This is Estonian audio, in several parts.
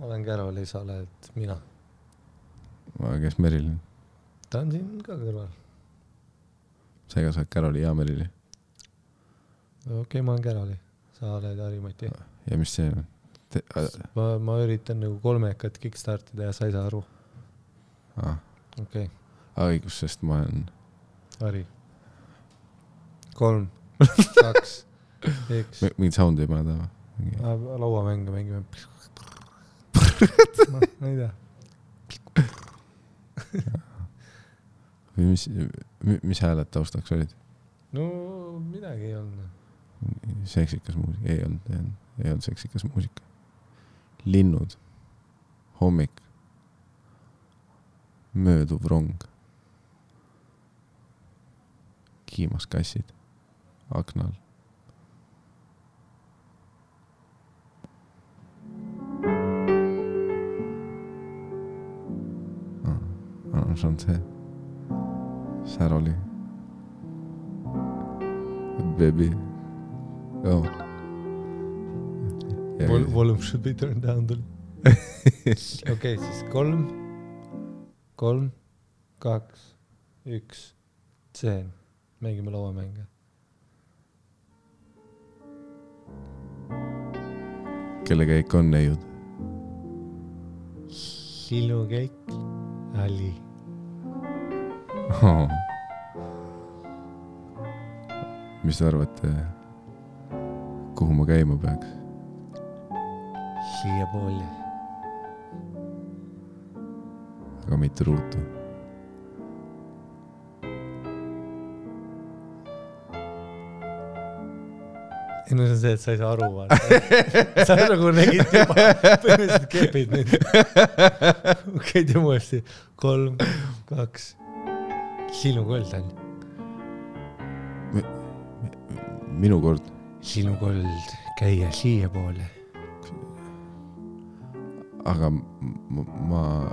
olen Caroli, sa oled mina. Kes Merilin? Ta on siin ka kõrval. Sa ega sa oled Caroli ja Merili? Okei, ma olen Caroli. Sa oled Harimati. Ja mis see on? Ma üritan nagu 3 kickstartida ja sa ei saa aru. Okei. Õigus, sest ma olen... Hari. 3, 2, 1. Mingid soundi ei pane taha? Lauamänge mängime. Ma ei tea. Mis hääled taustaks olid? No midagi ei olnud. Seksikas muusika? Ei olnud seksikas muusika. Linnud. Hommik. Mööduv rong. Kiimas kassid. Aknal. See on see. Säroli. Baby. Oh. Volume should be turned down. Okei, siis 3, 2, 1. Tseen. Mängime lauamänge. Kelle käik on neiud? Sinu käik. Ali. Oh. Mis te arvate, kuhu ma käima peaks? Siia pooli. Aga mitte ruutu. No see on see, et sa ei saa aru vaata. Sa nagu nägid juba põhimõtteliselt kepid nüüd. Okei, teeme uuesti. 3, 2. Sinu kold on. Minu kord. Sinu kold käia siia poole. Aga ma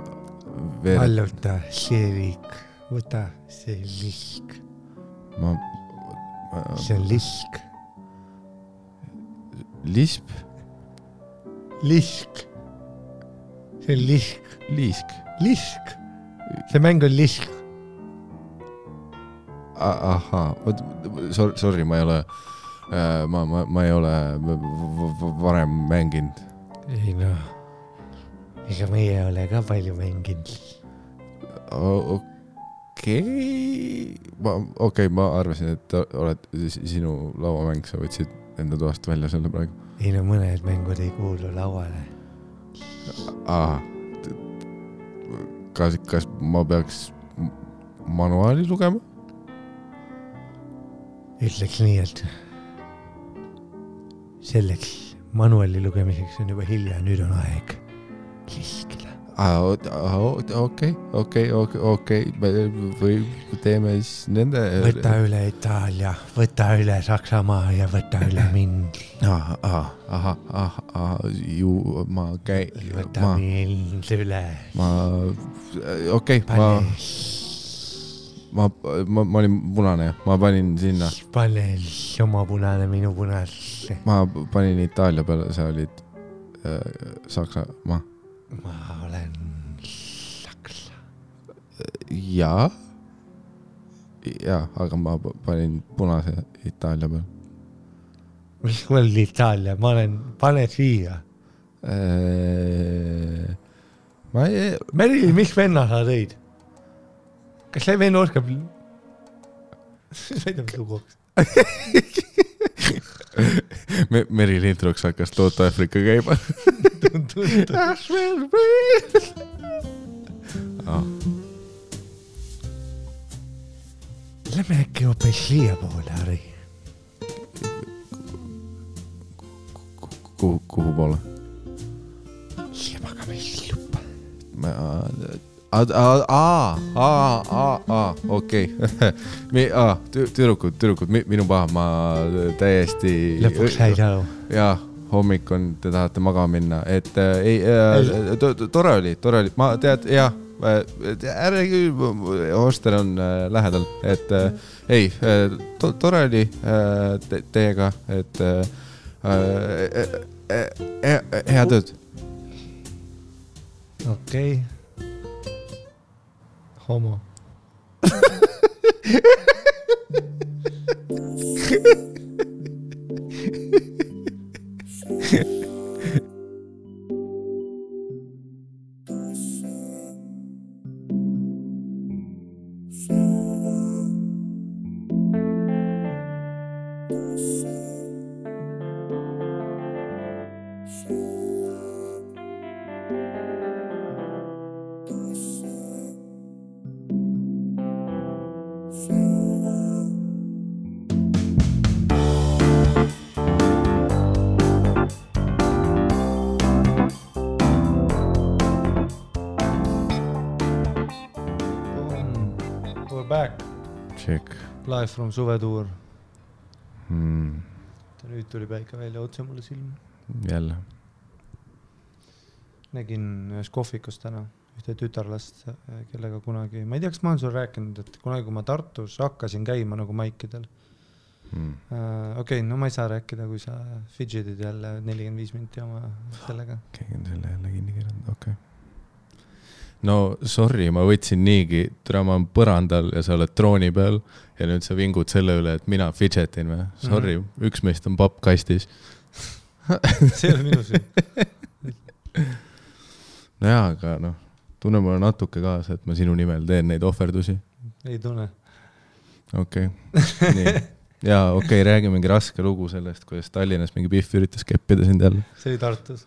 Valluta see liik. Võta see liik. See on lisk. Lisp? Lisk. See on lisk. Liisk? Lisk. See mäng on lisk. Ahaa, sorry, ma ei ole ma ei ole varem mänginud. Ei no, ega meie ei ole ka palju mänginud. Okei, ma arvasin, et oled sinu lauamäng, sa võtsid enda toast välja selle praegu. Ei no mõned mängud ei kuulu lauale. Kas ma peaks manuaali lugema? Ütleks nii, et selleks manuaali lugemiseks on juba hilja, nüüd on aeg liskida. Okei. Või teeme siis nende... Võta üle Itaalia, võta üle Saksamaa ja võta üle mind. Ma käin... Võta mind üle. Okei, ma olin punane, ma panin sinna. Pane oma punane minu punasse. Ma panin Itaalia peale, sa olid Saksamaa. Ma olen Saksa. Jaa, aga ma panin punase Itaalia peale. Mis mõeld Itaalia? Ma olen, pane siia. Merili, mis venna sa tõid? Kas see venna oskab? Sõida mis luguks. Merili introks hakkas Toota Afrika käima. Lähme äkki hoopis siia poole, Harri. Kuhu poole? Siia magamisslupa. Okei. Tüdrukud, minu paha, ma täiesti... Lõpuks sai aru. Jaa, hommik on, te tahate maga minna, et tore oli, ma tead, jah, hostel on lähedal, et tore oli teiega, et hea tööd. Okei. Homo. We're back. Check. Live from suvetuur. Mm. Nüüd tuli päike välja otse mulle silma. Jälle. Nägin ühes kohvikus täna ühte tütarlast, kellega kunagi, ma ei tea, kas ma olen sulle rääkinud, et kunagi kui ma Tartus hakkasin käima nagu maikidel. Okei, no ma ei saa rääkida, kui sa fidgetid jälle 45 minti oma sellega. Keegi on selle jälle kinni kirjanud, okei. No sorry, ma võtsin niigi, ma olen põrandal ja sa oled trooni peal ja nüüd sa vingud selle üle, et mina fidgetin või. Sorry, üks meist on papp kastis. See ei ole minu süü. No jaa, aga noh, tunne mulle natuke kaasa, et ma sinu nimel teen neid ohverdusi. Ei tunne. Okei. Nii. Jaa, okei, räägimegi raske lugu sellest, kuidas Tallinnas mingi Pihv üritas keppida sind jälle. See oli Tartus.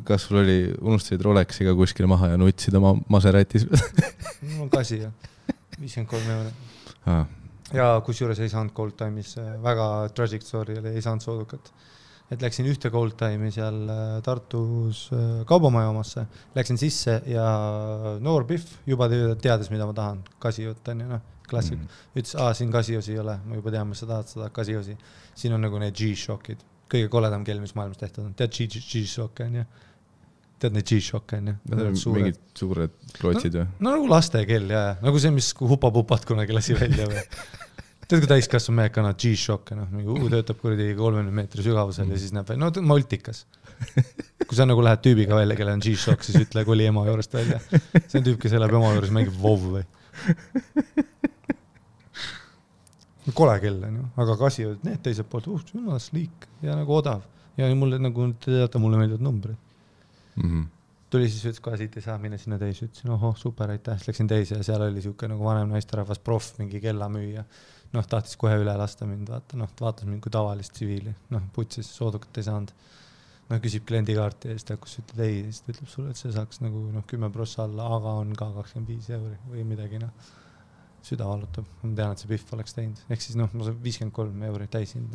Kas sul oli, unustasid Rolexiga kuskile maha ja nutsid oma Maseratis? Mul on kasi ja 53 €. Ja kusjuures ei saanud Gold Time'is, väga tragic story oli, ei saanud soodukat. Et läksin ühte Gold Time'i seal Tartus kaubamaja omasse, läksin sisse ja noor Pihv juba teades, mida ma tahan, kasijutt on ju, noh, klassik. Ütles, siin kasijosi ei ole, ma juba tean, mis sa tahad seda kasijosi. Siin on nagu need G-Shockid. Kõige koledam kell, mis maailmas tehtud on. Tead G-Shock on ju? Tead need G-Shock on ju? Mingid suured klootsid või? No nagu laste kell, jah. Nagu see, mis hupa-pupat kunagi lasi välja või. Tead, kui täiskasvu mehed kannavad G-Shock, töötab kuradi 30 meetri sügavusel ja siis näeb välja. No multikas. Kui sa nagu lähed tüübiga välja, kelle on G-Shock, siis ütle, kui oli ema juurest välja. See on tüüp, kes elab ema juures, mängib WoW või. Kole kell on ju, aga kasi need teiselt poolt, jumal sliik ja nagu odav. Ja mulle nagu, te teate, mulle meeldivad numbrid. Tuli siis ütles, kohe siit ei saa minna sinna teise, ütlesin, ohoh, super, aitäh, siis läksin teise ja seal oli siuke nagu vanem naisterahvas proff, mingi kellamüüja. Noh, tahtis kohe üle lasta mind, vaatas mind kui tavalist tsiviili, noh, putsis, soodukat ei saanud. Noh, küsib kliendikaarti ja siis ta hakkas ütleb ei, siis ta ütleb sulle, et see saaks nagu 10% alla, aga on ka 25 € või midagi, noh. Süda valutab, ma tean, et see Pihv oleks teinud. Ehk siis noh, ma saan 53 € täisind.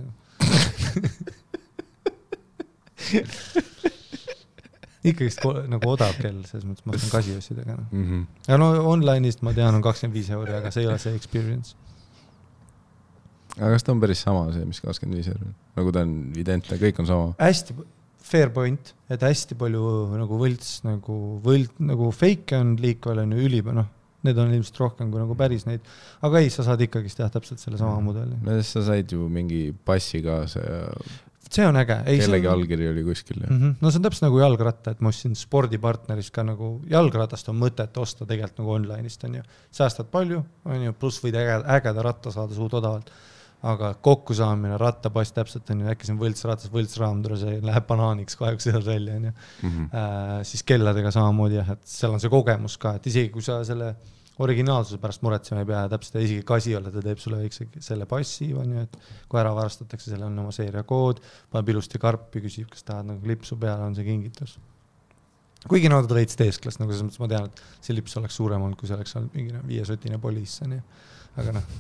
Ikkagist nagu odav kell, selles mõttes ma saan kasijossidega. Ja no online'ist ma tean on 25 €, aga see ei ole see experience. Aga kas ta on päris sama see, mis 25 €? Nagu ta on identne, kõik on sama? Hästi fair point, et hästi palju nagu võlts, nagu fake on liikvel on ju üliba, noh. Need on ilmselt rohkem kui nagu päris neid. Aga ei, sa saad ikkagist teha täpselt selle sama mudeli. No sa said ju mingi passi kaasa ja see on äge. Kellegi allkiri oli kuskil. No see on täpselt nagu jalgratta, et ma ostsin spordipartneris ka nagu jalgratast on mõtet osta tegelikult nagu online'ist on ju. Säästad palju, on ju, pluss võid ägeda ratta saada suud odavalt. Aga kokku saamine, rattapass täpselt on ju, äkki see on võltsratas, võltsraam, see läheb banaaniks kahjuks seal välja on ju. Siis kelladega samamoodi jah, et seal on see kogemus ka, et isegi kui sa selle originaalsuse pärast muretsema ei pea, täpselt isegi kasi olla, ta teeb sulle väikse selle passi, on ju, et kui ära varastatakse, selle on oma seeriakood, paneb ilusti karpi, küsib, kas tahad nagu lipsu peale, on see kingitus. Kuigi nad reits teesklas, nagu selles mõttes ma tean, et see lips oleks suurem olnud, kui see oleks olnud mingi 5-sotine poliis, aga noh.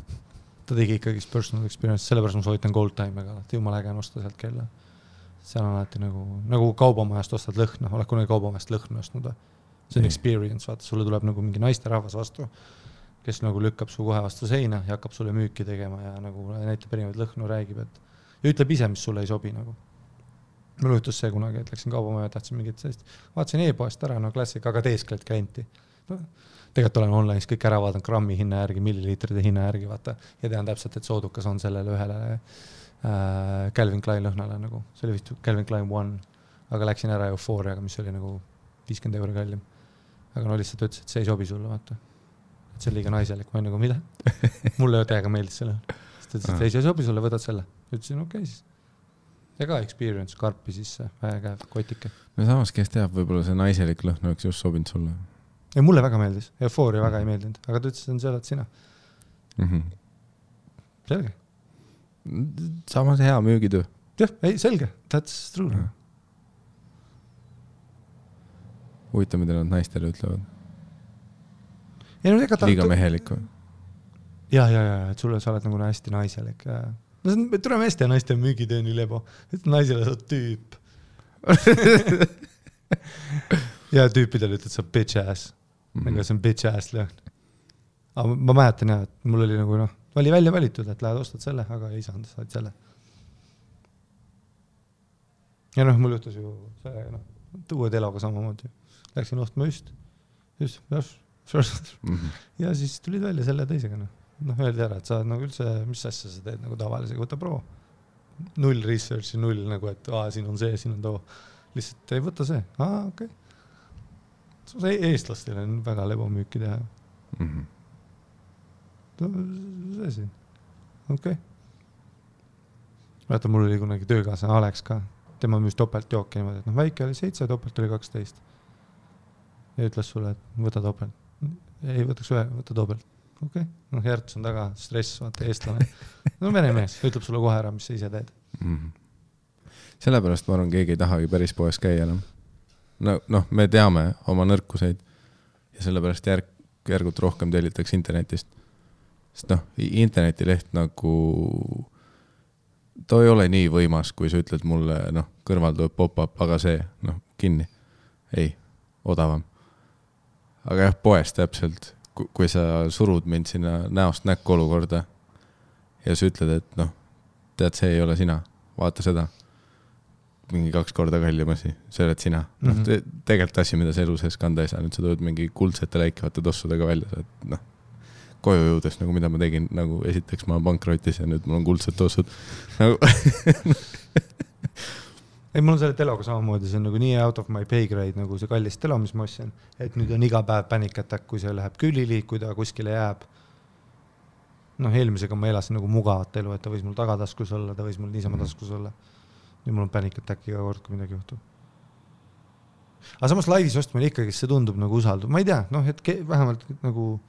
Ta tegi ikkagi personal experience, sellepärast ma soovitan Gold Time'iga, et jumal äge on osta sealt kella. Seal on alati nagu kaubamajast ostad lõhna, oled kunagi kaubamajast lõhna ostnud. See on experience, vaata, sulle tuleb nagu mingi naisterahvas vastu, kes nagu lükkab su kohe vastu seina ja hakkab sulle müüki tegema ja nagu näitab erinevaid lõhnu, räägib, et ja ütleb ise, mis sulle ei sobi nagu. Mul juhtus see kunagi, et läksin kaubamaja, tahtsin mingit sellist, vaatasin e-poest ära, no klassik, aga teeskled klienti. Tegelikult olen online'is kõik ära vaadanud grammi hinna järgi, milliliitride hinna järgi, vaata, ja tean täpselt, et soodukas on sellele ühele Calvin Klein lõhnale nagu, see oli vist Calvin Klein 1, aga läksin ära Euphoriaga, mis oli nagu 50 € kallim. Aga no lihtsalt ütles, et see ei sobi sulle, vaata. Et see on liiga naiselik, ma nagu mida? Mulle täiega meeldis selle. Sest ütles, et ei sobi sulle, võtad selle. Ütlesin, okei siis. Ja ka experience, karpi sisse, väga kotike. No samas, kes teab, võib-olla see naiselik lõhn oleks just sobinud sulle. Ja mulle väga meeldis. Eufooria väga ei meeldinud. Aga ta ütles, et see oled sina. Selge. Samas hea müügitöö. Jah, ei, selge. That's true. Huvitav, mida nad naistele ütlevad. Ja, no, liiga mehelik või? Ja, et sulle sa oled nagu hästi naiselik. No see on meeste ja naiste müügitöö nii lebo. Et naisele sa tüüp. Ja tüüpidele ütled sa bitch ass. Aga see on bitch ass lõhn. Aga ma mäletan jah, et mul oli nagu oli välja valitud, et lähed ostad selle, aga ei saanud, saad selle. Ja mul juhtus ju see, uue teloga samamoodi. Läksin ostma just. Ja siis tulid välja selle teisega. Öeldi ära, et sa nagu üldse, mis asja sa teed nagu tavalisega, võta pro. Null researchi, null nagu, et siin on see, siin on too. Lihtsalt ei võta see. Okei. Eestlastel on väga lebo müüki teha. See siin. Okei. Vaata, mul oli kunagi töökaasa Alex ka. Tema müüs topelt jooki niimoodi, et väike oli 7, topelt oli 12. Ja ütles sulle, et võta topelt. Ei, võtaks ühe, võta topelt. Okei. Järts on taga, stress, vaata, eestlane. Vene mees, ütleb sulle kohe ära, mis sa ise teed. Sellepärast ma arvan, keegi ei tahagi päris poes käia enam. Me teame oma nõrkuseid ja sellepärast järgult rohkem tellitakse internetist. Sest internetileht nagu ta ei ole nii võimas, kui sa ütled mulle, kõrval tuleb pop-up, aga see, kinni. Ei, odavam. Aga jah, poes täpselt, kui sa surud mind sinna näost näkku olukorda ja sa ütled, et tead, see ei ole sina, vaata seda. Mingi 2 korda kallim asi, see oled sina. Tegelikult asi, mida sa elu sees kanda ei saa, nüüd sa tuled mingi kuldsete läikivate tossudega välja, et koju jõudes, nagu mida ma tegin, nagu esiteks ma pankrotis ja nüüd mul on kuldsed tossud. Ei, mul on selle teloga samamoodi, see on nagu nii out of my pay grade, nagu see kallis telo, mis ma ostsin, et nüüd on iga päev panic attack, kui see läheb külili, kui ta kuskile jääb. Eelmisega ma elasin nagu mugavat elu, et ta võis mul tagataskus olla, ta võis mul niisama taskus olla. Nüüd mul on panic attack iga kord, kui midagi juhtub. Aga samas laivis ostmine ikkagi, see tundub nagu usaldub. Ma ei tea, et vähemalt nagu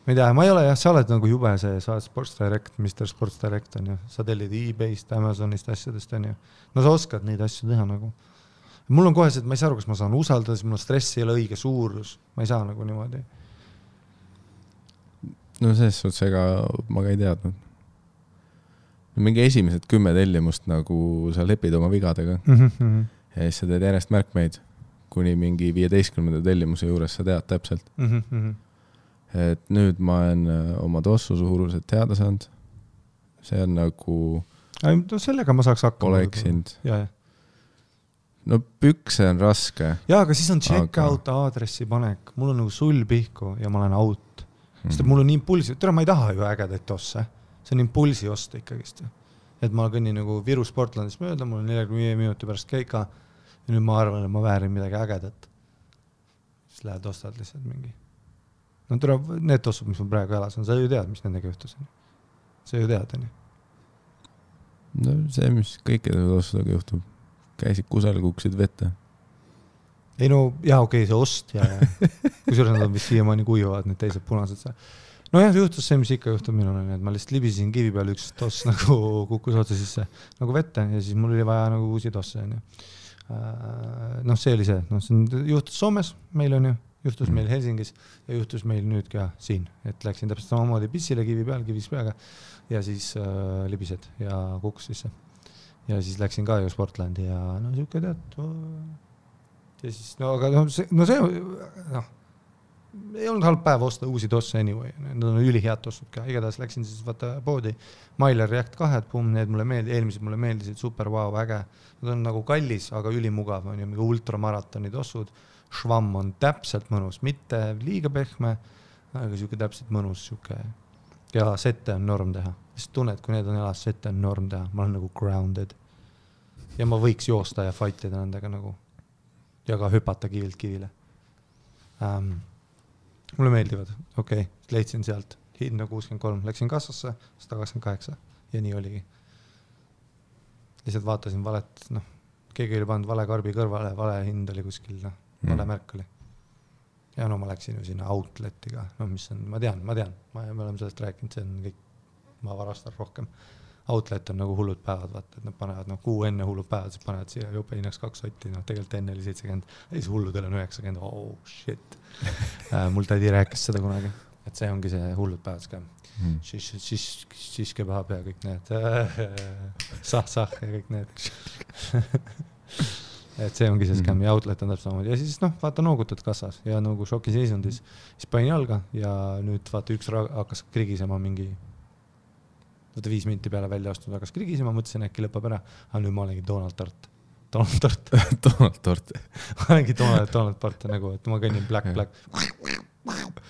ma ei tea, ma ei ole jah, sa oled nagu jube see, sa oled Sports Direct, Mr. Sports Direct on ju, sa tellid eBayst, Amazonist asjadest on ju. Sa oskad neid asju teha nagu. Mul on kohe see, et ma ei saa aru, kas ma saan usaldada, siis mul stress ei ole õige suurus, ma ei saa nagu niimoodi. Selles suhtes, ega ma ka ei teadnud. Mingi esimesed 10 tellimust nagu sa lepid oma vigadega ja siis sa teed järjest märkmeid, kuni mingi 15. tellimuse juures sa tead täpselt. Et nüüd ma olen oma tossu suurused teada saanud. See on nagu sellega ma saaks hakkama. Oleksind. Pükse on raske. Aga siis on check-out aadressi panek. Mul on nagu sul pihku ja ma olen out. Sest mul on impulsi. Tere, ma ei taha ju ägedaid tosse. See on impulsi osta ikkagist. Et ma kõnnin nagu Viru Sportlandis mööda, mul on 45 minuti pärast keika ja nüüd ma arvan, et ma väärin midagi ägedat. Siis lähed ostad lihtsalt mingi. Need tossud, mis mul praegu elas on, sa ju tead, mis nendega juhtus. Sa ju tead, on? See, mis kõikide tossudega juhtub. Käisid kusel, kuksid vette. Ei okei, see ost ja kui suures nad on vist siiamaani kuivavad, need teised punased. See juhtus see, mis ikka juhtub minul, et ma lihtsalt libisin kivi peal üks toss nagu kukkus otsa sisse nagu vette ja siis mul oli vaja nagu uusi tosse. See oli see. See juhtus Soomes, meil on ju. Juhtus meil Helsingis ja juhtus meil nüüd ka siin, et läksin täpselt samamoodi pissile kivi peal, kivis peaga ja siis libised ja kukkus sisse. Ja siis läksin ka ju Sportlandi ja siuke tead. Ja siis, aga see ei olnud halb päev osta uusi tosse anyway. Need on ülihead tossud ka. Igatahes läksin siis vaata poodi. Mailer React 2, need mulle meeldisid, eelmised mulle meeldisid, super, wow, äge. Nad on nagu kallis, aga ülimugav, on ju mingi ultramaratoni tossud. Švamm on täpselt mõnus, mitte liiga pehme, aga siuke täpselt mõnus siuke. Ja sette on norm teha. Sest tunned, kui need on elas, sette on norm teha. Ma olen nagu grounded. Ja ma võiks joosta ja fightida nendega nagu. ja ka hüpata kivilt kivile. Mulle meeldivad, okei, leidsin sealt hinda 63, läksin kassasse 128 ja nii oligi. Lihtsalt vaatasin valet, keegi oli pannud vale karbi kõrvale, vale hind oli kuskil, vale märk oli. Ja ma läksin ju sinna outletiga, mis on, ma tean, me oleme sellest rääkinud, see on kõik, ma varastan rohkem. Outlet on nagu hullud päevad, vaata, et nad panevad kuu enne hullud päevad, siis panevad siia jope hinnaks 2 sotti, tegelikult enne oli 70, siis hulludel on 90, oh shit. Mul tädi rääkis seda kunagi, et see ongi see hullud päevad ka. Siis kebab ja kõik need sah ja kõik need. Et see ongi see skäm ja outlet on täpselt samamoodi. Ja siis vaata noogutad kassas ja nagu šoki seisundis. Siis panin jalga ja nüüd vaata üks hakkas krigisema mingi 5 minti peale välja astunud, hakkas krigisema, mõtlesin äkki lõpeb ära. Aga nüüd ma olengi Donald Tort. Donald Tort. Ma olengi Donald Tort nagu, et ma kõnnin black.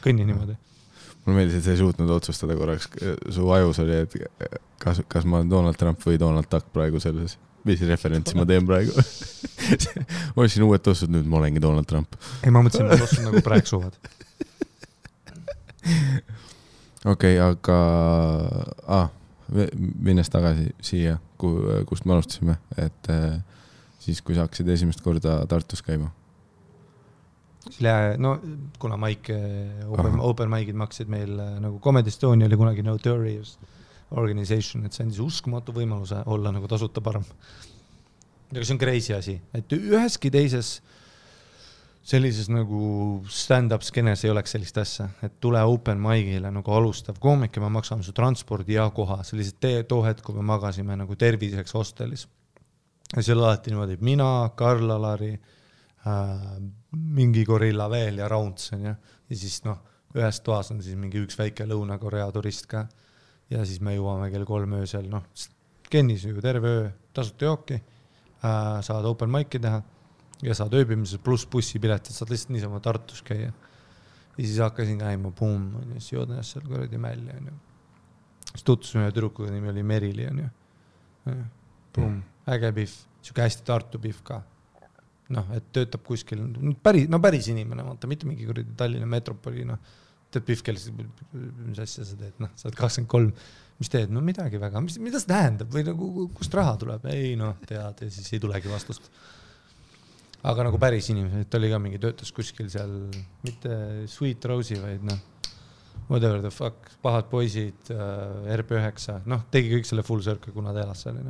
Kõnnin niimoodi. Mulle meeldis, et sa ei suutnud otsustada korraks. Su ajus oli, et kas ma olen Donald Trump või Donald Duck praegu selles. Mis referentsi ma teen praegu? Ma olin uued tossud, nüüd ma olengi Donald Trump. Ei, ma mõtlesin, ma tossud nagu praegu suvad. Okei, aga minnes tagasi siia, kust me alustasime, et siis kui sa hakkasid esimest korda Tartus käima? Kuna Mike open mic'id maksid meil nagu Comedy Estonia oli kunagi Notorious Organization, et see andis uskumatu võimaluse olla nagu tasuta parem. Ja see on crazy asi, et üheski teises sellises nagu stand-up skenes ei oleks sellist asja, et tule open mic'ile nagu alustav koomik ja me maksame su transpordi ja koha. See oli see too hetk, kui me magasime nagu terviseks hostelis. Ja see oli alati niimoodi, mina, Karl Alari, mingi gorilla veel ja Raunts. Ja siis ühes toas on siis mingi üks väike Lõuna-Korea turist ka. Ja siis me jõuame kell 3 öösel, kennis ju terve öö, tasuta jooki, saad open mic'i teha. Ja saad ööbimises pluss bussipiletit, saad lihtsalt niisama Tartus käia. Ja siis hakkasin käima, boom, siis joodin seal korradi mälja. Siis tutvusime ühe tüdrukuga, nimi oli Merili. Boom, äge pihv, siuke hästi Tartu pihv ka. Et töötab kuskil, päris inimene, vaata, mitte mingi korradi Tallinna metropoli, teed pihv, mis asja sa teed, saad 23, mis teed, midagi väga, mida see tähendab või nagu, kust raha tuleb? Ei, tead, ja siis ei tulegi vastust. Aga nagu päris inimesed, et oli ka mingi töötas kuskil seal, mitte Sweet Rose'i, vaid whatever the fuck, pahad poisid, RP9, tegi kõik selle full circle, kuna ta elas seal.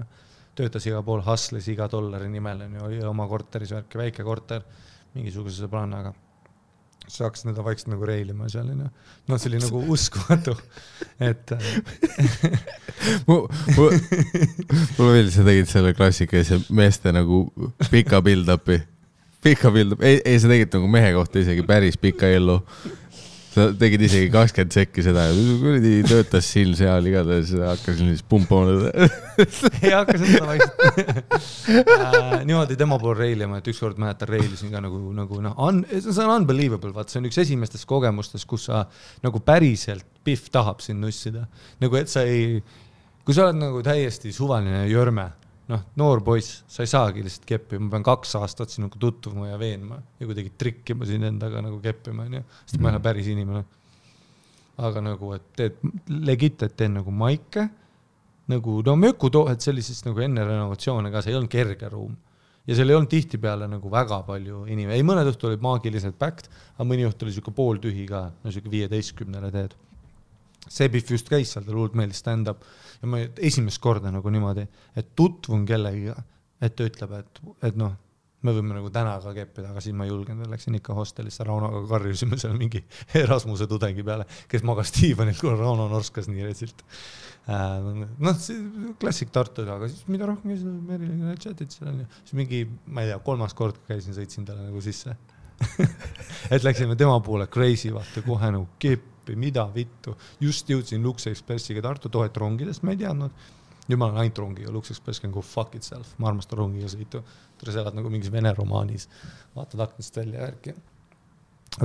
Töötas iga pool, hustles iga $1 nimel, oli oma korteris värki, väike korter, mingisuguse sõbrannaga. Sa hakkasid seda vaikselt nagu reilima seal. See oli nagu uskumatu, et... Mulle veel sa tegid selle klassikaise meeste nagu pika build-upi. Ei, sa tegid nagu mehe kohta isegi päris pika ellu. Sa tegid isegi 20 sekki seda ja töötas siin seal igatahes hakkasin siis pumpama. Ei hakkasin seda vaikselt. Niimoodi tema pool reilima, et ükskord mäletan reilisin ka see on unbelievable, vaat see on üks esimestest kogemustest, kus sa nagu päriselt pihv tahab sind nussida. Nagu et sa ei, kui sa oled nagu täiesti suvaline jörme, noor poiss, sa ei saagi lihtsalt keppima, ma pean 2 aastat sinuga tutvuma ja veenma ja kuidagi trikkima siin endaga nagu keppima, sest ma ei ole päris inimene. Aga nagu, et teed legit, et teen nagu maike, nagu mökutoohed sellisest nagu enne renovatsioone ka, see ei olnud kerge ruum. Ja seal ei olnud tihti peale nagu väga palju inimene. Ei, mõned õhtu olid maagiliselt packed, aga mõni õhtu oli siuke pooltühi ka, siuke 15 teed. See pihv just käis seal, ta luult meeldis stand-up ja ma esimest korda nagu niimoodi, et tutvun kellegiga, et ta ütleb, et me võime nagu täna ka keppida, aga siis ma julgen, läksin ikka hostelisse, Raunoga karjusime seal mingi Erasmuse tudengi peale, kes magas diivanil, kui Rauno norskas nii retsilt. Klassik Tartu, aga siis mida rohkem käisin, Merile chatid seal on ja siis mingi, ma ei tea, 3. kord käisin, sõitsin talle nagu sisse. Et läksime tema poole crazy, vaata, kohe nagu keppi, mida vittu. Just jõudsin Lux Expressiga Tartu, tohet rongidest, ma ei teadnud. Nüüd ma olen ainult rongiga, Lux Express can go fuck itself. Ma armastan rongiga sõitu. Sa elad nagu mingis vene romaanis. Vaatad aknast välja järgi.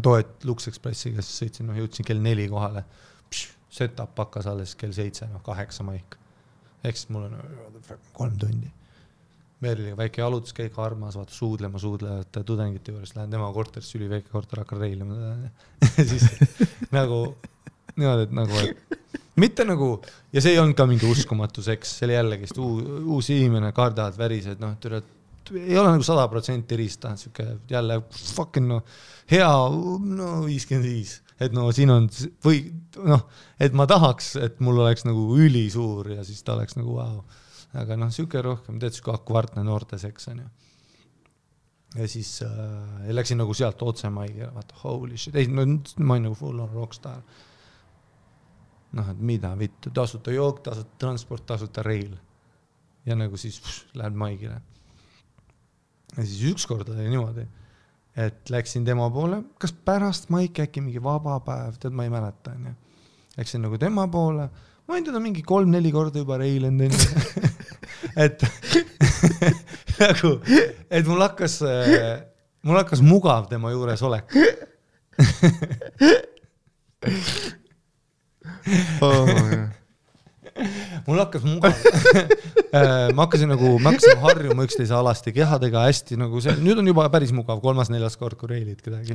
Tohet Lux Expressiga, siis sõitsin, jõudsin kell 4 kohale. Setup pakkas alles kell 7, 8 maik. Eks mul on 3 tundi. Merliga väike jalutuskäik, armas, vaata suudlevate tudengite juures, lähen tema korterisse, üli väike korter, hakkan reilima. Siis nagu, niimoodi, et nagu, et mitte nagu, ja see ei olnud ka mingi uskumatu seks, see oli jällegi uus inimene, kardad, värised, noh, ei ole nagu 100% rista, siuke jälle fucking no, hea, no 55, et no siin on, või noh, et ma tahaks, et mul oleks nagu üli suur ja siis ta oleks nagu wow. Aga noh, siuke rohkem, teed siuke akvartne noorte seks on ju. Ja siis läksin nagu sealt otse Maigile, vaata, holy shit, ei, no ma olin nagu full on rockstar. Noh, et mida vittu, tasuta jook, tasuta transport, tasuta reil. Ja nagu siis lähed Maigile. Ja siis ükskord oli niimoodi, et läksin tema poole, kas pärast Maik äkki mingi vaba päev, tead, ma ei mäleta. Läksin nagu tema poole, ma võin teda mingi 3-4 korda juba reilen enne. et nagu, et mul hakkas mugav tema juures olek. Mul hakkas mugav. Ma hakkasin harjuma üksteise alasti kehadega hästi nagu see, nüüd on juba päris mugav 3-4 kord, kui reilid kedagi.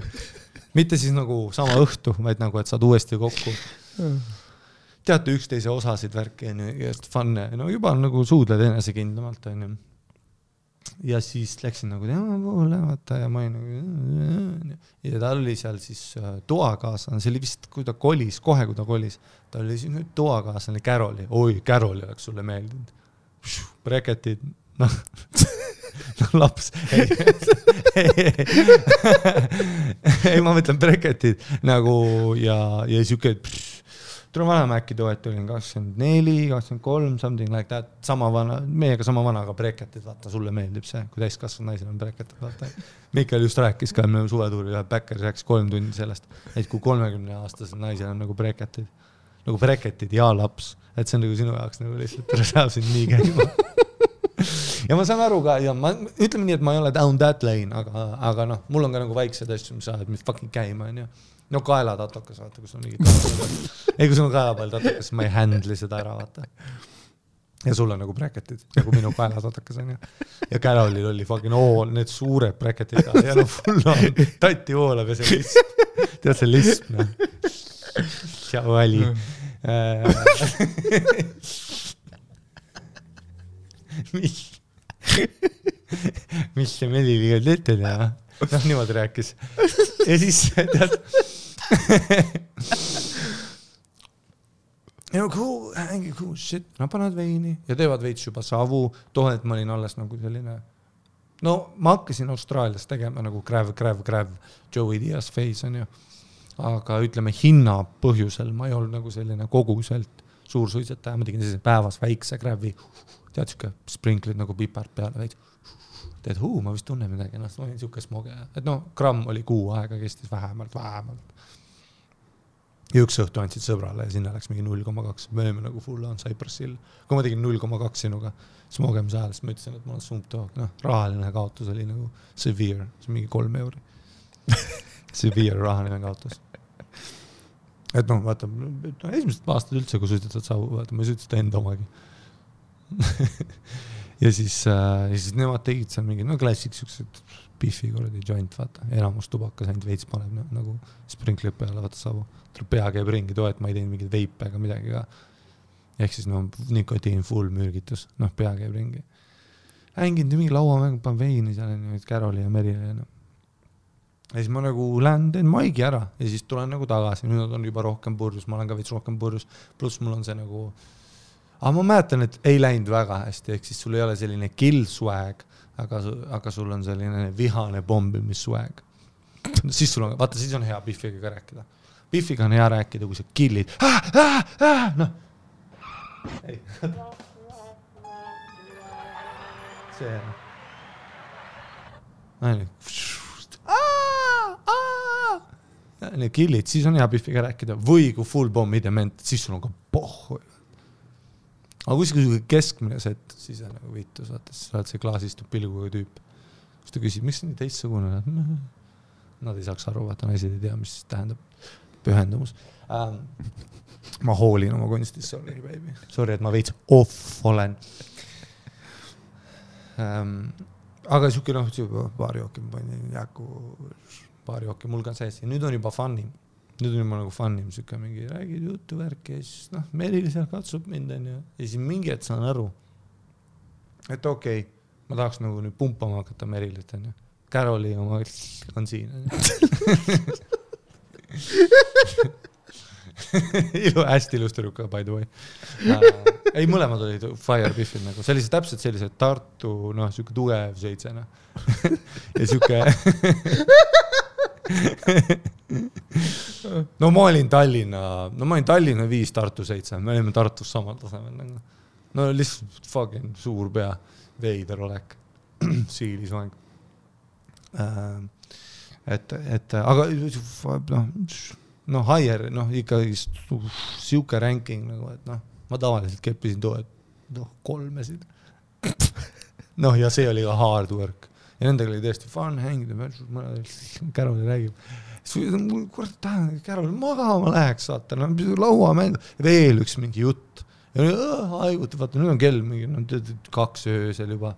Mitte siis nagu sama õhtu, vaid nagu, et saad uuesti kokku. Teate üksteise osasid värki ja funne, no juba nagu suudled enesekindlamalt. Ja siis läksin nagu tema poole, vaata, ja ma nagu, ja ta oli seal siis toakaaslane, see oli vist, kui ta kolis, kohe kui ta kolis, ta oli siis nüüd toakaaslane Caroli, Caroli oleks sulle meeldinud. Breketid, noh, laps, ei, ma mõtlen breketid nagu ja siuke, tule vanem äkki toet olin 24, 23, something like that, sama vana, meiega sama vana, aga breketid, vaata, sulle meeldib see, kui täiskasvanud naisel on breketid, vaata. Mikael just rääkis ka, me suvetuuri ühe Bäkkeri rääkis 3 tundi sellest, et kui 30-aastased naisel on nagu breketid ja laps, et see on nagu sinu jaoks nagu lihtsalt, saab sind nii käima. Ja ma saan aru ka, ja ma ütleme nii, et ma ei ole down that lane, aga noh, mul on ka nagu väiksed asju, mis saavad mis fucking käima, on ju. No kaelatatokas, vaata, kus on mingi ei, kui sul on kaelapall tatokas, ma ei handli seda ära, vaata. Ja sul on nagu breketid, nagu minu kaelatatokas on ju. Ja Carolil oli fucking need suured breketid ja no full on tatti voolab ja see lisp. Tead see lisp, noh. Tšau, Ali. Mis see Meliliga ütled, ja? Noh, niimoodi rääkis. Ja siis, tead, cool shit, nad panevad veini ja teevad veits juba savu, tohet ma olin alles nagu selline, no ma hakkasin Austraalias tegema nagu Crave, Joey Diaz face on ju, aga ütleme hinna põhjusel ma ei olnud nagu selline koguselt suur suitsetaja, ma tegin sellise päevas väikse Crave'i, tead siuke sprinklid nagu pipart peale veits, teed, ma vist tunnen midagi, noh, ma olin siuke smoge, et no gramm oli kuu aega, kestis vähemalt. Ja üks õhtu andsid sõbrale ja sinna läks mingi 0,2, me olime nagu full on Cypressil. Kui ma tegin 0,2 sinuga smogemise ajal, siis ma ütlesin, et ma olen sumptoog, noh, rahaline kaotus oli nagu severe, see on mingi 3 euri. Severe rahaline kaotus. Et noh, vaata, esimesed aastad üldse, kui suitsetad savu, vaata, ma ei suitseta enda omagi. Ja siis nemad tegid seal mingi, no klassik siuksed biffi kordi joint, vaata, enamus tubakas ainult veits paneb nagu sprinkleid peale, vaata savu. Tuleb pea käib ringi toet, ma ei teinud mingid veipe ega midagi ka. Ehk siis no nikotiin full mürgitus, noh pea käib ringi. Hänginud mingi lauamängu, pan veini seal, Caroli ja Merile. Ja siis ma nagu lähen, teen Maigi ära ja siis tulen nagu tagasi, nüüd on juba rohkem purjus, ma olen ka veits rohkem purjus, pluss mul on see nagu aga ma mäletan, et ei läinud väga hästi, ehk siis sul ei ole selline kill swag, aga sul on selline vihane bombimis swag. Siis sul on, vaata, siis on hea Biffiga ka rääkida. Biffiga on hea rääkida, kui sa killid. Noh. Ei. See. Need killid, siis on hea Biffiga rääkida. Või kui full bomb idement, siis sul on ka pohhu. Aga kui keskmine set, siis on nagu viitus, vaata, siis oled see klaasistub pilguga tüüp. Siis ta küsib, miks nii teistsugune? Nad ei saaks aru, vaata, naised ei tea, mis tähendab pühendumus. Ma hoolin oma kunstis, sorry, baby. Sorry, et ma veits off olen. aga siuke paari jooki ma panin jääku paari jooki mul ka sees ja nüüd on juba funnim. Nüüd on juba nagu funnim siuke mingi räägid juttu värki ja siis Merili seal katsub mind ja siis mingi et saan aru, et okei, ma tahaks nagu nüüd pumpama hakata Merilit on ju. Caroli oma on siin. hästi ilus tüdruka by the way. Ei, mõlemad olid fire biffid nagu. Sellised täpselt sellised Tartu, siuke tugev seitsena. ja siuke... ma olin Tallinna 5, Tartu 7. Me olime Tartus samal tasemel. No lihtsalt fucking suur pea. Veider olek. Siilisvang. Aga higher, ikkagi siuke ranking nagu, et ma tavaliselt keppisin too, et 3-sid. Ja see oli ka hard work. Ja nendega oli tõesti fun hängida, Caroli räägib. Kurat tahan, Caroli magama läheks, saata, laua mängu, veel üks mingi jutt. Ja haiguti, vaata, nüüd on kell mingi 2 öösel juba.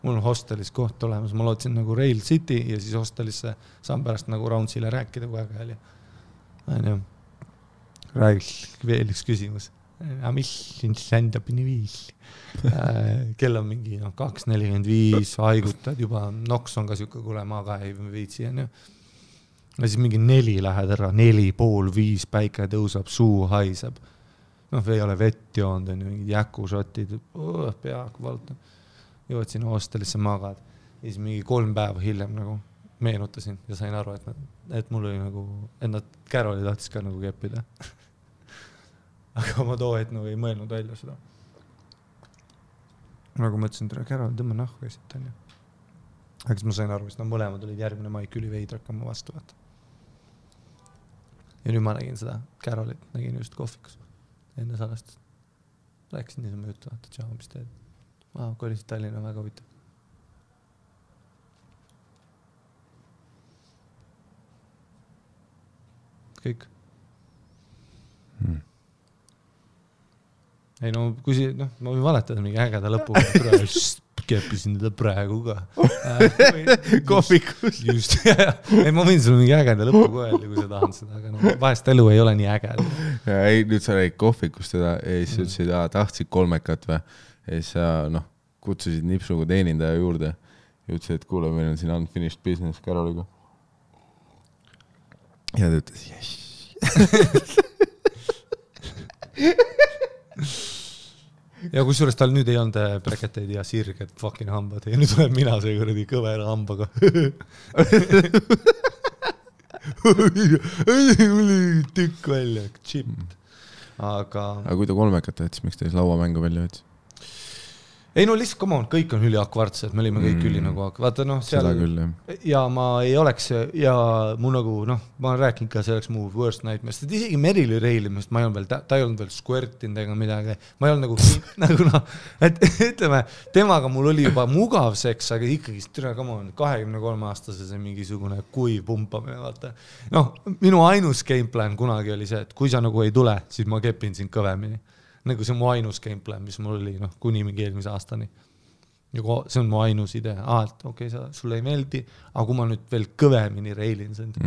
Mul on hostelis koht olemas, ma lootsin nagu Rail City ja siis hostelisse saan pärast nagu Roundsile rääkida kui aega oli. Räägiks veel üks küsimus. Mis stand-upini viis? Kell on mingi 2.45, haigutad juba, noks on ka siuke, kuule ma ka ei viitsi. Ja siis mingi 4 lähed ära, 4,5, päike tõusab, suu haiseb. Ei ole vett joond, on mingid jäkušotid, peaaegu valtan. Jõuad sinna hostelisse magad. Ja siis mingi 3 päeva hiljem nagu meenutasin ja sain aru, et mul oli nagu, et nad Caroli tahtis ka nagu keppida. Aga ma too hetk nagu ei mõelnud välja seda. Nagu mõtlesin, tere Carol, tõmba nahku esilt on ju. Aga siis ma sain aru, et mõlemad olid järgmine maik üli veidrakama vastu vaata. Ja nüüd ma nägin seda Carolit, nägin just kohvikus enne salast. Rääkisin niisama juttu, vaata, tšau, mis teed? Kolisid Tallinna väga huvitav. Kõik. Ei kui ma võin valetada mingi ägeda lõpuga, keppisin teda praegu ka. Kohvikus. Just, ei ma võin sulle mingi ägeda lõpuga öelda, kui sa tahad seda, aga vahest elu ei ole nii ägeda. Ei, nüüd sa räägid kohvikust teda ja siis ütlesid, tahtsid 3 või ja siis sa kutsusid nipsuga teenindaja juurde ja ütlesid, et kuule, meil on siin unfinished business Caroliga. Ja ta ütles, yes. Ja kusjuures tal nüüd ei olnud breketeid ja sirged fucking hambad ja nüüd tuleb mina see kuradi kõvera hambaga. Tükk välja, chipped. Aga kui ta 3 siis miks ta siis lauamängu välja võttis? Ei lihtsalt, come on, kõik on üli akvartsed, me olime kõik üli nagu, vaata seal küll, ja ma ei oleks ja mu nagu, ma olen rääkinud ka, see oleks mu worst nightmare, sest isegi Merili reilimist, ta ei olnud veel squirtinud ega midagi, ma ei olnud nagu et ütleme, temaga mul oli juba mugav seks, aga ikkagi, come on, 23-aastase see mingisugune kuiv pumpamine, vaata. Minu ainus gameplan kunagi oli see, et kui sa nagu ei tule, siis ma kepin sind kõvemini. Nagu see on mu ainus gameplan, mis mul oli kuni mingi eelmise aastani. See on mu ainus idee. Et okei, sulle ei meeldi, aga kui ma nüüd veel kõvemini reilin sind.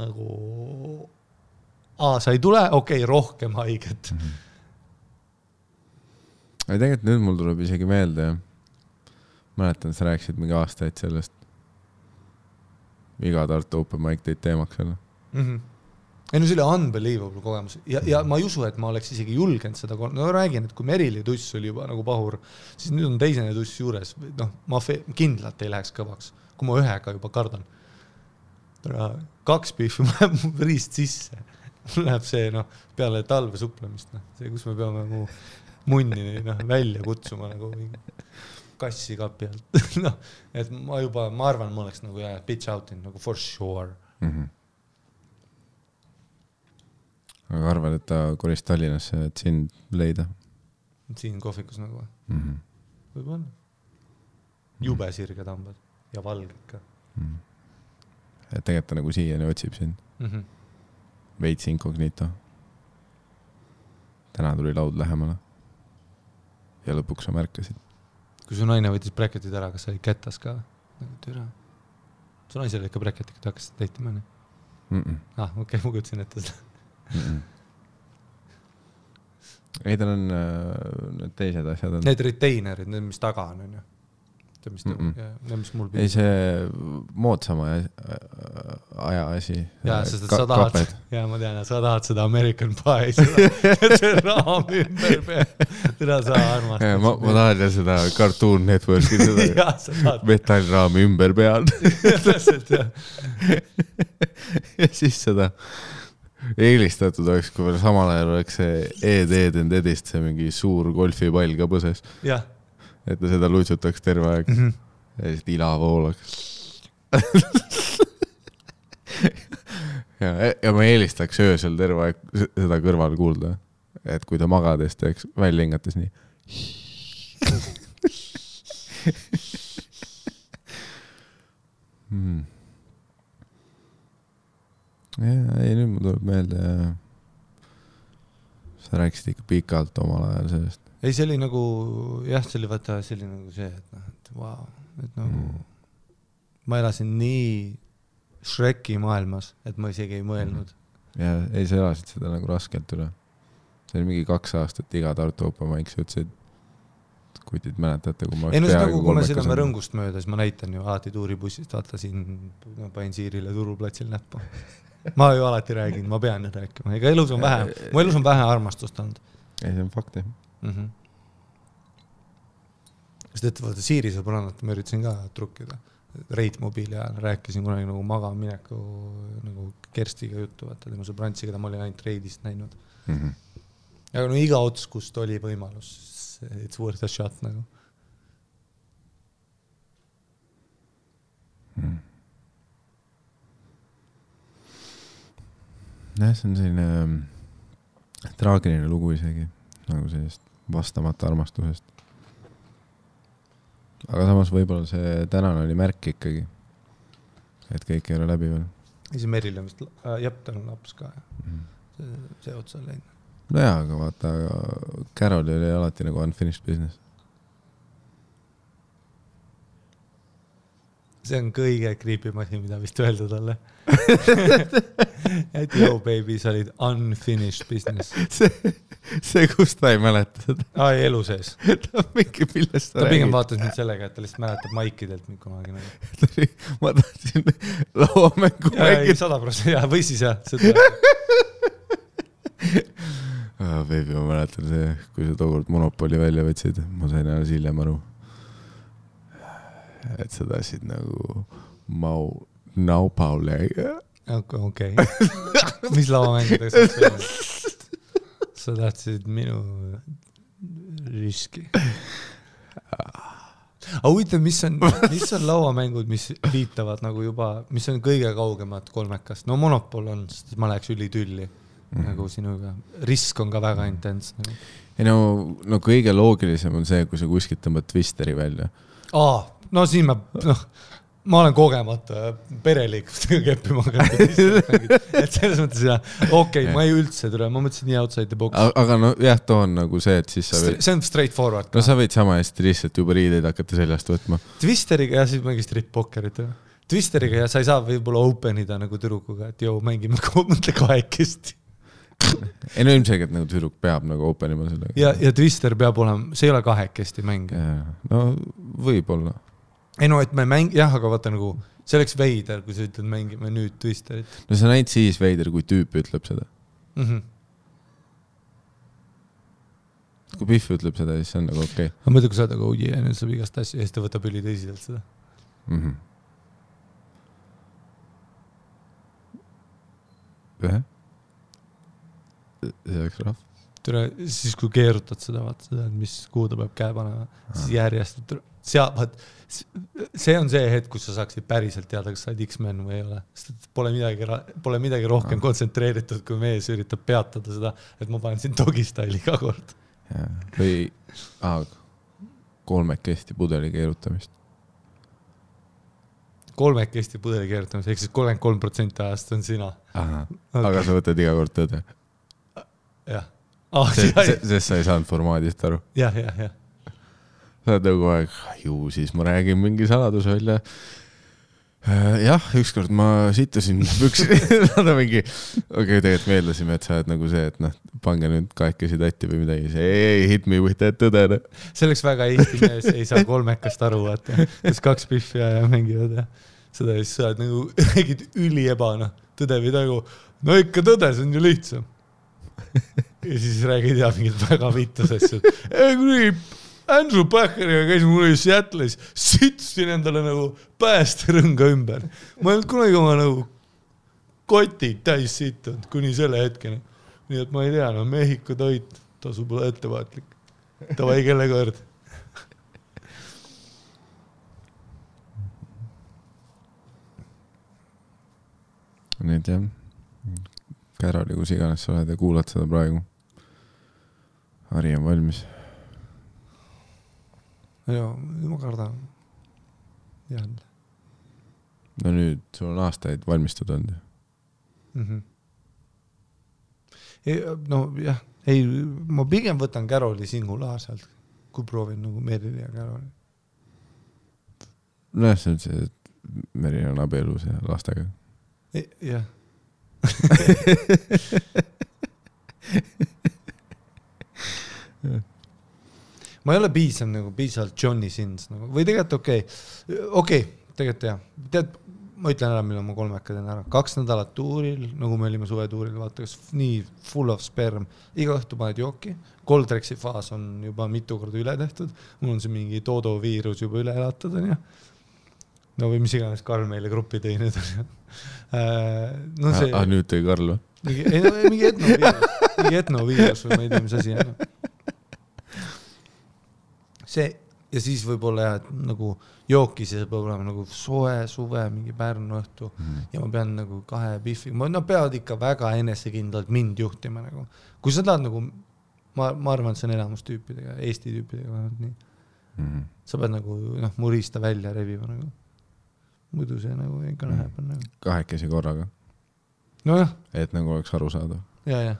Nagu, sa ei tule, okei, rohkem haiget. Tegelikult nüüd mul tuleb isegi meelde. Mäletan, sa rääkisid mingi aastaid sellest. Iga Tartu Open Mic teid teemaks selle. Ei see oli unbelievable kogemus ja ma ei usu, et ma oleks isegi julgenud seda räägin, et kui Merili tuss oli juba nagu pahur, siis nüüd on teisene tuss juures, ma kindlalt ei läheks kõvaks, kui ma ühega juba kardan. 2 pihvi läheb mu riist sisse, mul läheb see peale talve suplemist, see kus me peame mu munni välja kutsuma nagu kassi kapi alt. Et ma arvan, ma oleks nagu bitch outin nagu for sure. Aga arvad, et ta kolis Tallinnasse, et sind leida? Siin kohvikus nagu. Võib-olla. Jube sirged hambad ja valged ka. Et tegelikult ta nagu siiani otsib sind. Veits inkognito. Täna tuli laud lähemale. Ja lõpuks sa märkasid. kui su naine võttis bräketid ära, kas sa olid kätas ka? Türa. Su naisel oli ikka bräketid, kui ta hakkas täitima, nii? Okei, ma kutsin ette seda. Ei, tal on need teised asjad. Need retainerid, need, mis taga on, ju. Need, mis mul ei, see moodsama aja asi. Jaa, sest sa tahad, ma tean, sa tahad seda American Pie, see raam ümber peal. Teda sa armastad. Ma tahan ja seda Cartoon Networki, seda metallraami ümber peal. Täpselt, jah. Ja siis seda eelistatud oleks, kui veel samal ajal oleks see Ed and Edist, see mingi suur golfipall ka põses. Jah. Et ta seda lutsutaks terve aeg. Ja siis ila voolaks. ja ma eelistaks öösel terve aeg seda kõrval kuulda. Et kui ta magades teeks välja hingates nii. Ei, nüüd ma tuleb meelde. Sa rääkisid ikka pikalt omal ajal sellest. Ei, see oli nagu, jah, see oli vaata, see oli nagu see, et vau, et nagu ma elasin nii Shreki maailmas, et ma isegi ei mõelnud. Ja ei, sa elasid seda nagu raskelt üle. See oli mingi 2 aastat iga Tartu Open Mic, sa ütlesid, kui teid mäletate, kui ma ei, no see nagu, kui ma seda me rõngust mööda, siis ma näitan ju alati tuuribussist, vaata siin pain Siirile turuplatsil näppu. Ma ju alati räägin, ma pean nüüd rääkima. Ega elus on vähe, mu elus on vähe armastust olnud. Ei, see on fakt, jah. Sest et vaata Siiri sõbrannat ma üritasin ka trukkida reitmobiili ajal, rääkisin kunagi nagu magamineku nagu Kerstiga juttu, vaata tema sõbrantsi, keda ma olin ainult reidist näinud. Aga no iga ots, kust oli võimalus, it's worth a shot nagu. Jah, see on selline traagiline lugu isegi, nagu sellist vastamata armastusest. Aga samas võib-olla see tänane oli märk ikkagi, et kõik ei ole läbi veel. Ja see Meril on vist, jah, tal on laps ka. See otsa on läinud. No jaa, aga vaata, Carol oli alati nagu unfinished business. See on kõige creepim asi, mida vist öelda talle. Et yo baby, sa olid unfinished business. See kus ta ei mäleta seda? Ai, elu sees. Ta mingi millest ta pigem vaatas nüüd sellega, et ta lihtsalt mäletab Maikidelt nüüd kunagi. Ma tahtsin lauamängu mängida. 100%, jah, või siis jah. Baby, ma mäletan see, kui sa tookord Monopoli välja võtsid, ma sain alles hiljem aru. Et sa tahtsid nagu Naupaule. Okei. Mis lauamängudega saaks välja? Sa tahtsid minu riski. Aga huvitav, mis on lauamängud, mis viitavad nagu juba, mis on kõige kaugemad kolmekast? No Monopol on, sest ma läheks ülitülli nagu sinuga. Risk on ka väga intens. Ei no kõige loogilisem on see, kui sa kuskilt tõmbad Twisteri välja. No siin ma olen kogemata pereliikustega keppima hakanud. Et selles mõttes okei, ma ei üldse tule, ma mõtlesin nii outside the box. Aga no jah, too on nagu see, et siis sa võid... See on straightforward. No sa võid sama hästi lihtsalt juba riideid hakata seljast võtma. Twisteriga ja siis mängi strip-pokkerit. Twisteriga ja sa ei saa võib-olla openida nagu türukuga, et joo, mängime mõtle kahekesti. Ei no ilmselgelt nagu tüdruk peab nagu openima sellega. Ja Twister peab olema, see ei ole kahekesti mäng. No võib-olla. Ei no, et me jah, aga vaata nagu, see oleks veider, kui sa ütled mängime nüüd Twisterit. No see on ainult siis veider, kui tüüp ütleb seda. Kui Pihv ütleb seda, siis see on nagu okei. Ma mõtlen, kui sa oled, aga ja nüüd saab igast asja, ja siis ta võtab üli tõsiselt seda. See oleks rahv. Siis kui keerutad seda, vaata seda, mis kuhu ta peab käe panema, siis järjest see on see hetk, kus sa saaksid päriselt teada, kas sa oled X-Men või ei ole. Sest pole midagi rohkem kontsentreeritud, kui mees üritab peatada seda, et ma panen siin dogi-styli iga kord. Või kolmekesti pudeli keerutamist. Kolmekesti pudeli keerutamist, ehk siis 33% ajast on sina. Aga sa võtad iga kord tõde. Jah. Sest sa ei saanud formaadist aru. Jah. sa oled nagu aeg, ju siis ma räägin mingi saladus välja. Jah, ükskord ma sitasin püksi, nad on mingi, tegelikult meeldasime, et sa oled nagu see, et pange nüüd kahekesi tatti või midagi, see ei hit me with that tõdene. See oleks väga Eesti mees, ei saa kolmekast aru, vaata, kes 2 pihvi ja mängivad ja seda siis sa oled nagu räägid üliebana, tõde või tagu, no ikka tõde, see on ju lihtsam. Ja siis räägid ja mingid väga vittus asjad. Andrew Backeriga käisin mulle Seattle'is, sitsin endale nagu päästerõnga ümber. Ma ei olnud kunagi oma nagu kotid täis sittunud kuni selle hetkeni. Nii et ma ei tea, no Mehhiko toit, tasub olla ettevaatlik. Tavai kelle kord. Nüüd jah, Kärali, kus iganes sa oled ja kuulad seda praegu. Hari on valmis. Joo, ma kardan. Jälle. No nüüd sul on aastaid valmistud olnud. No jah, ei, ma pigem võtan Käroli singulaarselt, kui proovin nagu Merili ja Käroli. No jah, see on see, et Meril on abielus ja lastega. Jah. Ma ei ole piisavalt Johnny Sins nagu. Või tegelikult okei, tegelikult jah. Tead, ma ütlen ära, millal ma 3 teen ära. 2 nädalat tuuril, nagu me olime suvetuuril, vaata, kas nii full of sperm. Iga õhtu paned jooki. Coldrexi faas on juba mitu korda üle tehtud. Mul on see mingi Todo viirus juba üle elatud. No või mis iganes Karl meile gruppi tõi nüüd. No see... nüüd tõi Karl või? Mingi etnoviirus või ma ei tea, mis asi on. See, ja siis võib-olla jah, et nagu jookis ja see peab olema nagu soe, suve, mingi Pärnu õhtu ja ma pean nagu 2 biffi, no peavad ikka väga enesekindlalt mind juhtima nagu. Kui sa tahad nagu, ma arvan, et see on elamustüüpidega, Eesti tüüpidega vähemalt nii. Sa pead nagu murista välja revima nagu. Muidu see nagu ikka läheb. Nagu. 2 korraga. No jah. Et nagu oleks aru saada. Ja.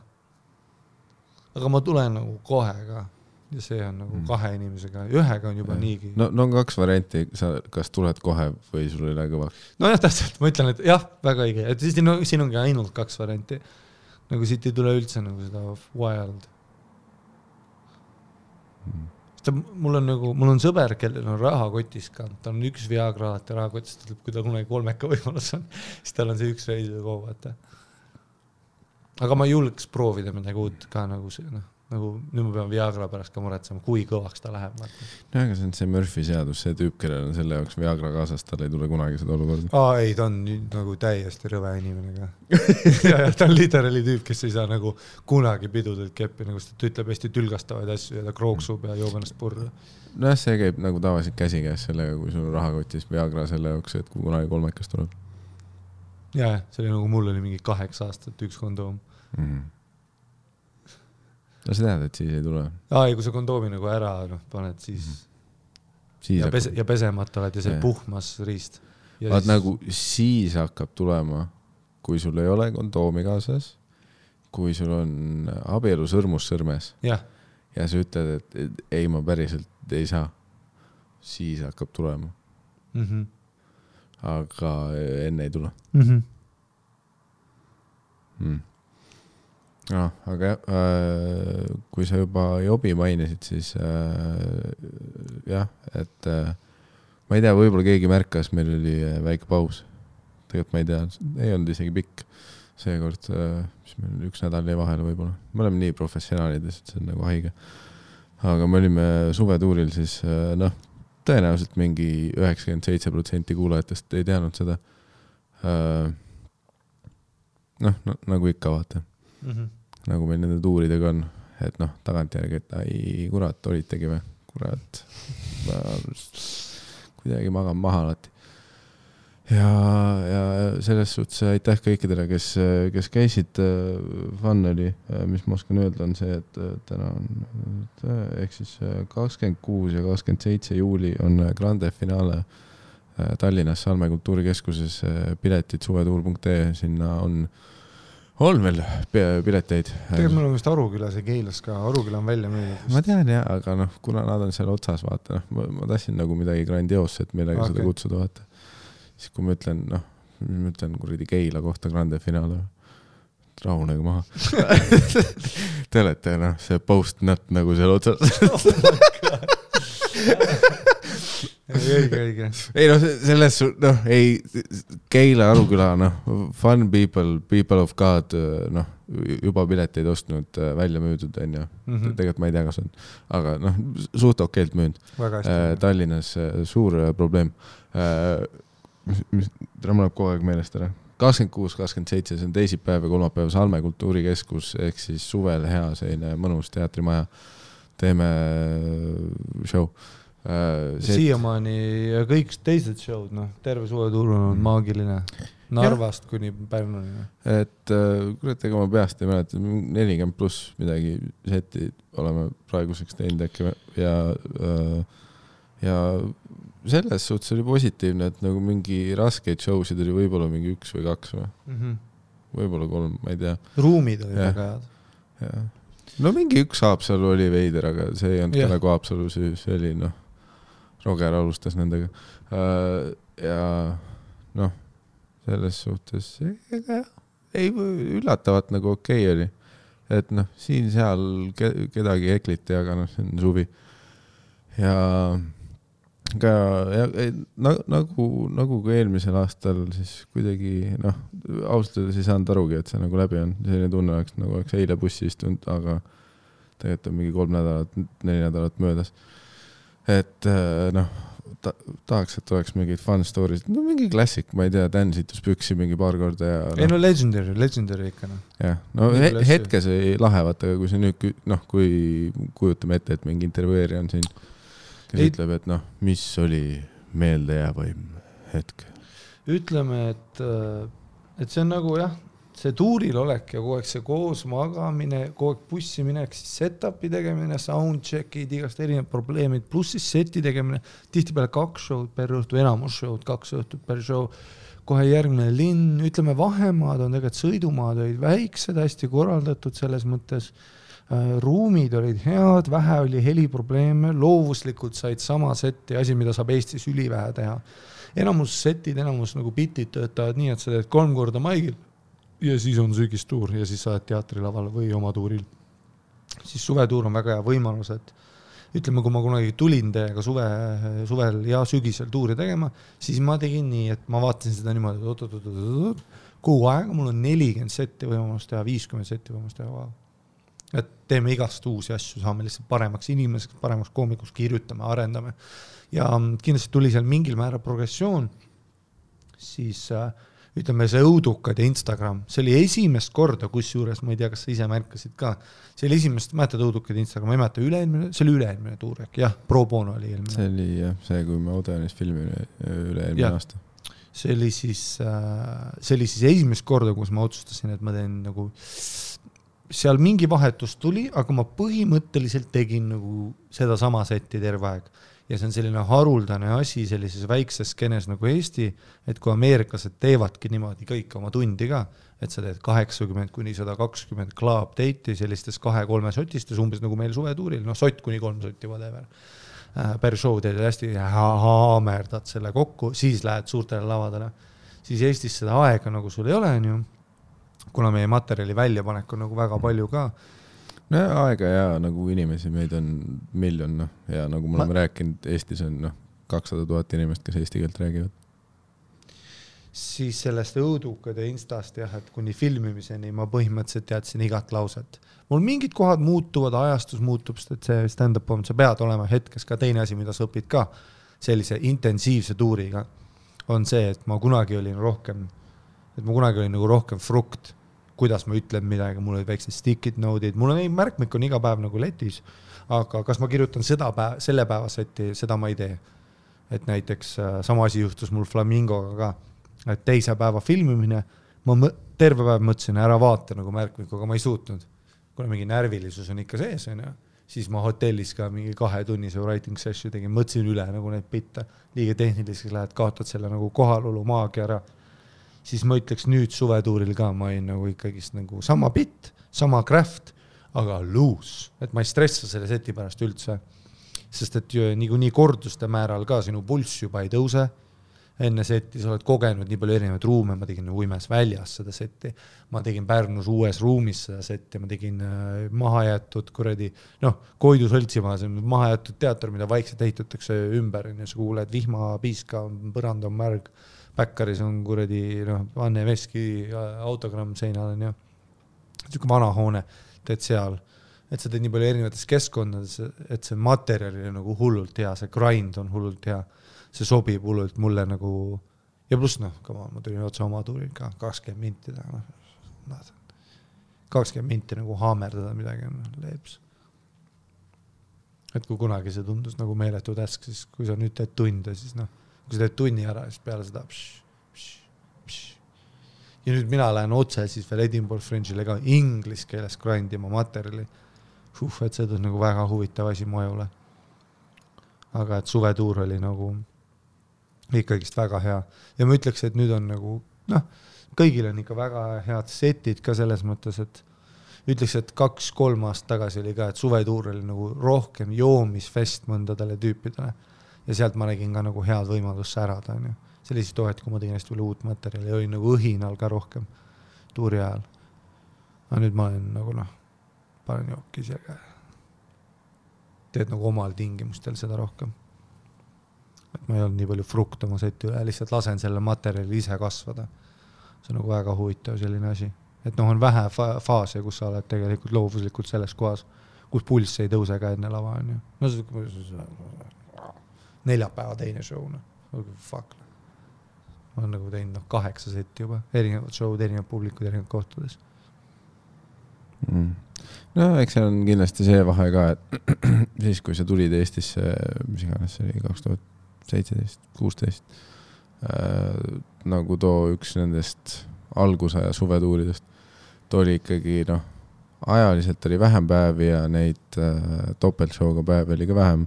Aga ma tulen nagu kohe ka. Ja see on nagu 2 inimesega. Ühega on juba niigi. No on 2 varianti. Sa kas tuled kohe või sul ei lähe kõvaks? No jah, täpselt. Ma ütlen, et jah, väga õige. Et siin ongi ainult 2 varianti. Nagu siit ei tule üldse nagu seda wild. Mul on sõber, kellel on rahakotis ka. Ta on 1 Viagra alati rahakotis, kui ta kunagi 3 võimalus on. Siis tal on see 1 reis või kogu. Aga ma julgeks proovida midagi uut ka nagu see, nagu nüüd ma pean Viagra pärast ka muretsema, kui kõvaks ta läheb. No aga see on see Murphy seadus, see tüüp, kellel on selle jaoks Viagra kaasas, tal ei tule kunagi seda olukorda. Ei, ta on nagu täiesti rõve inimene ka. ja ta on literally tüüp, kes ei saa nagu kunagi pidudelt keppi, nagu ta ütleb hästi tülgastavaid asju ja ta krooksub ja joob ennast purra. No see käib nagu tavaliselt käsikäes sellega, kui sul on rahakotis Viagra selle jaoks, et kui kunagi 3 tuleb. Ja, see oli nagu mul oli mingi 8 aastat 1 kondoom. No sa tead, et siis ei tule. Kui sa kondoomi nagu ära paned, siis ja pesemata oled ja see puhmas riist. Vaat siis... nagu siis hakkab tulema, kui sul ei ole kondoomi kaasas, kui sul on abielu sõrmus sõrmes ja sa ütled, et ei, ma päriselt ei saa, siis hakkab tulema. Aga enne ei tule. No, aga kui sa juba jobi mainisid, siis jah, et ma ei tea, võib-olla keegi märkas, meil oli väike paus. Tegelikult ma ei tea, ei olnud isegi pikk seekord, mis meil 1 nädal jäi vahele võib-olla. Me oleme nii professionaalides, et see on nagu haige. Aga me olime suvetuuril, siis tõenäoliselt mingi 97% kuulajatest ei teadnud seda. Nagu ikka vaata. Nagu meil nende tuuridega on, et tagantjärgi, et ai, kurat, olitegi või? Kurat, kuidagi magan maha alati. Ja selles suhtes aitäh kõikidele, kes käisid, fun oli, mis ma oskan öelda, on see, et täna on, ehk siis 26 ja 27 juuli on grande finaale Tallinnas Salme kultuurikeskuses, piletid suvetuur.ee, sinna on on veel pileteid. Tegelikult meil on vist Arukülas ja Keilas ka, Aruküla on välja müüdud. Ma tean jah, aga kuna nad on seal otsas, vaata, ma tahtsin nagu midagi grandioosset, millega seda kutsuda, vaata. Siis kui ma ütlen kuradi Keila kohta grande finaale, rahunega maha. Te olete, see post-nut nagu seal otsas. Õige. Ei selles, Keila, Aruküla, fun people of God, juba pileteid ostnud, välja müüdud, on ju. Tegelikult ma ei tea, kas on. Aga suht okeilt müünud. Tallinnas suur probleem. Mul kogu aeg meelest ära. 26-27, see on teisipäev ja kolmapäev Salme kultuurikeskus, ehk siis suvel hea selline mõnus teatrimaja. Teeme show. Siiamaani ja kõik teised showd, terve suvetuur on maagiline. Narvast kuni Pärnuni. Et ega ma peast ei mäleta, 40 pluss midagi seti oleme praeguseks teinud äkki ja selles suhtes oli positiivne, et nagu mingi raskeid showsid oli võib-olla mingi 1 või 2 või võib-olla 3, ma ei tea. Ruumid oli väga head. No mingi 1 Haapsalu oli veider, aga see ei olnud ka nagu Haapsalu, see oli Roger alustas nendega ja selles suhtes ei üllatavat nagu okei oli, et siin seal kedagi ekliti, aga see on suvi ja ka nagu ka eelmisel aastal siis kuidagi ausalt öeldes ei saanud arugi, et see nagu läbi on, selline tunne oleks nagu oleks eile bussi istunud, aga tegelikult on mingi 3 nädalat, 4 nädalat möödas. Et tahaks, et oleks mingid fun stories, mingi klassik, ma ei tea, Dan situs püksi mingi paar korda ja ei legendary ikka jah, hetkes ei lahevat, aga kui see nüüd kui kujutame ette, et mingi intervjueerija on siin, kes ütleb, et mis oli meeldejäävaim hetk? Ütleme, et see on nagu jah, see tuuril olek ja kogu aeg see koos magamine, kogu aeg bussi minek, siis set-upi tegemine, soundcheckid, igast erinevad probleemid, pluss siis seti tegemine, tihtipeale 2 show'd per õhtu, enamus show'd, 2 õhtut per show, kohe järgmine linn, ütleme vahemaad on tegelikult sõidumaad olid väiksed, hästi korraldatud selles mõttes, ruumid olid head, vähe oli heliprobleeme, loovuslikult said sama seti, asi, mida saab Eestis ülivähe teha. Enamus setid, enamus nagu bitid töötavad nii, et sa teed 3 korda maigil, ja siis on sügistuur ja siis sa oled teatrilaval või oma tuuril. Siis suvetuur on väga hea võimalus, et ütleme, kui ma kunagi tulin teiega suvel ja sügisel tuuri tegema, siis ma tegin nii, et ma vaatasin seda niimoodi, kuu aega mul on 40 seti võimalust teha, 50 seti võimalust teha. Et teeme igast uusi asju, saame lihtsalt paremaks inimeseks, paremaks koomikuks, kirjutame, arendame. Ja kindlasti tuli seal mingil määra progressioon, siis ütleme see õudukad ja Instagram, see oli esimest korda, kus juures, ma ei tea, kas sa ise märkasid ka, see oli esimest, mäletad õudukad Instagram, ma ei mäleta see oli üle-eelmine tuur, jah, pro bono oli eelmine. See oli jah, see kui me Odenis filmi üle-eelmine aasta. See oli siis esimest korda, kus ma otsustasin, et ma teen nagu, seal mingi vahetus tuli, aga ma põhimõtteliselt tegin nagu seda sama seti terve aeg. Ja see on selline haruldane asi sellises väikses skenes nagu Eesti, et kui ameeriklased teevadki niimoodi kõik oma tundi ka, et sa teed 80 kuni 120 club date'i sellistes 2-3 sotistes, umbes nagu meil suvetuuril, sott kuni 3 sotti, whatever. Per show teed hästi haamerdad selle kokku, siis lähed suurtele lavadele. Siis Eestis seda aega nagu sul ei ole, kuna meie materjali väljapanek on nagu väga palju ka. No aega ja nagu inimesi, meid on miljon ja nagu me oleme rääkinud, Eestis on 200 000 inimest, kes eesti keelt räägivad. Siis sellest õudukade instast jah, et kuni filmimiseni ma põhimõtteliselt teadsin igat lauset. Mul mingid kohad muutuvad, ajastus muutub, sest see stand-up on, sa pead olema hetkes ka teine asi, mida sa õpid ka sellise intensiivse tuuriga, on see, et ma kunagi olin nagu rohkem frukt, kuidas ma ütlen midagi, mul olid väiksed stickid node'id, mul on märkmik on iga päev nagu letis, aga kas ma kirjutan selle päeva seti, seda ma ei tee. Et näiteks sama asi juhtus mul Flamingoga ka, et teise päeva filmimine, ma terve päev mõtlesin, ära vaata nagu märkmik, aga ma ei suutnud. Kuna mingi närvilisus on ikka sees, siis ma hotellis ka mingi 2-tunnise writing session tegin, mõtlesin üle nagu neid bitte, liiga tehniliseks lähed, kaotad selle nagu kohalolu maagia ära. siis ma ütleks nüüd suvetuuril ka, ma olin nagu ikkagist nagu sama bit, sama craft, aga loose, et ma ei stressa selle seti pärast üldse, sest et nii korduste määral ka sinu pulss juba ei tõuse, enne seti sa oled kogenud nii palju erinevaid ruume, ma tegin Uimes väljas seda seti, ma tegin Pärnus uues ruumis seda seti, ma tegin mahajäetud kuradi, Koidu Sõltsimaa, see on mahajätud teater, mida vaikselt ehitatakse ümber, ja sa kuuled vihmapiiska, põrand on märg, Päkkaris on kuradi Anne Veski autogramm seinal on siuke vana hoone, teed seal, et sa teed nii palju erinevates keskkondades, et see materjal on nagu hullult hea, see grind on hullult hea, see sobib hullult mulle nagu, ja pluss ma tulin otsa oma tuuril ka 20 minti taga, 20 minti nagu haamerdada midagi on leeps. Et kui kunagi see tundus nagu meeletu täsk, siis kui sa nüüd teed tunde, siis kui sa teed tunni ära, siis peale seda ja nüüd mina lähen otse siis veel Edinburgh Fringe'ile ka inglis keeles grindima materjali. Et see on nagu väga huvitav asi mu ajule. Aga et suvetuur oli nagu ikkagist väga hea. Ja ma ütleks, et nüüd on nagu, kõigil on ikka väga head setid ka selles mõttes, et ütleks, et 2-3 aastat tagasi oli ka, et suvetuur oli nagu rohkem joomisfest mõndadele tüüpidele. Ja sealt ma nägin ka nagu head võimalust särada. Sellised tohet, kui ma tegin hästi palju uut materjali, oli nagu õhinal ka rohkem tuuri ajal. Aga nüüd ma olen nagu panen jookis ja teed nagu omal tingimustel seda rohkem. Et ma ei olnud nii palju frukt oma seti üle, lihtsalt lasen selle materjali ise kasvada. See on nagu väga huvitav selline asi. Et on vähe faase, kus sa oled tegelikult loovuslikult selles kohas, kus pulss ei tõuse ka enne lava. Neljapäeva teine show. Fuck. Ma olen nagu teinud 8 seti juba, erinevad showd, erinevad publikud, erinevad kohtades. No, eks see on kindlasti see vahe ka, et siis, kui sa tulid Eestisse, mis iganes see oli 2017-16, nagu too üks nendest algusaja suvetuuridest, too oli ikkagi, ajaliselt oli vähem päevi ja neid topeltshowga päevi oli ka vähem.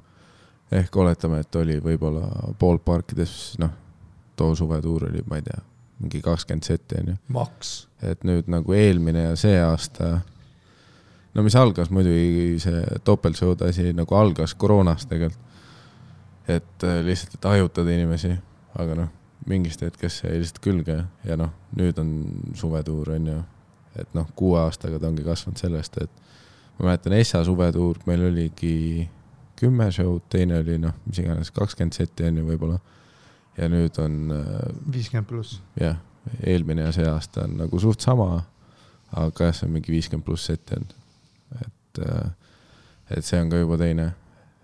Ehk oletame, et oli võib-olla poolparkides, too suvetuur oli, ma ei tea, mingi 20 seti. Maks. Et nüüd nagu eelmine ja see aasta, mis algas muidugi see topeltshowd asi nagu algas koroonast tegelikult. Et lihtsalt, et ajutada inimesi, aga mingist hetkest see lihtsalt külge ja nüüd on suvetuur on ju, et 6 aastaga ta ongi kasvanud sellest, et ma mäletan Essa suvetuur, meil oligi 10 showd, teine oli mis iganes 20 seti on ju võib-olla ja nüüd on 50 pluss. Jah, eelmine ja see aasta on nagu suht sama, aga see on mingi 50 pluss seti on. Et see on ka juba teine.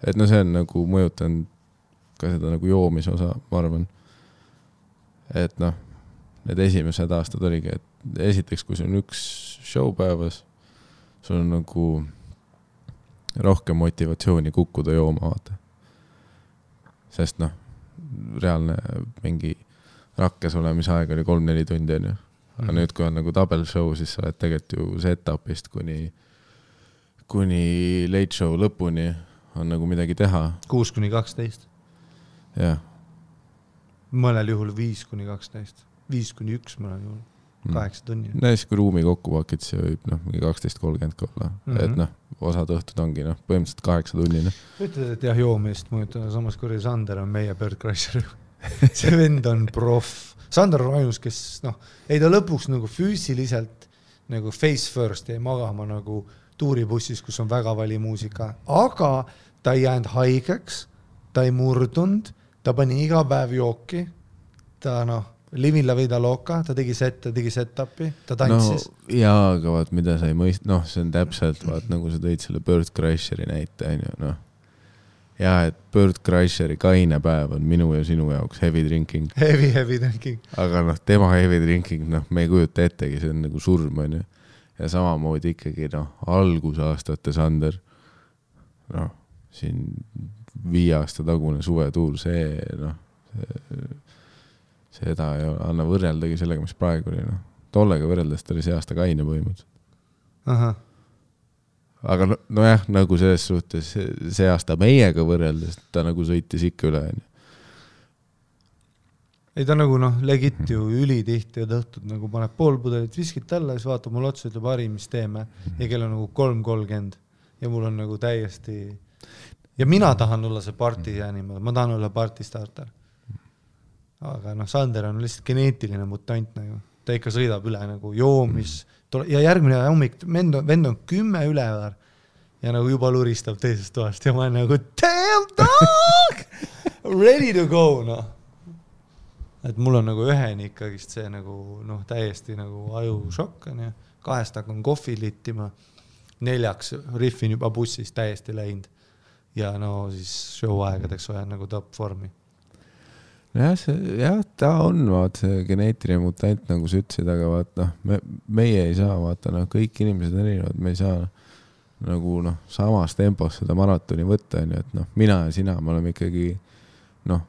Et see on nagu mõjutanud ka seda nagu joomise osa, ma arvan. Et need esimesed aastad oligi, et esiteks, kui sul on üks show päevas, sul on nagu rohkem motivatsiooni kukkuda jooma vaata. Sest reaalne mingi rakkes olemise aeg oli 3-4 tundi on ju. Aga nüüd, kui on nagu double show, siis sa oled tegelikult ju setupist kuni late show lõpuni on nagu midagi teha. 6-12. Jah. Mõnel juhul 5-12. 5-1 mõnel juhul. 8 tunni. Näis, kui ruumi kokku pakid, see võib mingi 12-30 olla. Et osad õhtud ongi põhimõtteliselt 8 tunni. Ütled, et jah, joomist mõjutada. Samas kui Sander on meie Bird Crusher. See vend on proff. Sander on ainus, kes ei ta lõpuks nagu füüsiliselt nagu face first ei magama nagu tuuribussis, kus on väga vali muusika. Aga ta ei jäänud haigeks, ta ei murdunud, ta pani iga päev jooki, ta Livin la vida loca, ta tegi set-upi, ta tantsis. Jaa, aga vaat, mida sa ei mõist, see on täpselt, vaat, nagu sa tõid selle Bird Crusheri näite, Jaa, et Bird Crusheri kaine päev on minu ja sinu jaoks heavy drinking. Heavy drinking. Aga tema heavy drinking, me ei kujuta ettegi, see on nagu surm, on ju. Ja samamoodi ikkagi, algusaastate Sander, siin 5 aasta tagune suvetuur, seda ei anna võrreldagi sellega, mis praegu oli. Tollega võrreldes ta oli see aasta kaine põhimõtteliselt. Aha. Aga jah, nagu selles suhtes see aasta meiega võrreldes, ta nagu sõitis ikka üle. ei ta nagu legit ju ülitihti ja tõhtud nagu paneb pool pudelit viskit alla ja siis vaatab mul otsa, ütleb Harri, mis teeme ja kell on nagu 3:30 ja mul on nagu täiesti ja mina tahan olla see party animal, ma tahan olla party starter. Aga Sander on lihtsalt geneetiline mutant nagu, ta ikka sõidab üle nagu joomis ja järgmine hommik vend on 10 ülevar ja nagu juba luristab teisest toast ja ma olen nagu damn dog ready to go et mul on nagu üheni ikkagist see nagu täiesti nagu ajušokk on ja 2 hakkan kohvi littima 4 riffin juba bussis täiesti läinud ja siis show aegadeks olen nagu top vormi. Jah, ta on see geneetiline mutant nagu sa ütlesid, aga vaat meie ei saa vaata, kõik inimesed erinevad, me ei saa nagu samas tempos seda maratoni võtta, et mina ja sina, me oleme ikkagi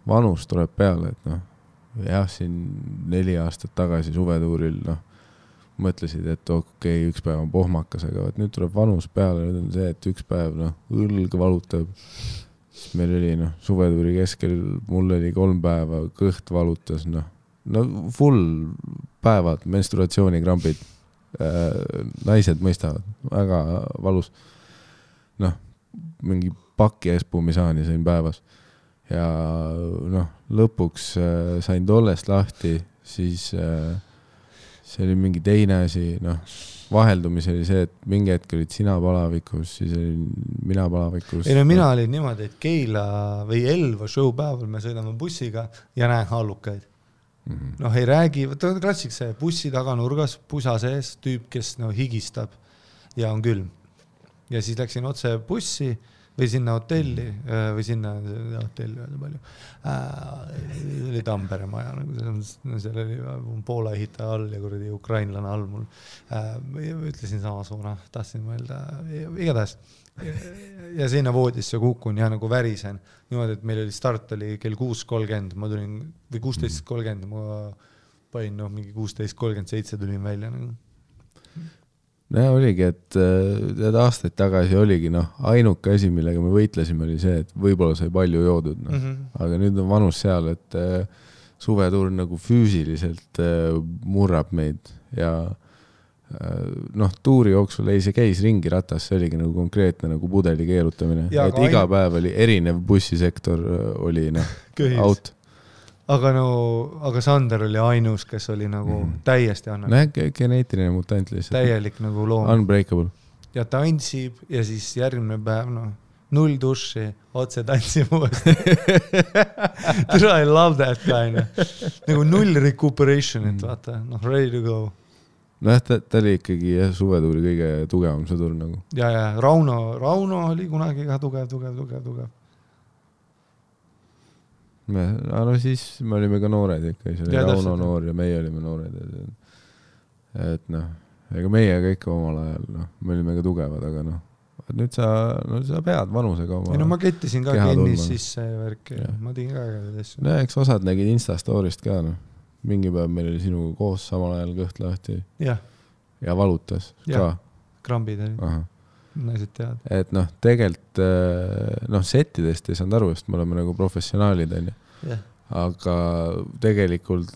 vanus tuleb peale, et jah, siin 4 aastat tagasi suvetuuril mõtlesid, et okei, üks päev on pohmakas, aga nüüd tuleb vanus peale, nüüd on see, et üks päev õlg valutab, meil oli suvetuuri keskel, mul oli 3 päeva, kõht valutas, full päevad, menstruatsioonikrambid, naised mõistavad, väga valus, mingi paki espumisaani sain päevas ja lõpuks sain tollest lahti, siis see oli mingi teine asi, vaheldumis oli see, et mingi hetk olid sina palavikus, siis olin mina palavikus. Ei mina olin niimoodi, et Keila või Elva show päeval me sõidame bussiga ja näen hallukaid. Ei räägi, klassik see bussi taganurgas, pusa sees, tüüp, kes higistab ja on külm. Ja siis läksin otse bussi või sinna hotelli või sinna hotelli öelda palju. Oli Tampere maja, seal oli Poola ehitaja all ja kuradi ukrainlane all mul. Ütlesin sama suuna, tahtsin mõelda, igatahes. Ja sinna voodisse kukun ja nagu värisen. Niimoodi, et meil oli start oli kell 6:30, ma tulin, või 16:30, ma panin mingi 16:37 tulin välja nagu. Oligi, et aastaid tagasi oligi ainuke asi, millega me võitlesime, oli see, et võib-olla sai palju joodud. Aga nüüd on vanus seal, et suvetuur nagu füüsiliselt murrab meid ja tuuri jooksul ei see käis ringi ratas, see oligi nagu konkreetne nagu pudeli keerutamine. Ja, et iga päev oli erinev bussisektor oli out. Aga Sander oli ainus, kes oli nagu täiesti annan. Geneetiline mutant lihtsalt. Täielik nagu loom. Unbreakable. Ja tantsib ja siis järgmine päev, 0 duši, otse tantsib uuesti. I love that kind. Nagu 0 recuperation'it, vaata, ready to go. Ta oli ikkagi suvetuuri kõige tugevam sõdur nagu. Ja, Rauno oli kunagi ka tugev. Siis me olime ka noored ikka, see oli Rauno noor ja meie olime noored. Et ega meie kõik omal ajal, me olime ka tugevad, aga nüüd sa pead vanusega oma ma kettisin ka kennis sisse ja värki, ma tegin ka asju. Eks osad nägid Instastorist ka, mingi päev meil oli sinuga koos samal ajal kõht lahti ja valutas ka. Krambid oli. Naised tead. Et tegelikult settidest ei saanud aru, sest me oleme nagu professionaalid, aga tegelikult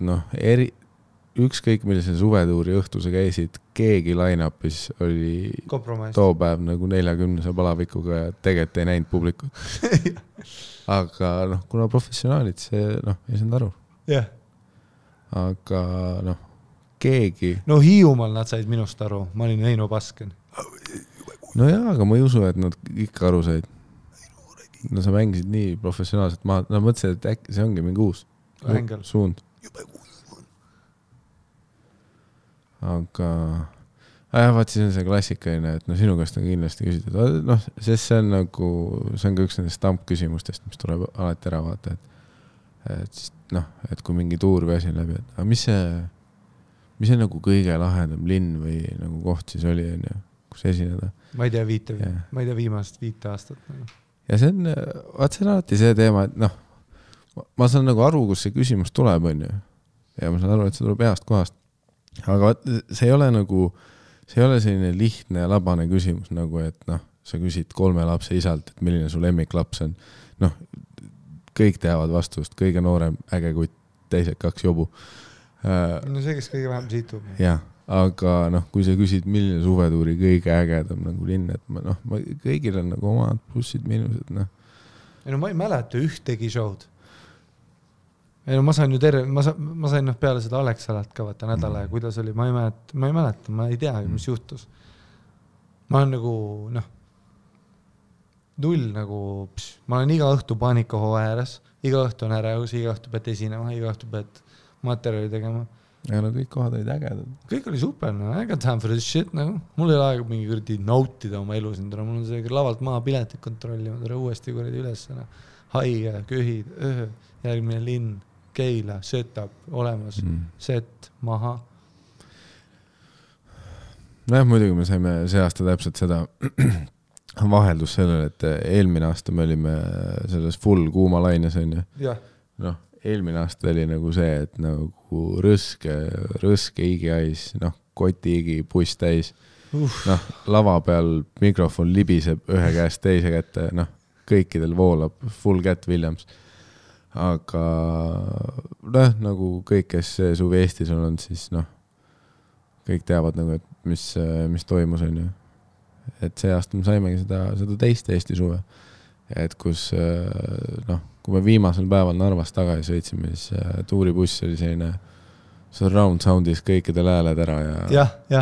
ükskõik millise suvetuuri õhtu sa käisid, keegi line-upis oli too päev nagu 40 palavikuga ja tegelikult ei näinud publikut. Aga kuna professionaalid, see ei saanud aru. Aga keegi... Hiiumaal nad said minust aru, ma olin Heino Pasken. Aga ma ei usu, et nad ikka aru said. Sa mängisid nii professionaalselt maha. Mõtlesin, et äkki see ongi mingi uus suund. Aga vaat siis on see klassikaline, et sinu käest on kindlasti küsitud. Sest see on nagu, see on ka üks nendest stampküsimustest, mis tuleb alati ära vaata. Et kui mingi tuur või asi läbi, et mis see nagu kõige lahedam linn või nagu koht siis oli, kus esineda? Ma ei tea viimast 5 aastat. Ja see on alati see teema, et ma saan nagu aru, kus see küsimus tuleb, ja ma saan aru, et see tuleb heast kohast. Aga see ei ole nagu, see ei ole selline lihtne ja labane küsimus, nagu et sa küsid 3 lapse isalt, et milline su lemmiklaps on. Kõik teavad vastust, kõige noorem äge kutt, teised 2 jobu. No see, kes kõige vähem situb. Jah, aga kui sa küsid, milline suvetuuri kõige ägedam nagu linn, et kõigil on nagu omad plussid, miinused, ma ei mäleta ühtegi show'd. Ma sain ju ma sain peale seda Alexalat ka vaata nädala ja kuidas oli, ma ei mäleta, ma ei tea, mis juhtus. Ma olen nagu, null nagu, ma olen iga õhtu paanikaho ääres, iga õhtu on ärevus, iga õhtu pead esinema, iga õhtu pead materjali tegema. Ja kõik kohad olid ägedad. Kõik oli super, I got time for this shit, Mul ei ole aega mingi kuradi nautida oma elu siin, mul on see lavalt maha piletit kontrollima, uuesti kuradi üles, haige, köhid, järgmine linn, Keila, setup, olemas, set, maha. Muidugi me saime see aasta täpselt seda vaheldus sellele, et eelmine aasta me olime selles full kuuma laines, on ju. Jah. Eelmine aasta oli nagu see, et nagu rõske igiais, koti igi, buss täis. Lava peal mikrofon libiseb ühe käest teise kätte, kõikidel voolab full Cat Williams. Aga nagu kõik, kes suvi Eestis on, siis kõik teavad nagu, et mis toimus, on ju. Et see aasta me saimegi seda teist Eesti suve. Et kus, kui me viimasel päeval Narvast tagasi sõitsime, siis tuuribuss oli selline surround soundis kõikidel hääled ära ja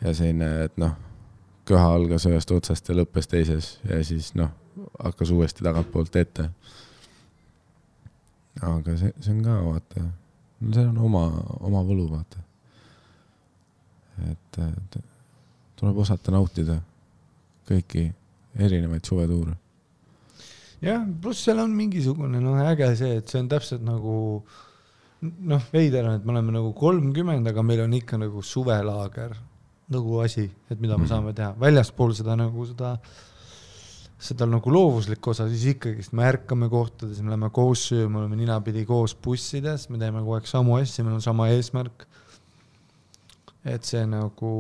selline, et köha algas ühest otsast ja lõppes teises ja siis hakkas uuesti tagant poolt ette. Aga see on ka, vaata, see on oma võlu, vaata. Et tuleb osata nautida kõiki erinevaid suvetuure. Jah, pluss seal on mingisugune äge see, et see on täpselt nagu veider on, et me oleme nagu 30, aga meil on ikka nagu suvelaager nagu asi, et mida me saame teha. Väljaspool seda nagu seda nagu loovuslik osa, siis ikkagi me ärkame kohtades, me oleme koos söö, me oleme ninapidi koos bussides, me teeme kogu aeg samu asju, meil on sama eesmärk. Et see nagu,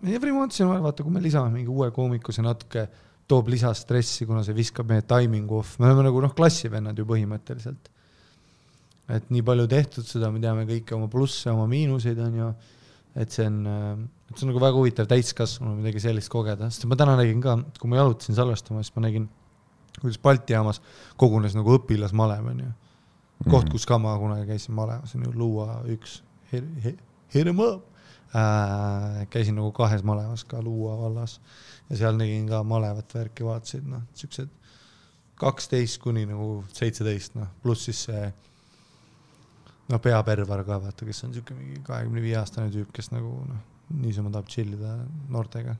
every once in a while, vaata, kui me lisame mingi uue koomiku, see natuke toob lisastressi, kuna see viskab meie timing off. Me oleme nagu klassivennad ju põhimõtteliselt. Et nii palju tehtud seda, me teame kõike oma plusse, oma miinuseid on ju. Et see on nagu väga huvitav täiskasvanu midagi sellist kogeda. Sest ma täna nägin ka, kui ma jalutasin salvestama, siis ma nägin, kuidas Balti jaamas kogunes nagu õpilasmalev on ju. Koht, kus ka ma kunagi käisin malevas, on ju Luua üks hirm õpp. Käisin nagu 2 malevas ka Luua vallas ja seal nägin ka malevat värki vaatasid, siuksed 12 kuni nagu 17, pluss siis see peapervar ka, vaata, kes on siuke mingi 25-aastane tüüp, kes nagu niisama tahab chillida noortega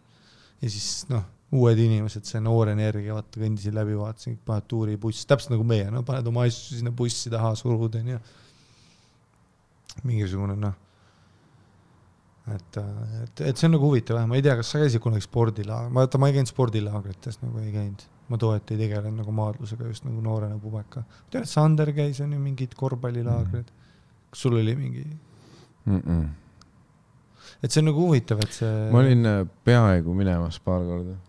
ja siis uued inimesed, see noor energia, vaata, kõndisin läbi, vaatasin, paned tuuri buss, täpselt nagu meie, paned oma asju sinna bussi taha surud ja mingisugune et see on nagu huvitav, ma ei tea, kas sa käisid kunagi spordilaag, ma ei käinud spordilaagrites, nagu ei käinud, ma toet ei tegelen nagu maadlusega just nagu noorena pubeka. Tead, Sander käis on ju mingid korvpallilaagrid, kas sul oli mingi? Et see on nagu huvitav, et see... Ma olin peaaegu minemas paar korda.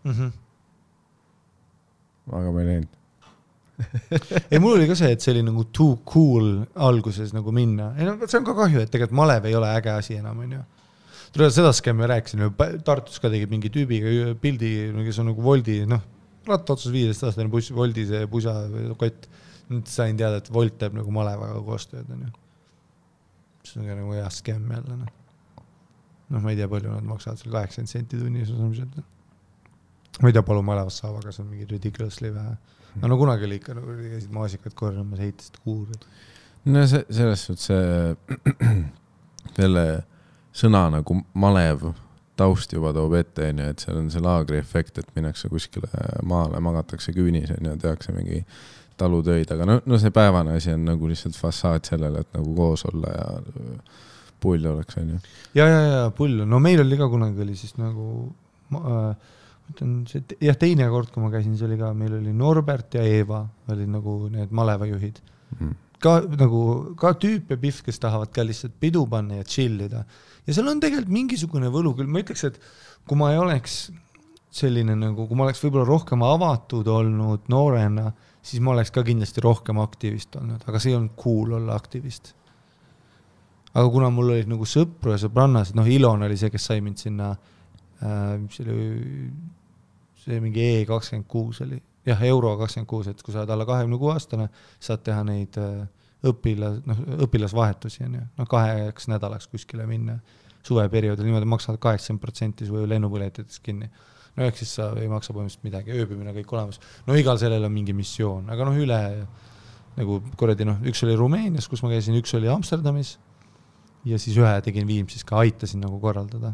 Aga ma ei läinud. Ei, mul oli ka see, et see oli nagu too cool alguses nagu minna. See on ka kahju, et tegelikult malev ei ole äge asi enam, on ju. Tuleb seda skämmi rääkisin, Tartus ka tegid mingi tüübiga pildi, kes on nagu Voldi, ratta otsus 15-aastane Voldi see pusa kott. Nüüd sain teada, et Volt teeb nagu malevaga koostööd, on ju. See on ka nagu hea skämm jälle, ma ei tea, palju nad maksavad seal 80 senti tunnis. Ma ei tea, palju malevast saab, aga see on mingi ridiculously vähe. No kunagi oli ikka, nagu käisid maasikad korramas, heitisid kuuri. No selles suhtes selle sõna nagu malev taust juba toob ette, et seal on see laagri efekt, et minnakse kuskile maale, magatakse küünis ja tehakse mingi talutöid, aga see päevane asi on nagu lihtsalt fassaad sellele, et nagu koos olla ja pull oleks, on ju. Ja pull. No meil oli ka kunagi oli siis nagu teine kord, kui ma käisin, see oli ka, meil oli Norbert ja Eeva oli nagu need malevajuhid. Ka tüüp ja pihv, kes tahavad ka lihtsalt pidu panna ja chillida. Ja seal on tegelikult mingisugune võlu küll. Ma ütleks, et kui ma ei oleks selline nagu, kui ma oleks võib-olla rohkem avatud olnud noorena, siis ma oleks ka kindlasti rohkem aktivist olnud, aga see on cool olla aktivist. aga kuna mul olid nagu sõpru ja sõbrannased, Ilon oli see, kes sai mind sinna, see mingi E26 oli, jah, Euro 26, et kui sa oled alla 26 aastane, saad teha neid õpilasvahetusi, 2 nädalaks kuskile minna suveperioodil, niimoodi maksavad 80% su lennupõletitest kinni. Ehk siis sa ei maksa põhimõtteliselt midagi, ööbimine kõik olemas. Igal sellel on mingi missioon, aga üle nagu kuradi, üks oli Rumeenias, kus ma käisin, üks oli Amsterdamis ja siis ühe tegin Viimsis ka, aitasin nagu korraldada.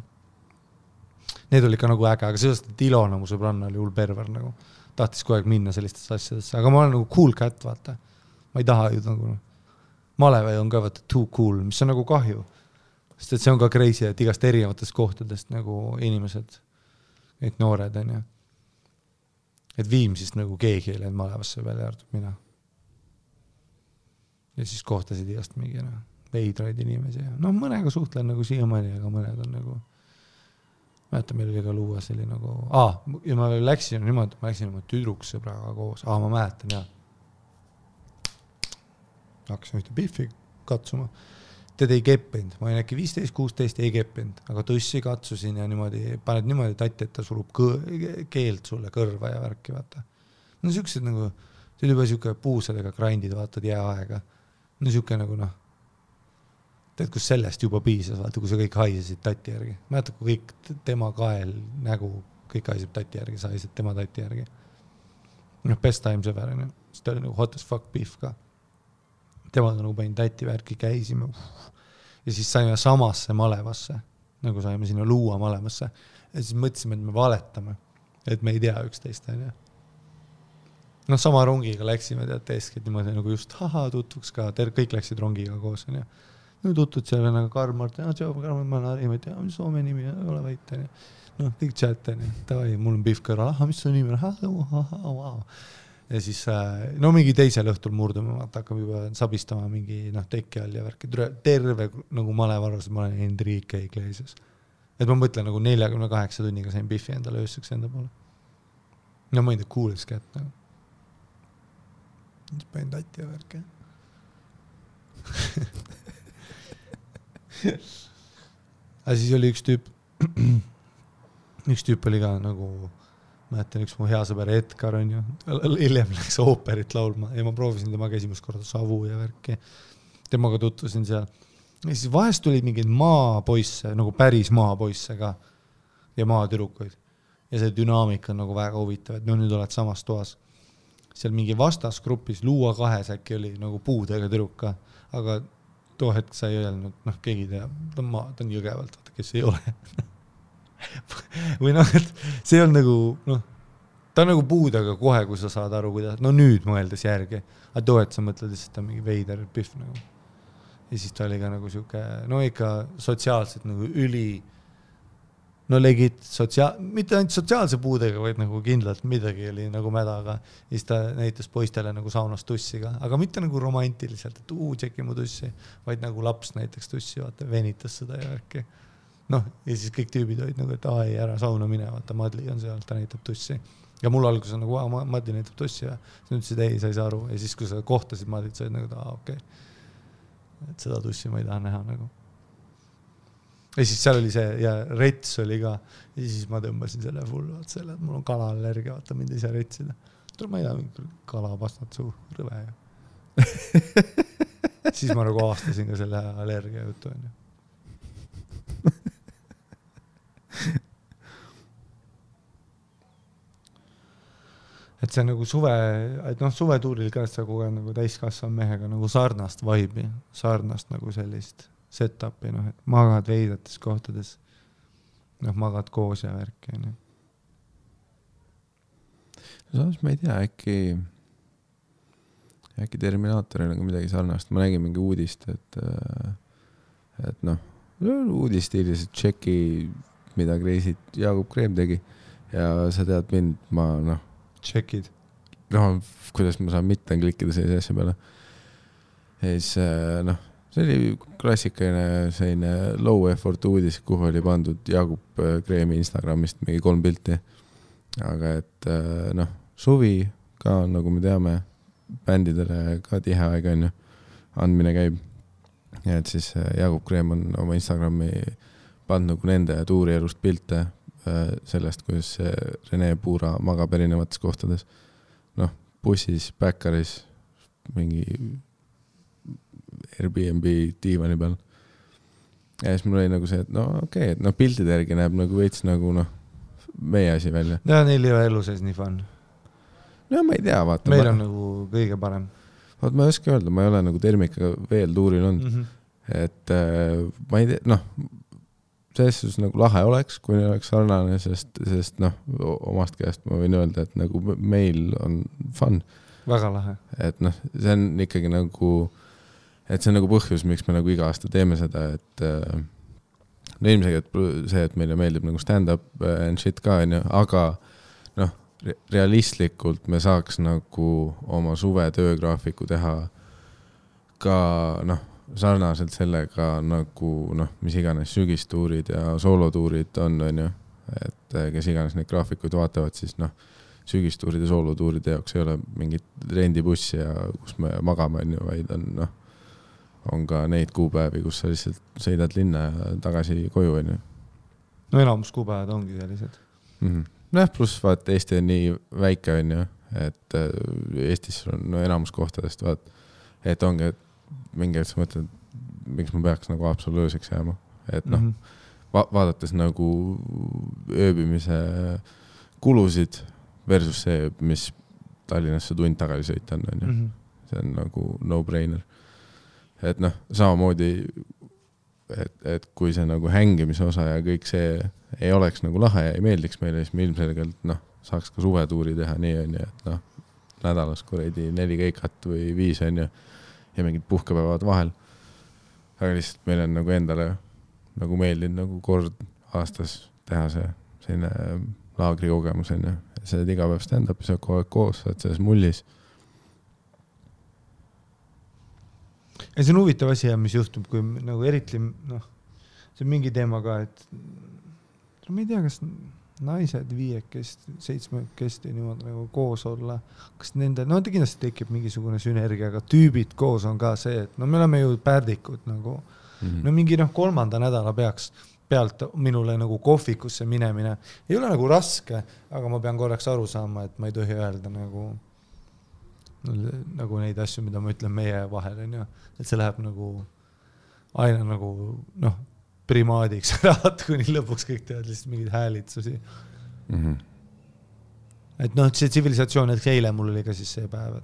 Need oli ka nagu äge, aga sellest, et Ilona mu sõbranna oli hull perver nagu. Tahtis kogu aeg minna sellistesse asjadesse, aga ma olen nagu cool cat, vaata. Ma ei taha ju nagu, Malevai on ka vaata too cool, mis on nagu kahju. Sest et see on ka crazy, et igast erinevatest kohtadest nagu inimesed, need noored on ju. Et Viimsist nagu keegi ei läinud Malevasse välja arvab mina. Ja siis kohtasid igast mingi veidraid inimesi. Mõnega suhtlen nagu siiamaani, aga mõned on nagu mäletan, meil oli ka luua selline nagu ja ma läksin niimoodi, ma läksin oma tüdruksõbraga koos. Ma mäletan, jah. Hakkasin ühte biffi katsuma. Teda ei keppinud, ma olin äkki 15-16, ei keppinud, aga tõssi katsusin ja niimoodi, paned niimoodi tatti, et ta surub keelt sulle kõrva ja värki, vaata. Siuksed nagu, see oli juba siuke puusadega grindid, vaatad jääaega. Siuke nagu tead, kus sellest juba piisas, vaata, kui sa kõik haisesid tatti järgi. Mäletad, kui kõik tema kael, nägu, kõik haiseb tatti järgi, sa haised tema tatti järgi. Best times ever, siis ta oli nagu hot as fuck beef ka. Temaga nagu panin tatti värki, käisime ja siis saime samasse Malevasse, nagu saime sinna luua Malevasse ja siis mõtlesime, et me valetame, et me ei tea üksteist. Sama rongiga läksime, tead, teeskid niimoodi nagu just tutvuks ka, kõik läksid rongiga koos. Tutud seal nagu Karl-Mart, Karl-Mart, ma olen Harimad, Soome nimi, ole vait. Kõik chat, tavai, mul on Biff kõrval, mis su nimi on? Ja siis, mingi teisel õhtul murdume, hakkab juba sabistama mingi tekki all ja värki. Terve nagu Malevarus, ma olen Enrique Iglesias. Et ma mõtlen nagu 48 tunniga sain Biffi endale öösseks enda poole. Ma ei tea, coolest kätt. Siis panin tatti ja värki. Aga siis oli üks tüüp oli ka nagu mäletan, üks mu hea sõber Edgar on ju, hiljem läks ooperit laulma ja ma proovisin temaga esimest korda Savu ja värki. Temaga tutvusin seal. Ja siis vahest tulid mingid maapoisse, nagu päris maapoisse ka ja maatürukuid. Ja see dünaamika on nagu väga huvitav, et nüüd oled samas toas. Seal mingi vastasgrupis Luua 2 äkki oli nagu puudega türuka, aga too hetk sa ei öelnud, keegi tea, ta on jõgevalt, vaata, kes ei ole. Või et see on nagu, ta on nagu puudega kohe, kui sa saad aru, kuidas, nüüd mõeldes järgi, aga too, et sa mõtled, et ta on mingi veider Biff nagu. Ja siis ta oli ka nagu siuke, ikka sotsiaalselt nagu legit mitte ainult sotsiaalse puudega, vaid nagu kindlalt midagi oli nagu mädaga. Ja siis ta näitas poistele nagu saunas tussiga, aga mitte nagu romantiliselt, et tšeki mu tussi, vaid nagu laps näiteks tussi, vaata, venitas seda ja värki. Ja siis kõik tüübid olid nagu, et ei, ära sauna mine, vaata, Madli on seal, ta näitab tussi. Ja mul alguses on nagu, Madli näitab tussi ja siis ütlesid, ei, sa ei saa aru. Ja siis, kui sa kohtasid Madlit, sa olid nagu, okei. Et seda tussi ma ei taha näha nagu. Ja siis seal oli see, ja rets oli ka, ja siis ma tõmbasin selle full, vaat selle, et mul on kalallergia, vaata, mind ei saa retsida. Ma ei taha kalapastat suu, rõve. Siis ma nagu aastasin ka selle allergia jutu. Et see on nagu suvetuuril ka sa kogu aeg nagu täiskasvan mehega nagu sarnast vibe'i, sarnast nagu sellist set-up'i, et magad veidates kohtades, magad koos ja värki. Samas ma ei tea, äkki Terminaatoril on midagi sarnast. Ma nägin mingi uudist, et uudisstiilis, et tšeki, mida Kreisit Jaagup Kreem tegi ja sa tead mind, ma tšekid. Kuidas ma saan mitte klikkida sellise asja peale. Ja siis, see oli klassikaline selline low effort uudis, kuhu oli pandud Jaagup Kreemi Instagramist mingi 3 pilti. Aga et, suvi ka, nagu me teame, bändidele ka tihe aeg on ju, andmine käib. ja et siis Jaagup Kreem on oma Instagrami pannud nagu nende tuurielust pilte sellest, kuidas Rene Puura magab erinevates kohtades. Noh, bussis, backeris, mingi Airbnb diivani peal. Ja siis mul oli nagu see, et no okei, et pildide järgi näeb nagu veits nagu meie asi välja. Ja neil ei ole elu sees nii fun. No ma ei tea, vaata. Meil on nagu kõige parem. Vaat ma ei oska öelda, ma ei ole nagu termikaga veel tuuril olnud. Et ma ei tea, selles nagu lahe oleks, kui oleks sarnane, sest omast käest ma võin öelda, et nagu meil on fun. Väga lahe. Et see on ikkagi nagu, et see on nagu põhjus, miks me nagu iga aasta teeme seda, et ilmselt see, et meile meeldib nagu stand-up and shit ka, aga realistlikult me saaks nagu oma suve töögraafiku teha ka sarnaselt sellega nagu mis iganes sügistuurid ja soolotuurid on, et kes iganes neid graafikuid vaatavad, siis sügistuurid ja soolotuuride jaoks ei ole mingit rendibussi ja kus me magame, vaid on ka neid kuupäevi, kus sa lihtsalt sõidad linna ja tagasi koju. No enamus kuupäevad ongi sellised. Pluss vaat Eesti on nii väike, et Eestis on enamus kohtadest, et ongi, et mingi hetk sa mõtled, miks ma peaks nagu absoluutseks jääma. Et vaadates nagu ööbimise kulusid versus see, mis Tallinnasse tund tagasi sõita on. See on nagu no-brainer. Et samamoodi, et kui see nagu hängimise osa ja kõik see ei oleks nagu lahe ja ei meeldiks meile, siis me ilmselgelt saaks ka suvetuuri teha nii, et nädalas kuradi 4 keikat või 5 ja mingid puhkepäevad vahel. Aga lihtsalt meil on nagu endale nagu meeldinud nagu kord aastas teha see selline laagri kogemus, sa oled iga päev stand-up, sa oled kogu aeg koos, sa oled selles mullis. Ja see on huvitav asi, mis juhtub, kui nagu eriti, see on mingi teema ka, et ma ei tea, kas naised 5 7 niimoodi nagu koos olla, kas nende, ta kindlasti tekib mingisugune sünergia, aga tüübid koos on ka see, et me oleme ju pärdikud nagu, mingi 3. nädala pealt minule nagu kohvikusse minemine ei ole nagu raske, aga ma pean korraks aru saama, et ma ei tohi öelda nagu neid asju, mida ma ütlen meie vahel, et see läheb nagu aina nagu primaadiks raat, kuni lõpuks kõik teevad lihtsalt mingid häälitsusi. Et see tsivilisatsioon, et eile mul oli ka siis see päev,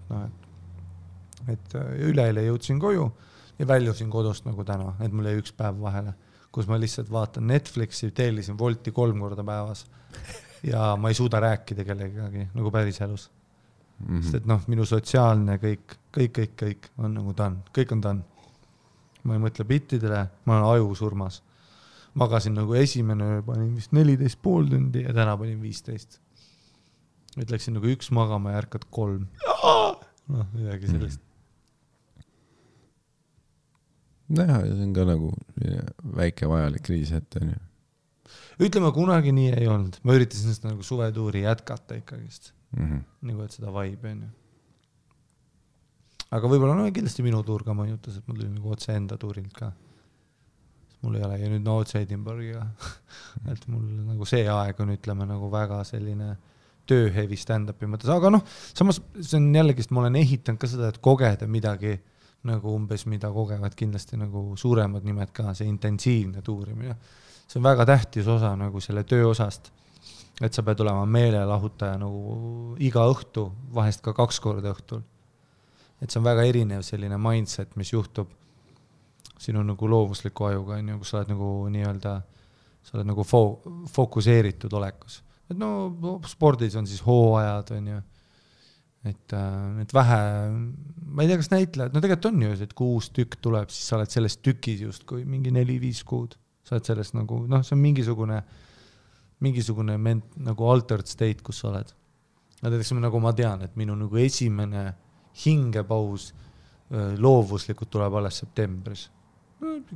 et üleeile jõudsin koju ja väljusin kodust nagu täna, et mul jäi 1 päev vahele, kus ma lihtsalt vaatan Netflixi, teelisin Wolti 3 korda päevas ja ma ei suuda rääkida kellegagi nagu päris elus. Sest et minu sotsiaalne kõik on nagu done. Kõik on done. Ma ei mõtle bittidele, ma olen aju surmas. Magasin nagu esimene öö, panin vist 14,5 tundi ja täna panin 15. Et läksin nagu 1 magama ja ärkad 3. Midagi sellist. Ja see on ka nagu väike vajalik kriis ette. Ütleme, kunagi nii ei olnud. Ma üritasin seda nagu suvetuuri jätkata ikkagist. Nagu et seda vibe on. Aga võib-olla kindlasti minu tuur ka mõjutas, et mul oli nagu otse enda tuurilt ka. Mul ei ole ja nüüd otse Edinburghiga. Et mul nagu see aeg on ütleme nagu väga selline tööhevi stand-upi mõttes, aga samas see on jällegist, ma olen ehitanud ka seda, et kogeda midagi nagu umbes, mida kogevad kindlasti nagu suuremad nimed ka, see intensiivne tuurimine. See on väga tähtis osa nagu selle töö osast. Et sa pead olema meelelahutaja nagu iga õhtu, vahest ka 2 korda õhtul. Et see on väga erinev selline mindset, mis juhtub sinu nagu loovusliku ajuga, kus sa oled nagu nii-öelda, sa oled nagu fokuseeritud olekus. Et spordis on siis hooajad, et vähe, ma ei tea, kas näitlejad, tegelikult on ju, et kui uus tükk tuleb, siis sa oled selles tükis just kui mingi 4-5 kuud. Sa oled selles nagu, see on mingisugune nagu altered state, kus sa oled. Nagu ma tean, et minu nagu esimene hingepaus loovuslikult tuleb alles septembris.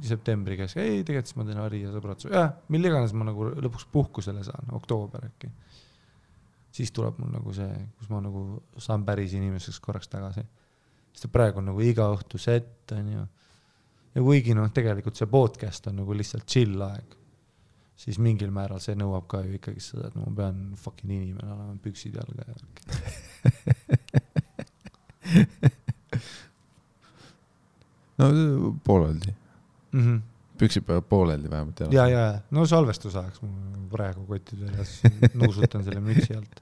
Septembri käes, tegelikult siis ma teen Ari ja sõbratsu. Mille iganes ma nagu lõpuks puhkusele saan, oktoober äkki. Siis tuleb mul nagu see, kus ma nagu saan päris inimeseks korraks tagasi. Sest praegu on nagu iga õhtu set, ja kuigi tegelikult see podcast on nagu lihtsalt chill aeg, siis mingil määral see nõuab ka ju ikkagi seda, et ma pean fucking inimene olema püksid jalga ja no pooleldi. Püksid peavad pooleldi vähemalt jalga. Ja, no salvestus ajaks ma praegu kotid üles nuusutan selle mütsi alt.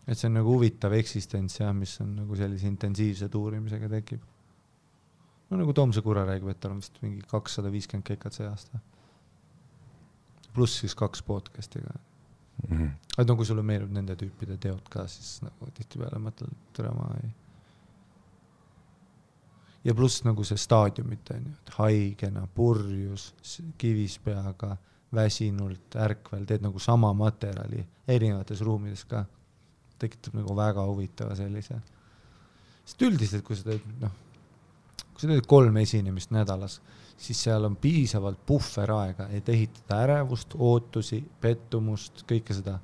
Et see on nagu huvitav eksistents ja mis on nagu sellise intensiivse tuurimisega tekib. No nagu Toomse Kura räägib, et tal on vist mingi 250 kekat see aasta. Pluss siis 2 podcastiga. Et kui sulle meelib nende tüüpide teod ka, siis nagu tihti peale mõtled, türama ei. Ja pluss nagu see staadiumit on ju, et haigena, purjus, kivispeaga, väsinult, ärkvel, teed nagu sama materjali erinevates ruumides ka. Tekitab nagu väga huvitava sellise. Sest üldiselt, kui sa teed 3 esinemist nädalas, siis seal on piisavalt puhveraega, et ehitada ärevust, ootusi, pettumust, kõike seda.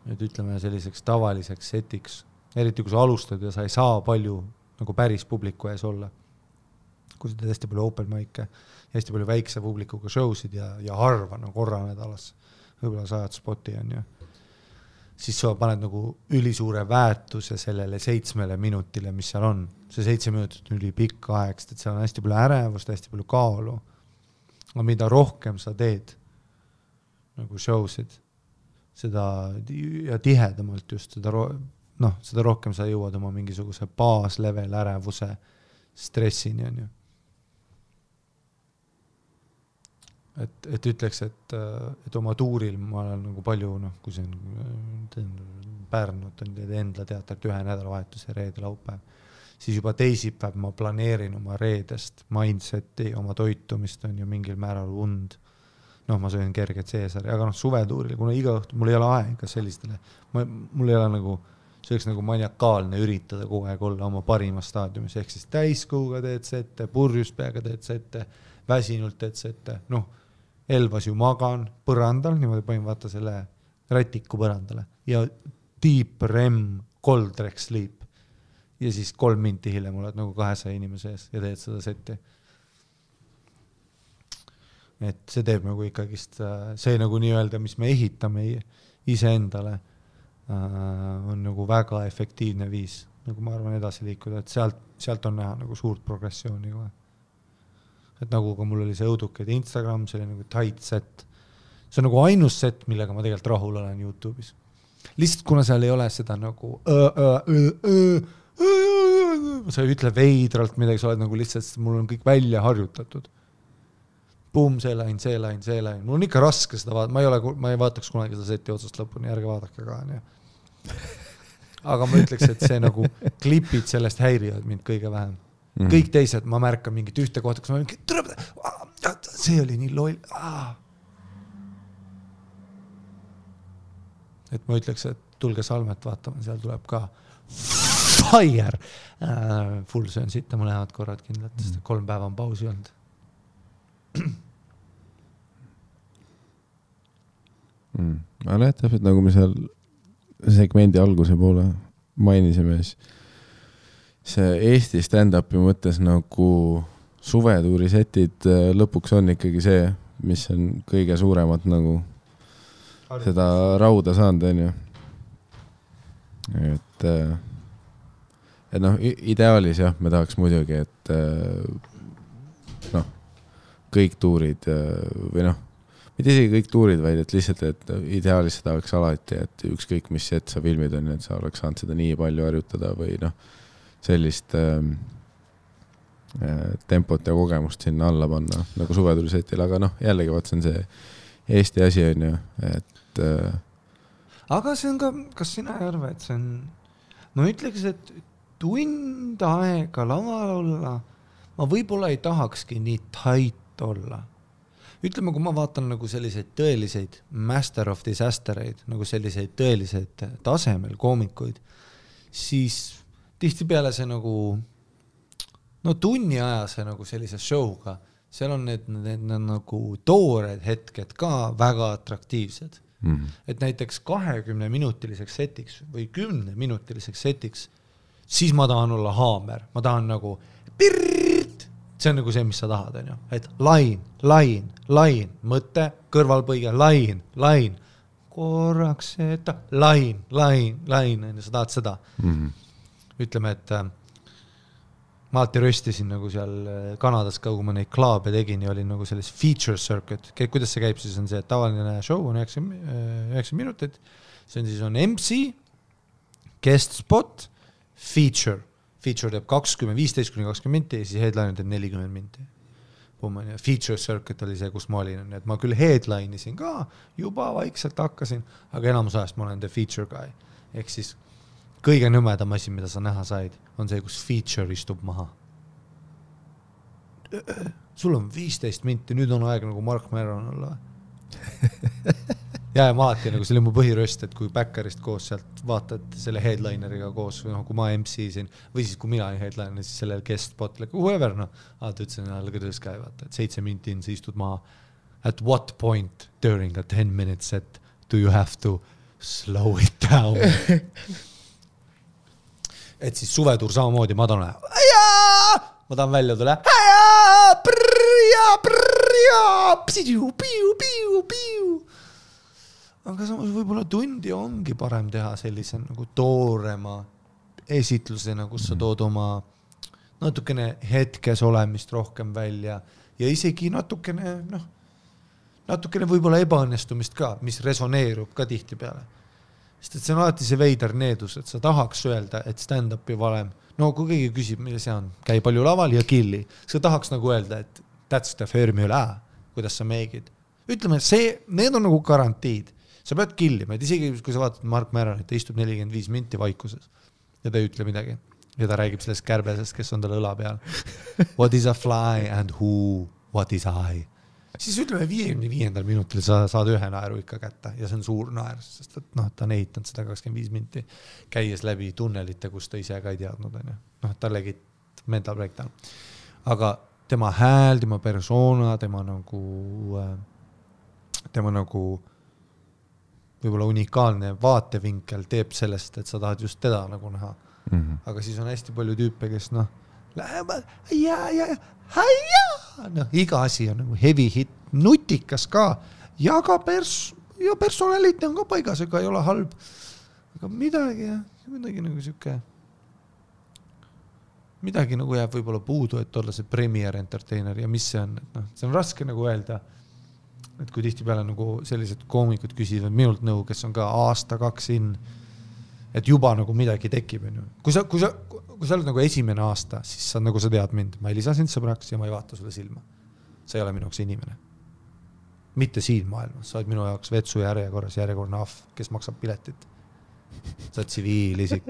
Et ütleme selliseks tavaliseks setiks. Eriti kui sa alustad ja sa ei saa palju nagu päris publiku ees olla. Kui sa teed hästi palju open mic'e ja hästi palju väikse publikuga showsid ja harva no korra nädalas, võib-olla 100 spoti on ju. Siis sa paned nagu ülisuure väärtuse sellele 7 minutile, mis seal on. See 7 minutit on üli pikk aeg, et seal on hästi palju ärevust, hästi palju kaalu. Aga mida rohkem sa teed nagu showsid, seda ja tihedamalt just seda rohkem sa jõuad oma mingisuguse baaslevel ärevuse stressini on ju. Et ütleks, et oma tuuril ma olen nagu palju, kui see on Pärnut on Endla teatrit 1 nädalavahetuse reede laupäev, siis juba teisipäev ma planeerin oma reedest mindseti, oma toitumist on ju mingil määral und. Ma söön kerget seesari, aga suvetuuril, kuna iga õhtu mul ei ole aega sellistele, mul ei ole nagu, see oleks nagu maniakaalne üritada kogu aeg olla oma parimas staadiumis, ehk siis täiskuuga teed sette, purjuspeaga teed sette, väsinult teed sette, Elvas ju magan põrandal, niimoodi panin vaata selle rätiku põrandale ja deep REM cold rec sleep ja siis 3 minti hiljem oled nagu 200 inimese ees ja teed seda setti. Et see teeb nagu ikkagist, see nagu nii-öelda, mis me ehitame iseendale, on nagu väga efektiivne viis, nagu ma arvan edasi liikuda, et sealt on näha nagu suurt progressiooni kohe. Et nagu ka mul oli see õudukad Instagram, see oli nagu tight set. See on nagu ainus set, millega ma tegelikult rahul olen YouTube'is. Lihtsalt kuna seal ei ole seda nagu sa ei ütle veidralt midagi, sa oled nagu lihtsalt, mul on kõik välja harjutatud. Boom, see lain. Mul on ikka raske seda vaadata, ma ei vaataks kunagi seda seti otsast lõpuni, ärge vaadake ka. Aga ma ütleks, et see nagu klipid sellest häirivad mind kõige vähem. Kõik teised, ma märkan mingit ühte kohta, kus ma olen, see oli nii loll. Et ma ütleks, et tulge Salmet vaatama, seal tuleb ka fire. Full söön sitta mõlemad korrad kindlalt, sest 3 päeva on pausi olnud. Aga täpselt nagu me seal segmendi alguse poole mainisime, see Eesti stand-upi mõttes nagu suvetuuri setid lõpuks on ikkagi see, mis on kõige suuremat nagu seda rauda saanud, on ju. Et ideaalis jah, me tahaks muidugi, et kõik tuurid või mitte isegi kõik tuurid, vaid et lihtsalt, et ideaalis seda oleks alati, et ükskõik mis set sa filmid on, et sa oleks saanud seda nii palju harjutada või sellist tempot ja kogemust sinna alla panna, nagu suvetuurisetil, aga jällegi vaat see on see Eesti asi on ju, et aga see on ka, kas sina ei arva, et see on ma ütleks, et tund aega laval olla ma võib-olla ei tahakski nii tight olla. Ütleme, kui ma vaatan nagu selliseid tõeliseid master of disastereid, nagu selliseid tõeliseid tasemel koomikuid, siis tihtipeale see nagu tunni ajase nagu sellise showga, seal on need nagu toored hetked ka väga atraktiivsed. Et näiteks 20-minutiliseks setiks või 10-minutiliseks setiks siis ma tahan olla haamer, ma tahan nagu pirrt, see on nagu see, mis sa tahad, on ju, et lain, mõte, kõrvalpõige, lain, korraks seda, lain, on ju, sa tahad seda. Ütleme, et ma alati röstisin nagu seal Kanadas ka, kui ma neid klaabe tegin ja olin nagu selles feature circuit. Kuidas see käib, siis on see, et tavaline show on 9 minutit, see on siis on MC, guest spot, feature teeb 15-20 minti ja siis headline teeb 40 minti. Feature circuit oli see, kus ma olin, et ma küll headline'isin ka, juba vaikselt hakkasin, aga enamus ajast ma olen the feature guy. Ehk siis kõige nõmedam asi, mida sa näha said, on see, kus feature istub maha. Sul on 15 minti, nüüd on aeg nagu Mark Maron olla. Ja ma alati nagu, see oli mu põhiröst, et kui backerist koos sealt vaatad selle headlineriga koos, või kui ma MC-sin, või siis kui mina olin headliner, siis sellel guest spot, like whoever, alati ütlesin, look at this guy, vaata, et 7 minti in, sa istud maha. At what point during a 10-minute set do you have to slow it down? Et siis suvetuur samamoodi, ma tahan välja tule. Aga samas võib-olla tundi ongi parem teha sellise nagu toorema esitlusena, kus sa tood oma natukene hetkes olemist rohkem välja ja isegi natukene võib-olla ebaõnnestumist ka, mis resoneerub ka tihti peale. Sest et see on alati see veider needus, et sa tahaks öelda, et stand-upi valem, no kui keegi küsib, mille see on, käi palju laval ja killi, sa tahaks nagu öelda, et that's the formula, kuidas sa meegid. Ütleme, need on nagu garantiid. Sa pead killima, et isegi kui sa vaatad Mark Maron, et ta istub 45 minti vaikuses ja ta ei ütle midagi. Ja ta räägib sellest kärbesest, kes on tal õla peal. What is a fly and who, what is I? Siis ütleme 55. minutil sa saad ühe naeru ikka kätte ja see on suur naer, sest et ta on ehitanud seda 25 minti käies läbi tunnelite, kus ta ise ka ei teadnud. Ta legit mental breakdown. Aga tema hääl, tema persona, tema nagu võib-olla unikaalne vaatevinkel teeb sellest, et sa tahad just teda nagu näha. Aga siis on hästi palju tüüpe, kes lähevad iga asi on nagu heavy hit, nutikas ka ja ka personaliti on ka paigas, ega ei ole halb. Aga midagi nagu siuke midagi nagu jääb võib-olla puudu, et olla see premier entertainer ja mis see on, et see on raske nagu öelda, et kui tihti peale nagu sellised koomikud küsivad minult nõu, kes on ka aasta-2 in, et juba nagu midagi tekib. Kui sa oled nagu esimene aasta, siis sa nagu sa tead mind, ma ei lisa sind sõbraks ja ma ei vaata sulle silma. See ei ole minu jaoks inimene. Mitte siin maailmas, sa oled minu jaoks vetsu järjekorrane ahv, kes maksab piletit. Sa oled tsiviilisik.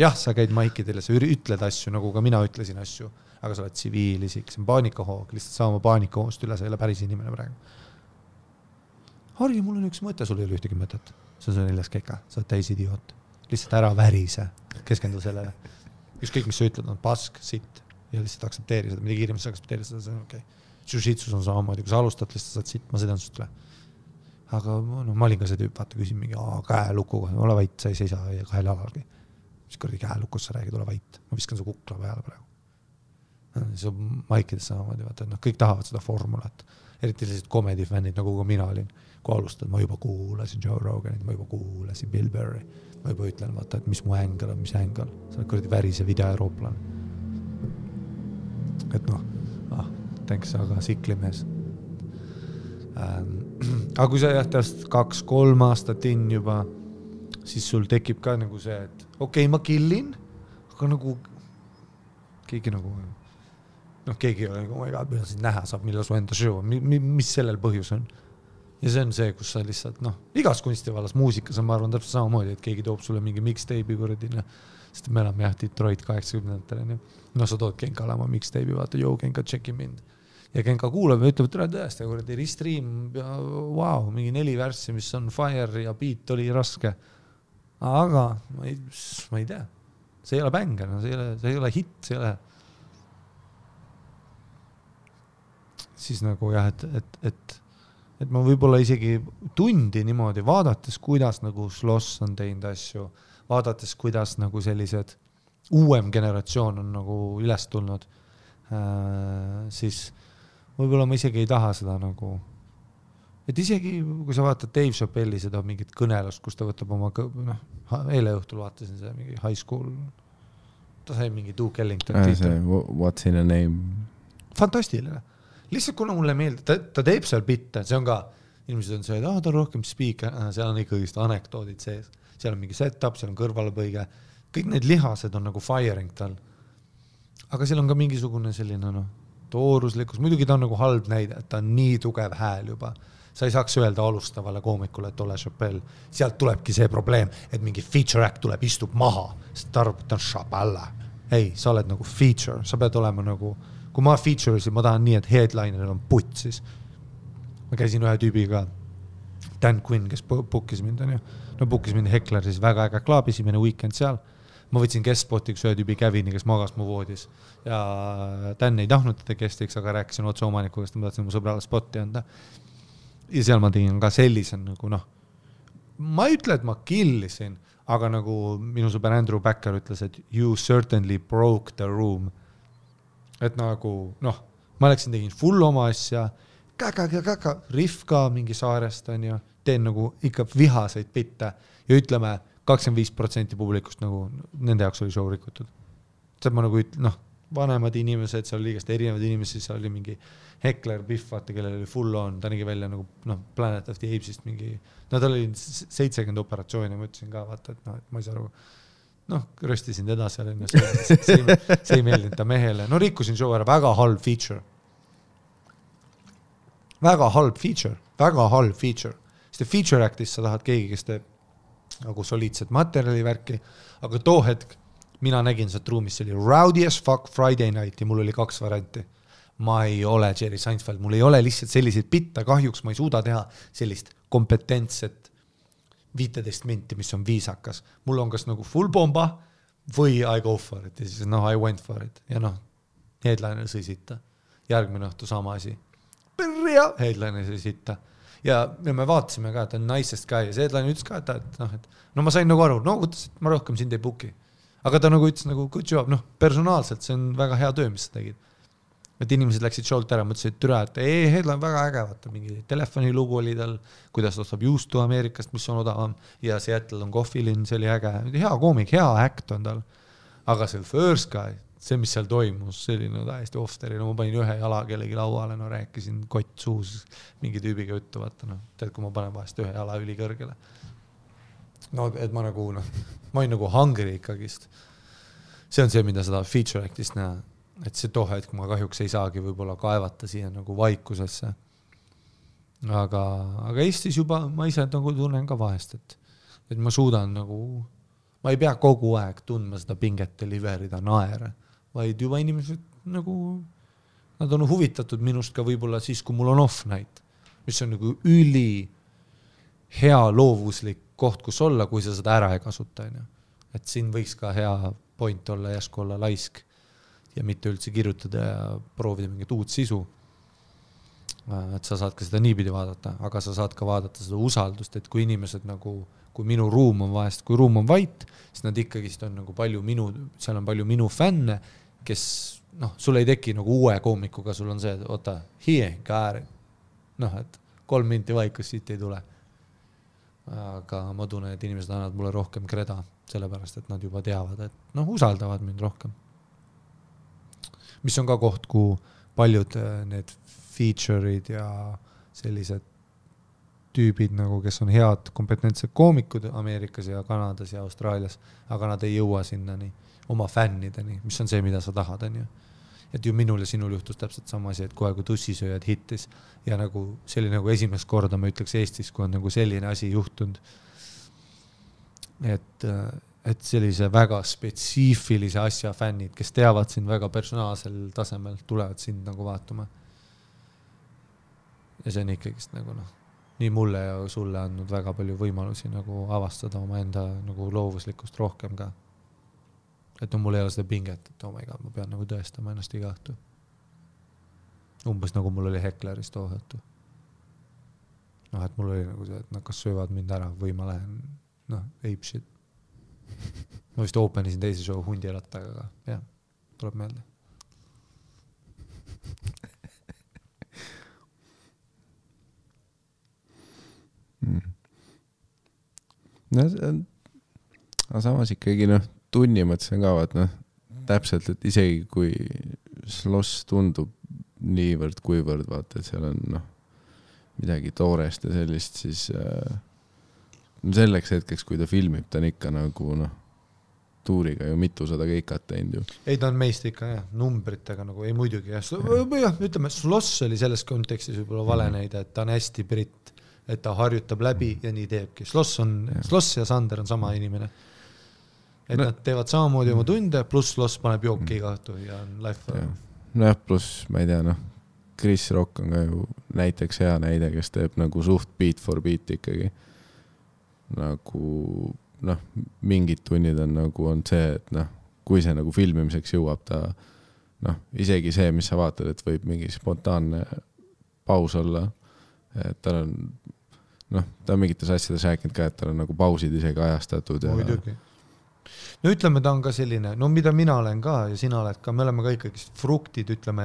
Jah, sa käid maikidele, sa ütled asju, nagu ka mina ütlesin asju, aga sa oled tsiviilisik, see on paanikahoog, lihtsalt saama paanikahoost üle, sa ei ole päris inimene praegu. Hargi, mul on üks mõte, sul ei ole ühtegi mõtet. See on 4. keka, sa oled täis idioot. Lihtsalt ära värise, keskendu sellele. Ükskõik, mis sa ütled, on pask, sitt ja lihtsalt aksepteeri seda, mida kiiremalt sa aksepteeri seda, see on okei. Shitsus on samamoodi, kui sa alustad, lihtsalt saad sitt, ma sõidan sust üle. Aga ma olin ka see tüüp, vaata, küsin mingi käelukuga, ole vait, sa ei seisa kahel alalgi. Mis kordi käelukus sa räägid, ole vait. Ma viskan su kukla peale praegu. See on maikides samamoodi, vaata, kõik tahavad seda formulat. Eriti sellised komedifännid, nagu ka mina olin. Kui alustad, ma juba kuulasin Joe Roganit, ma juba kuulasin Bill Burry. Ma juba ütlen, vaata, et mis mu ängel on, mis ängel. See on kordi värise video-eurooplan. Et thanks, aga siklimees. Aga kui sa jähtast 2-3 aastat in juba, siis sul tekib ka nagu see, et okei, ma killin, aga nagu keegi nagu keegi ei ole nagu, mida sind näha saab, millal su enda show, mis sellel põhjus on. Ja see on see, kus sa lihtsalt, igas kunstivallas muusikas on, ma arvan, täpselt samamoodi, et keegi toob sulle mingi mixtape'i kuradina, sest me elame Detroit 80-ndatel. Sa tood Kenkale oma mixtape'i, vaata, Kenka, tšeki mind. Ja Kenka kuulab ja ütleb, et tõesti, kuradi restream, wow, mingi 4 värssi, mis on fire ja beat oli raske. Aga ma ei tea. See ei ole bänger, see ei ole hit, see ei ole. Siis nagu jah, et ma võib-olla isegi tundi niimoodi vaadates, kuidas nagu Sloss on teinud asju, vaadates, kuidas nagu sellised uuem generatsioon on nagu üles tulnud, siis võib-olla ma isegi ei taha seda nagu, et isegi kui sa vaatad Dave Chappelli seda mingit kõnelust, kus ta võtab oma, eile õhtul vaatasin seda mingi high school, ta sai mingi Duke Ellington What's in a name? Fantastiline. Lihtsalt kuna mulle meeldib, ta teeb seal bitte, see on ka, inimesed on see, et ta on rohkem speaker, seal on ikkagi anekdoodid sees, seal on mingi setup, seal on kõrvalepõige, kõik need lihased on nagu firing tal. Aga seal on ka mingisugune selline tooruslikkus, muidugi ta on nagu halb näide, et ta on nii tugev hääl juba. Sa ei saaks öelda alustavale koomikule, et ole Chappelle. Sealt tulebki see probleem, et mingi feature act tuleb, istub maha, sest ta arvab, et ta on Chappelle. Ei, sa oled nagu feature, sa pead olema nagu, kui ma feature'isin, ma tahan nii, et headlineril on putt siis. Ma käisin ühe tüübiga, Dan Quinn, kes bookis mind, bookis mind Heckleris, väga äge klaab, esimene weekend seal. Ma võtsin guest-spotiks ühe tüübi Kevini, kes magas mu voodis. Ja Dan ei tahtnud teda guestiks, aga rääkisin otse omanikuga, sest ma tahtsin mu sõbrale spotti anda. Ja seal ma tegin ka sellisen nagu ma ei ütle, et ma killisin, aga nagu minu sõber Andrew Backer ütles, et you certainly broke the room. Et nagu, ma läksin, tegin full oma asja, riff ka mingi saarest on ja teen nagu ikka vihaseid bitte ja ütleme 25% publikust nagu nende jaoks oli show rikutud. See ma nagu vanemad inimesed, seal oli liigast erinevad inimesed, seal oli mingi Heckler, Biff, vaata, kellel oli full on, ta nägi välja nagu Planet of the Apesist mingi, tal oli 70 operatsiooni, ma ütlesin ka, vaata, et et ma ei saa aru, röstisin teda seal, see ei meeldinud ta mehele, rikkusin show ära, väga halb feature. Väga halb feature. Sest feature actis sa tahad keegi, kes teeb nagu soliidset materjali värki, aga too hetk mina nägin sealt ruumis, see oli Rowdy as fuck Friday night ja mul oli 2 varianti. Ma ei ole Jerry Seinfeld, mul ei ole lihtsalt selliseid bitte, kahjuks ma ei suuda teha sellist kompetentset 15 minti, mis on viisakas. Mul on kas nagu full bomba või I go for it ja siis I went for it ja headliner sõi sitta. Järgmine õhtu sama asi. Headliner sõi sitta. Ja me vaatasime ka, et on nicest guy ja see headliner ütles ka, et ma sain nagu aru, võttes, et ma rohkem sind ei booki. Aga ta nagu ütles nagu good job, personaalselt see on väga hea töö, mis sa tegid. Et inimesed läksid show'lt ära, mõtlesid, et türa, et headline on väga äge, vaata, mingi telefonilugu oli tal, kuidas ta ostab juustu Ameerikast, mis on odavam ja Seattle on Coffeelin, see oli äge, hea koomik, hea act on tal. Aga see first guy, see, mis seal toimus, see oli täiesti off-steri, ma panin ühe jala kellegi lauale, rääkisin kott suus mingi tüübiga juttu, vaata, tead, kui ma panen vahest ühe jala ülikõrgele. Et ma nagu, ma olin nagu hungry ikkagist. See on see, mida seda feature actist näha, et see tohe, et ma kahjuks ei saagi võib-olla kaevata siia nagu vaikusesse. Aga Eestis juba ma ise nagu tunnen ka vahest, et ma suudan nagu, ma ei pea kogu aeg tundma seda pinget deliverida naere, vaid juba inimesed nagu, nad on huvitatud minust ka võib-olla siis, kui mul on off night, mis on nagu üli hea loovuslik koht, kus olla, kui sa seda ära ei kasuta. Et siin võiks ka hea point olla, jäsku olla laisk ja mitte üldse kirjutada ja proovida mingit uut sisu. Et sa saad ka seda niipidi vaadata, aga sa saad ka vaadata seda usaldust, et kui inimesed nagu, kui minu ruum on vahest, kui ruum on vait, siis nad ikkagist on nagu palju seal on palju minu fänne, kes, sul ei teki nagu uue koomikuga, sul on see, et oota, kääri. Et 3 minti vaikus siit ei tule. Aga ma tunnen, et inimesed annavad mulle rohkem kreda, sellepärast, et nad juba teavad, et usaldavad mind rohkem. Mis on ka koht, kui paljud need feature'id ja sellised tüübid, nagu, kes on head kompetentsed koomikud Ameerikas ja Kanadas ja Austraalias, aga nad ei jõua sinnani oma fännideni, mis on see, mida sa tahad. Et ju minul ja sinul juhtus täpselt sama asi, et kohe kui tussisööjad hittis ja nagu see oli nagu esimest korda, ma ütleks Eestis, kui on nagu selline asi juhtunud, et sellise väga spetsiifilise asja fännid, kes teavad sind väga personaalsel tasemel, tulevad sind nagu vaatama. Ja see on ikkagist nagu nii mulle ja sulle andnud väga palju võimalusi nagu avastada oma enda nagu loovuslikust rohkem ka. Et mul ei ole seda pinget, et oh my god, ma pean nagu tõestama ennast iga õhtu. Umbes nagu mul oli Heckleris too õhtu. Et mul oli nagu see, et nad kas söövad mind ära või ma lähen, ape shit. ma vist openisin teise show Hundirattaga, aga jah, tuleb meelde. No, aga samas ikkagi tunni mõttes ka vaat täpselt, et isegi kui Sloss tundub niivõrd kuivõrd vaata, et seal on midagi toorest ja sellist, siis selleks hetkeks, kui ta filmib, ta on ikka nagu tuuriga ju mitusada keikat teinud ju. Ei, ta on meist ikka jah, numbritega nagu, ei muidugi jah. Ütleme, Sloss oli selles kontekstis võib-olla vale näide, et ta on hästi britt, et ta harjutab läbi ja nii teebki. Sloss ja Sander on sama inimene. Et nad teevad samamoodi oma tunde, pluss Sloss paneb jooki iga õhtu ja on life. Jah, pluss, ma ei tea, Chris Rock on ka ju näiteks hea näide, kes teeb nagu suht beat for beat ikkagi. Nagu, mingid tunnid on nagu on see, et kui see nagu filmimiseks jõuab ta, isegi see, mis sa vaatad, et võib mingi spontaanne paus olla, et tal on, ta on mingites asjades rääkinud ka, et tal on nagu pausid isegi ajastatud. Muidugi. No ütleme, ta on ka selline, mida mina olen ka ja sina oled ka, me oleme ka ikkagi fruktid, ütleme,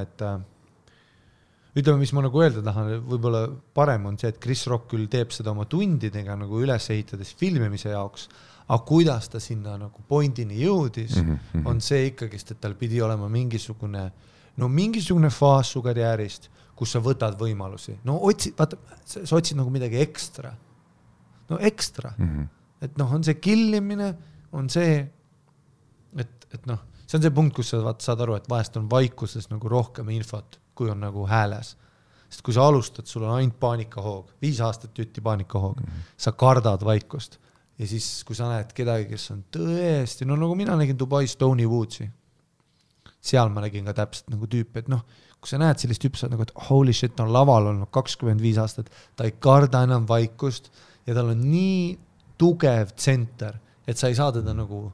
mis ma nagu öelda tahan, võib-olla parem on see, et Chris Rock küll teeb seda oma tundidega nagu üles ehitades filmimise jaoks, aga kuidas ta sinna nagu pointini jõudis, on see ikkagi, et tal pidi olema mingisugune faas su karjäärist, kus sa võtad võimalusi. Sa otsid nagu midagi ekstra. Ekstra. Et on see killimine, on see, et see on see punkt, kus sa saad aru, et vahest on vaikuses nagu rohkem infot, kui on nagu hääles. Sest kui sa alustad, sul on ainult paanikahoog, 5 aastat jutti paanikahoog, sa kardad vaikust. Ja siis, kui sa näed kedagi, kes on tõesti, nagu mina nägin Dubais Tony Woodsi, seal ma nägin ka täpselt nagu tüüpi, et kui sa näed sellist tüüpi, sa nagu, et holy shit, on laval olnud 25 aastat, ta ei karda enam vaikust ja tal on nii tugev tsenter, et sa ei saa teda nagu,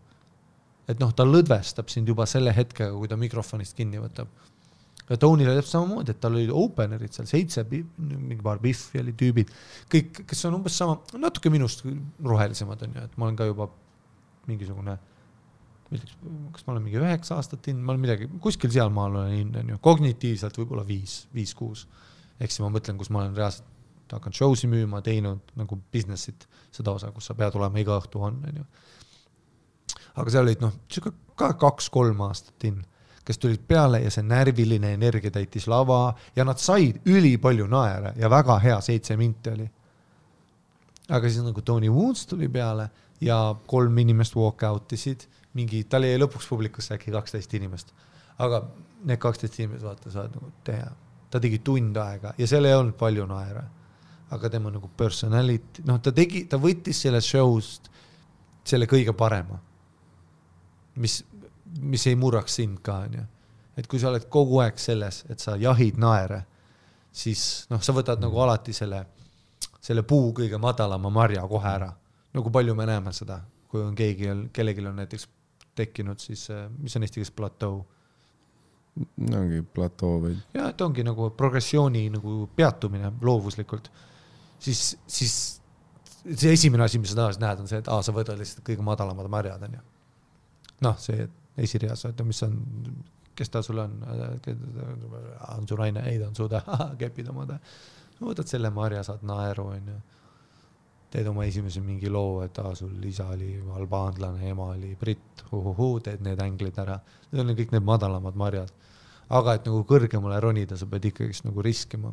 et ta lõdvestab sind juba selle hetkega, kui ta mikrofonist kinni võtab. Ja Tonyle teeb samamoodi, et tal oli openerid seal 7, mingi paar Biffi oli tüübid, kõik, kes on umbes sama, natuke minust rohelisemad on ju, et ma olen ka juba mingisugune, kas ma olen mingi 9 aastat ma olen midagi, kuskil seal maal olen on ju, kognitiivselt võib-olla 5-6, ehk siis ma mõtlen, kus ma olen reaalselt hakanud showsi müüma, teinud nagu businessit, seda osa, kus sa pead olema iga õhtu on ju. Aga seal olid ka 2-3 aastat kes tulid peale ja see närviline energia täitis lava ja nad said üli palju naere ja väga hea 7 minti oli. Aga siis nagu Tony Woods tuli peale ja 3 inimest walk out'isid, tal jäi lõpuks publikusse äkki 12 inimest. Aga need 12 inimest vaata saad nagu teha. Ta tegi tund aega ja seal ei olnud palju naere. Aga tema nagu personality, ta võttis selle showst selle kõige parema. Mis ei murraks sind ka, on ju. Et kui sa oled kogu aeg selles, et sa jahid naere, siis sa võtad nagu alati selle puu kõige madalama marja kohe ära. Nagu palju me näeme seda, kui on kellelgi on näiteks tekkinud siis, mis on eesti keeles plateau? Ongi plateau või? Ja, et ongi nagu progressiooni nagu peatumine loovuslikult. Siis see esimene asi, mis sa tahas näed, on see, et sa võtad lihtsalt kõige madalamad marjad, on ju. See esirias, mis on, kes ta sul on su naine, ei ta on suuda, kepid omada. Võtad selle marja, saad naeru, on ju. Teed oma esimese mingi loo, et sul isa oli albaanlane, ema oli britt, teed need änglid ära. Need on kõik need madalamad marjad. Aga et nagu kõrgemale ronida, sa pead ikkagi nagu riskima.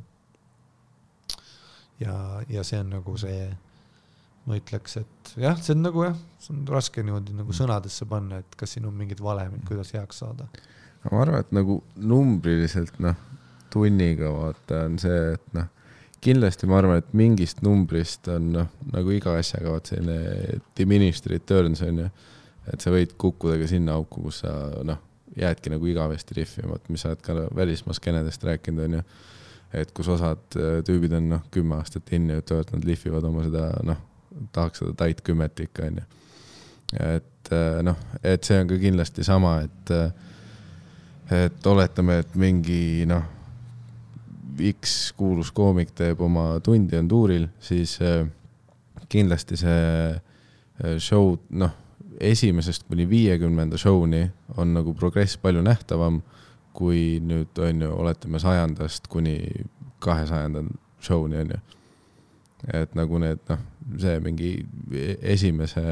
Ja see on nagu see, ma ütleks, et jah, see on nagu see on raske niimoodi nagu sõnadesse panna, et kas siin on mingid valemid, kuidas heaks saada. Ma arvan, et nagu numbriliselt tunniga vaata on see, et kindlasti ma arvan, et mingist numbrist on nagu iga asjaga vaat selline diminished returns on ju, et sa võid kukkuda ka sinna auku, kus sa jäädki nagu igavesti riffima, mis sa oled ka välismaskenedest rääkinud on ju, et kus osad tüübid on 10 aastat inni, et nad lihvivad oma seda tahaks seda tait 10 ikka on ju. Et see on ka kindlasti sama, et oletame, et mingi X kuulus koomik teeb oma tundi on tuuril, siis kindlasti see show esimesest kuni 50. show'ni on nagu progress palju nähtavam, kui nüüd on ju, oletame 100. kuni 200. show'ni on ju. Et nagu need, see mingi esimese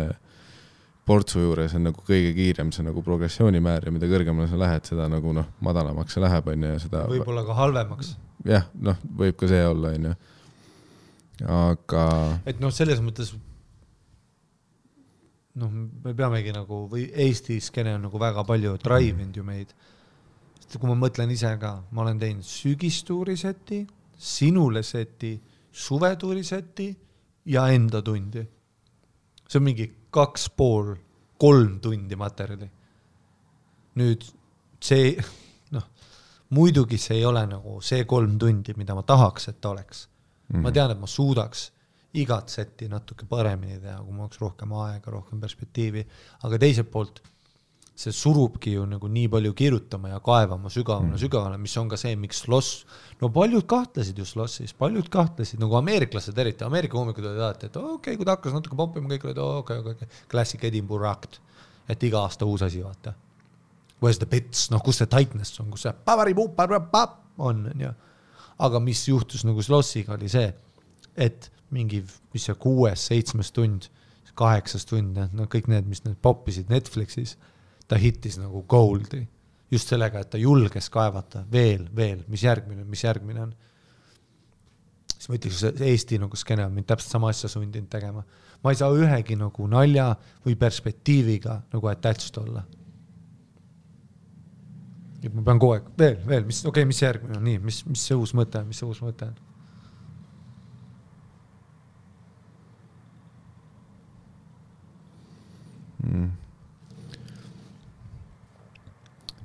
portsu juures on nagu kõige kiirem see nagu progressioonimäär ja mida kõrgemale sa lähed, seda nagu madalamaks see läheb on ju. Seda võib-olla ka halvemaks. Jah, võib ka see olla on ju. Aga... Et selles mõttes me peamegi nagu, või Eesti skene on nagu väga palju drive-ind ju meid. Kui ma mõtlen ise ka, ma olen teinud sügistuuri seti, sinule seti, suvetuuri seti ja enda tundi. See on mingi 2,5-3 tundi materjali. Nüüd see, muidugi see ei ole nagu see 3 tundi, mida ma tahaks, et ta oleks. Ma tean, et ma suudaks igat seti natuke paremini teha, kui ma oleks rohkem aega, rohkem perspektiivi, aga teiselt poolt see surubki ju nagu nii palju kirjutama ja kaevama sügavale, mis on ka see, miks Sloss, paljud kahtlesid ju Slossis, nagu ameeriklased eriti, Ameerika hoomikud olid alati, et okei, kui ta hakkas natuke poppima, kõik olid okei, Classic Edinburgh Act, et iga aasta uus asi, vaata. Where's the bits, kus see tightness on, kus see on, ja. Aga mis juhtus nagu Slossiga oli see, et mingi, mis see 6-7 tund, 8 tund, kõik need, mis need poppisid Netflixis, ta hittis nagu goldi. Just sellega, et ta julges kaevata veel, mis järgmine on. Siis ma ütleks, et Eesti nagu skene on mind täpselt sama asja sundinud tegema. Ma ei saa ühegi nagu nalja või perspektiiviga nagu attached olla. Ja ma pean kogu aeg veel, mis järgmine on, nii, mis see uus mõte on.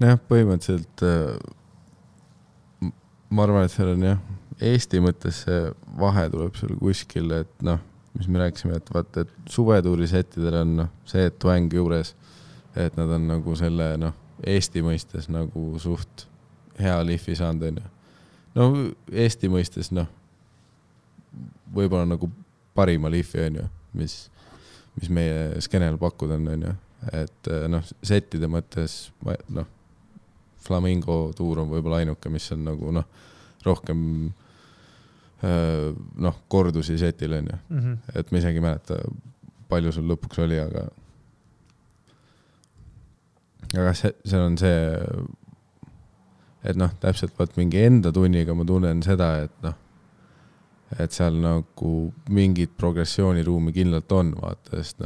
Põhimõtteliselt ma arvan, et seal on Eesti mõttes see vahe tuleb seal kuskil, et mis me rääkisime, et vaata, et suvetuuri settidel on see, et twang juures, et nad on nagu selle Eesti mõistes nagu suht hea lihvi saanud on ju. Eesti mõistes võib-olla nagu parima lihvi on ju, mis meie skenel pakkuda on ju. Et settide mõttes Flamingo tuur on võib-olla ainuke, mis on nagu rohkem kordusi setil on ju. Et ma isegi mäleta, palju sul lõpuks oli, aga see on see, et täpselt vaat mingi enda tunniga ma tunnen seda, et seal nagu mingit progressiooniruumi kindlalt on, vaata, sest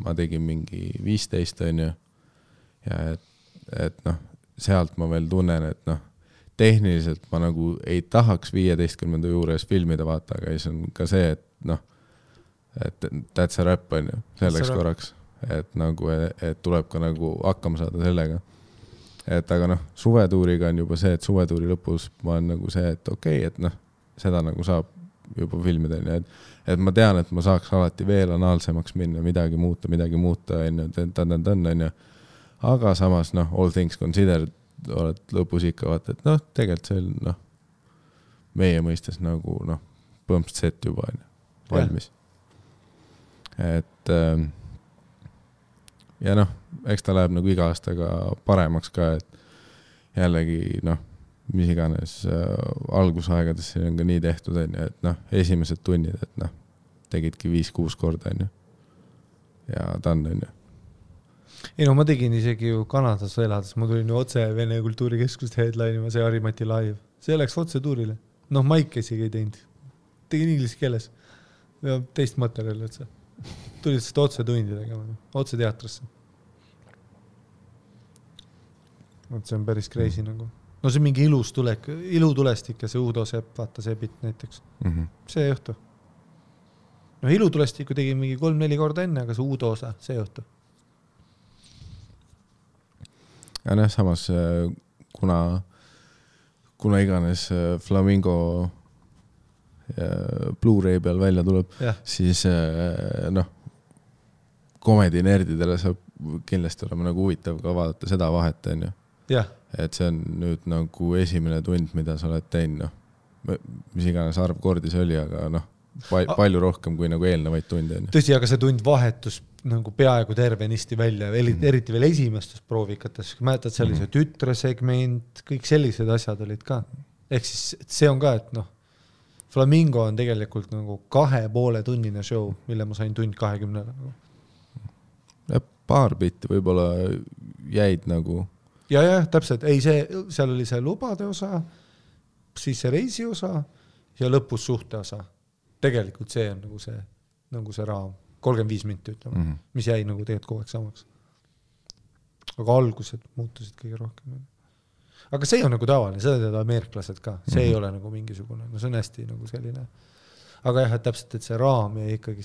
ma tegin mingi 15 on ju, ja et sealt ma veel tunnen, et tehniliselt ma nagu ei tahaks 15. juures filmida, vaata, aga siis on ka see, et that's a rap on ju, selleks korraks, et nagu, et tuleb ka nagu hakkama saada sellega. Et aga suvetuuriga on juba see, et suvetuuri lõpus ma on nagu see, et okei, et seda nagu saab juba filmida, et ma tean, et ma saaks alati veel anaalsemaks minna, midagi muuta, on ju, aga samas, all things considered, oled lõpus ikka vaata, et tegelikult see on, meie mõistes nagu, põmpst set juba on valmis. Et ja eks ta läheb nagu iga aastaga paremaks ka, et jällegi, mis iganes algusaegades siin on ka nii tehtud, et esimesed tunnid, et tegidki 5-6 korda, ja ta on. Ei ma tegin isegi ju Kanadas elades, ma tulin ju otse Vene kultuurikeskust headline'ima, see Harimati live. See läks otse tuurile. Maik isegi ei teinud. Tegin inglise keeles. Ja teist materjali otse. Tulid seda otse tundi tegema, otse teatrisse. See on päris crazy nagu. See on mingi ilutulestik ja see Uudo Sepp, vaata see bit näiteks. See õhtu. Ilutulestiku tegin mingi 3-4 korda enne, aga see Uudo osa, see õhtu. Ja samas kuna iganes Flamingo Blu-ray peal välja tuleb, siis komedi nerdidele saab kindlasti olema nagu huvitav ka vaadata seda vahet, on ju. Et see on nüüd nagu esimene tund, mida sa oled teinud, mis iganes arv kordi see oli, aga palju rohkem kui nagu eelnevaid tunde. Tõsi, aga see tund vahetus nagu peaaegu tervenisti välja, eriti veel esimestes proovikates, mäletad sellise tütresegment, kõik sellised asjad olid ka. Ehk siis see on ka, et noh, Flamingo on tegelikult nagu 2,5 tunnine show, mille ma sain tund 20 nagu. Ja paar bitti võib-olla jäid nagu. Ja, täpselt. Ei, seal oli see lubade osa, siis see reisi osa ja lõpus suhte osa. Tegelikult see on nagu see raam. 35 minti ütleme, mis jäi nagu tegelikult kogu aeg samaks. Aga algused muutusid kõige rohkem. Aga see on nagu tavaline, seda teevad ameeriklased ka. See ei ole nagu mingisugune, no see on hästi nagu selline. Aga jah, et täpselt, et see raam jäi ikkagi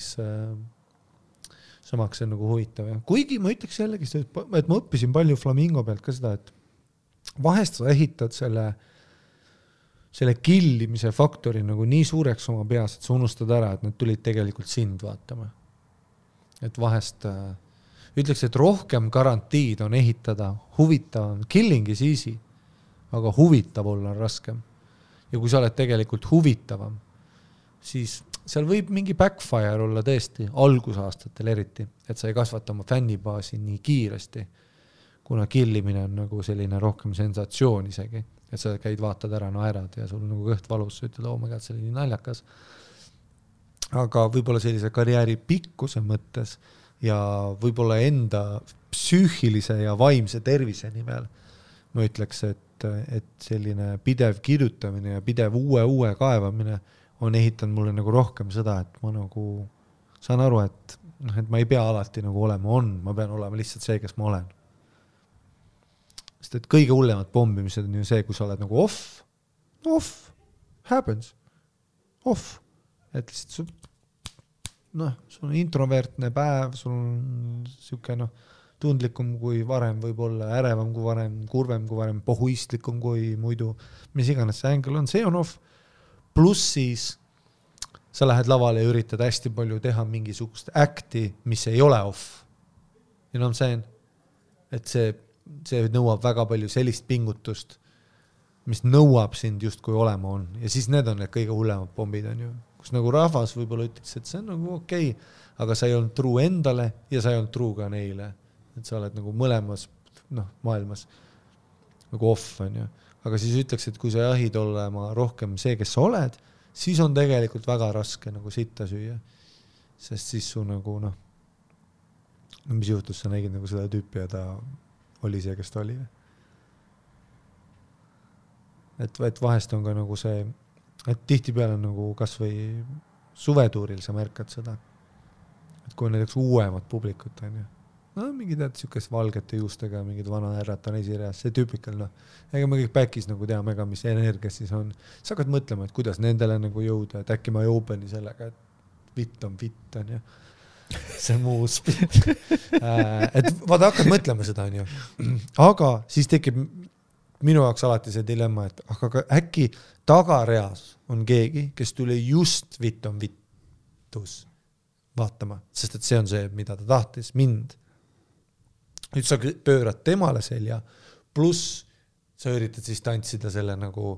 samaks on nagu huvitav. Kuigi ma ütleks jällegi, et ma õppisin palju Flamingo pealt ka seda, et vahest sa ehitad selle killimise faktori nagu nii suureks oma peas, et sa unustad ära, et nad tulid tegelikult sind vaatama. Et vahest ütleks, et rohkem garantiid on ehitada huvitavam. Killing is easy, aga huvitav olla on raskem. Ja kui sa oled tegelikult huvitavam, siis seal võib mingi backfire olla tõesti, algusaastatel eriti, et sa ei kasvata oma fännibaasi nii kiiresti, kuna killimine on nagu selline rohkem sensatsioon isegi, et sa käid, vaatad ära, naerad ja sul on nagu kõht valus, sa ütled, oh my god, see oli nii naljakas. Aga võib-olla sellise karjääri pikkuse mõttes ja võib-olla enda psüühilise ja vaimse tervise nimel ma ütleks, et selline pidev kirjutamine ja pidev uue kaevamine on ehitanud mulle nagu rohkem seda, et ma nagu saan aru, et ma ei pea alati nagu olema ma pean olema lihtsalt see, kes ma olen. Sest et kõige hullemad pombimised on ju see, kui sa oled nagu off, happens, off. Et lihtsalt sul on introvertne päev, sul on siuke tundlikum kui varem, võib-olla ärevam kui varem, kurvem kui varem, pohuistlikum kui muidu, mis iganes see ängel on, see on off. Pluss siis sa lähed lavale ja üritad hästi palju teha mingisugust acti, mis ei ole off. You know what I'm saying? Et see nõuab väga palju sellist pingutust, mis nõuab sind just kui olema on. Ja siis need on need kõige hullemad pommid on ju. Kus nagu rahvas võib-olla ütleks, et see on nagu okei, aga sa ei olnud true endale ja sa ei olnud true ka neile. Et sa oled nagu mõlemas maailmas nagu off on ju. Aga siis ütleks, et kui sa jahid olema rohkem see, kes sa oled, siis on tegelikult väga raske nagu sitta süüa. Sest siis su nagu mis juhtus, sa nägid nagu seda tüüpi ja ta oli see, kes ta oli. Et vahest on ka nagu see, et tihti peale nagu kas või suvetuuril sa märkad seda, et kui näiteks uuemad publikut on ju, mingi tead siukest valgete juustega, mingid vana ärrata on esireas, see tüüpikal ega me kõik backis nagu teame ka, mis energias siis on. Sa hakkad mõtlema, et kuidas nendele nagu jõuda, et äkki ma ei openi sellega, et vitt on ju. See on muu spit. Et vaata hakkad mõtlema seda on ju. Aga siis tekib minu jaoks alati see dilemma, et aga äkki tagareas on keegi, kes tuli just vitt on vittus vaatama, sest et see on see, mida ta tahtis mind. Nüüd sa pöörad temale selja, pluss sa üritad siis tantsida selle nagu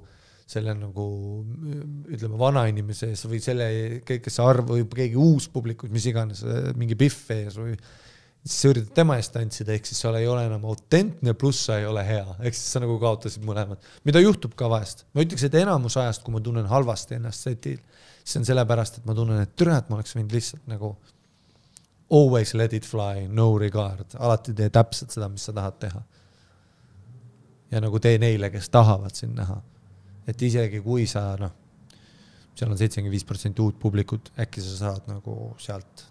ütleme vana inimese ees või selle, kes arv või keegi uus publikus, mis iganes, mingi Biff ees või siis sa üritad tema eest tantsida, ehk siis sa ei ole enam autentne, pluss sa ei ole hea, ehk siis sa nagu kaotasid mõlemad. Mida juhtub ka vahest? Ma ütleks, et enamus ajast, kui ma tunnen halvasti ennast setil, siis on sellepärast, et ma tunnen, et türät ma oleks võinud lihtsalt nagu always let it fly, no regard. Alati tee täpselt seda, mis sa tahad teha. Ja nagu tee neile, kes tahavad siin näha. Et isegi kui sa, seal on 75% uut publikut, äkki sa saad nagu sealt,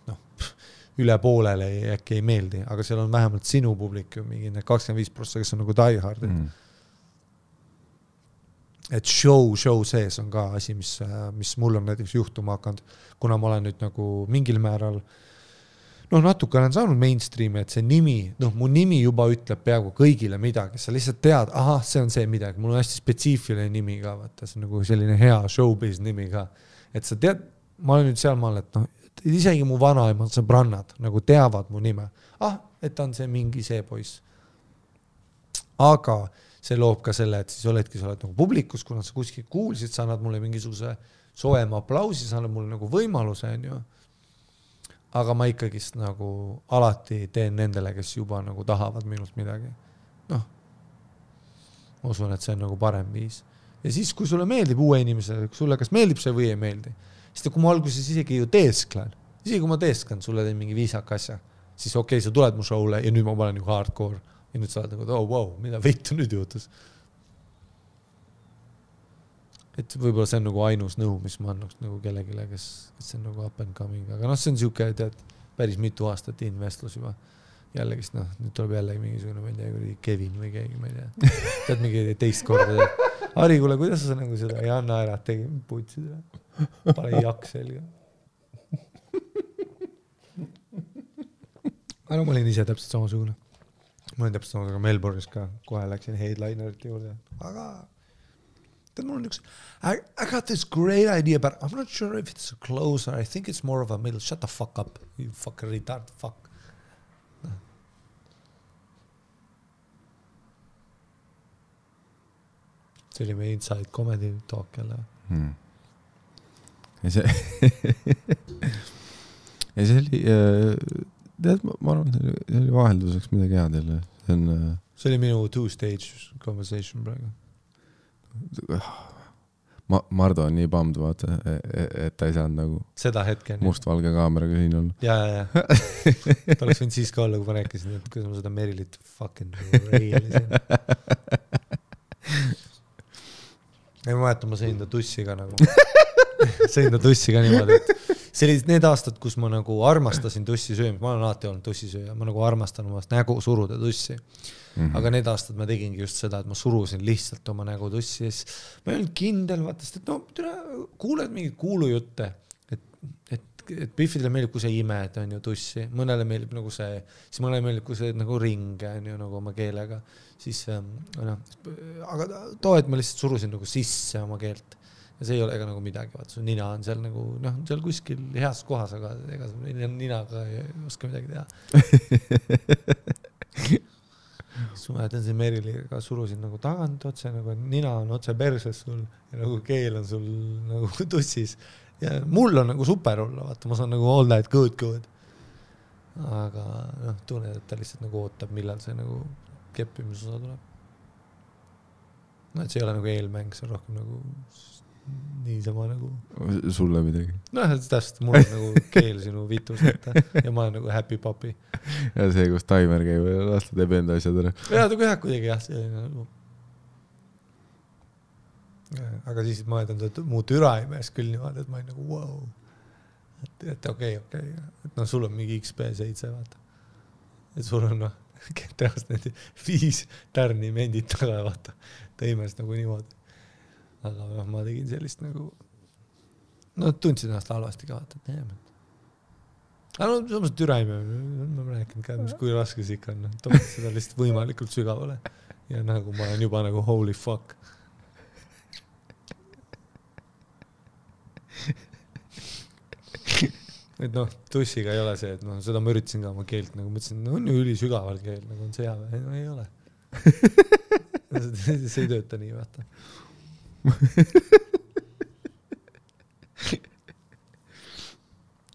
üle poolele äkki ei meeldi, aga seal on vähemalt sinu publik ju mingi 25%, kes on nagu die hard. Et show sees on ka asi, mis mul on näiteks juhtuma hakanud, kuna ma olen nüüd nagu mingil määral natuke olen saanud mainstreami, et see nimi, mu nimi juba ütleb peaaegu kõigile midagi, sa lihtsalt tead, see on see midagi, mul on hästi spetsiifiline nimi ka, vaata, see on nagu selline hea showbiz nimi ka, et sa tead, ma olen nüüd seal maal, et isegi mu vanaemad sõbrannad nagu teavad mu nime, et ta on see mingi see poiss. Aga see loob ka selle, et siis oledki, sa oled nagu publikus, kuna sa kuskil kuulsid, sa annad mulle mingisuguse soema aplausi, sa annad mulle nagu võimaluse, on ju. aga ma ikkagist nagu alati teen nendele, kes juba nagu tahavad minust midagi. Noh, ma usun, et see on nagu parem viis. Ja siis, kui sulle meeldib uue inimesele, kui sulle kas meeldib see või ei meeldi, siis kui ma alguses isegi ju teesklen, isegi kui ma teesklen, sulle teen mingi viisaka asja, siis okei, sa tuled mu show'le ja nüüd ma panen ju hardcore ja nüüd sa oled nagu, oh wow, mida veitu nüüd juhtus. Et võib-olla see on nagu ainus nõu, mis ma annaks nagu kellegile, kes see on nagu up and coming, aga noh, see on siuke, tead, päris mitu aastat investlus juba. Jällegist, noh, nüüd tuleb jällegi mingisugune, ma ei tea, Kevin või keegi, ma ei tea. Tead mingi teist korda. Ari, kuule, kuidas sa nagu seda ei anna ära, tegi putsid ära. Pane jaks selga. Aga no, ma olin ise täpselt samasugune. Ma olin täpselt samasugune Melbourne'is ka. Kohe läksin headlinerite juurde. Aga tead, mul on üks... I got this great idea, but I'm not sure if it's a closer. I think it's more of a middle. Shut the fuck up, you fucking retard. Fuck. See oli meie inside comedy talk jälle. Ja see oli, tead, ma arvan, see oli vahelduseks midagi head jälle. See oli minu two-stage conversation praegu. Mardo on nii bummed, vaata, et ta ei saanud nagu seda hetken mustvalge kaameraga siin olla. Ja. Ta oleks võinud siis ka olla, kui ma rääkisin, et kuidas ma seda Merilit fucking reilisin. Ei ma mäletan, ma sõin ta tussiga nagu. Sõin ta tussiga niimoodi, et see oli need aastad, kus ma nagu armastasin tussi söömist. Ma olen alati olnud tussisööja. Ma nagu armastan omast nägu suruda tussi. Aga need aastad ma tegingi just seda, et ma surusin lihtsalt oma nägu tussi. Ma ei olnud kindel, vaatast, et no, kuuled mingid kuulujutte, et Biffidele meeldib, kui see ime, et on ju tussi. Mõnele meeldib nagu see, siis mõnele meeldib, kui see nagu ring on ju nagu oma keelega. Siis, no, aga too, et ma lihtsalt surusin nagu sisse oma keelt. Ja see ei ole ega nagu midagi, vaata, su nina on seal nagu, noh, seal kuskil heas kohas, aga ega ninaga ei oska midagi teha. Siis ma mäletan see Meriliga surusin nagu tagant otse, nagu nina on otse perses sul ja nagu keel on sul nagu tussis. Ja mul on nagu super olla, vaata, ma saan nagu all that good. Aga noh, tunnen, et ta lihtsalt nagu ootab, millal see nagu keppimisosa tuleb. No, et see ei ole nagu eelmäng, see on rohkem nagu niisama nagu... Sulle midagi? No, täpselt, mul on nagu keel sinu vitus ja ma olen nagu happy puppy. Ja see, kus taimer käib ja lasta teeb enda asjad ära. Ja, ta kuidagi kuidagi, jah, see nagu... Aga siis ma mõtlen, et muu türa ei mees küll niimoodi, et ma olin nagu wow. Et okei. Et no sul on mingi XP7, vaata. Et sul on noh, tehast need 5 tärni mendid taga, vaata. Ta imes nagu niimoodi. Aga noh, ma tegin sellist nagu... No tundsin ennast halvasti ka, vaata, et neem. Aga no, samas türa ei mea. Ma rääkinud ka, kui raske see ikka on. Toovad seda lihtsalt võimalikult sügavale. Ja nagu ma olen juba nagu holy fuck. Et noh, tussiga ei ole see, et noh, seda ma üritasin ka oma keelt, nagu mõtlesin, no on ju üli sügaval keel, nagu on sea, no ei ole. See ei tööta nii, vaata.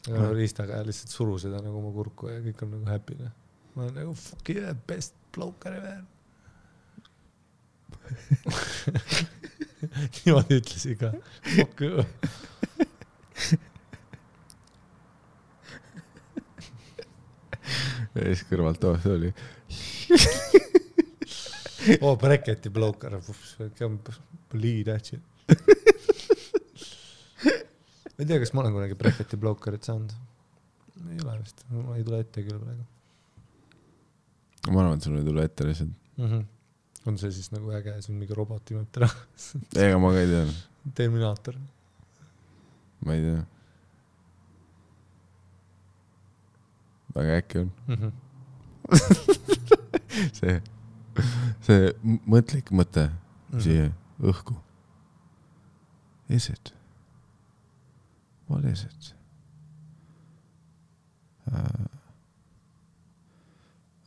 Aga riistaga lihtsalt suru seda nagu oma kurku ja kõik on nagu happy. Ma olen nagu fuck yeah, best bloker ever. Niimoodi ütlesin ka. Fuck yeah. Ja siis kõrvalt see oli. Bracketi bloker. Bleed actually. Ma ei tea, kas ma olen kunagi bracketi blokerit saanud. Ei ole vist. Ma ei tule ette küll praegu. Ma arvan, et sul ei tule ette lihtsalt. On see siis nagu äge, see on mingi roboti mõtte ära. Ega ma ka ei tea. Terminaator. Ma ei tea. Väga äkki on. see mõtlik mõte siia õhku. Is it? What is it?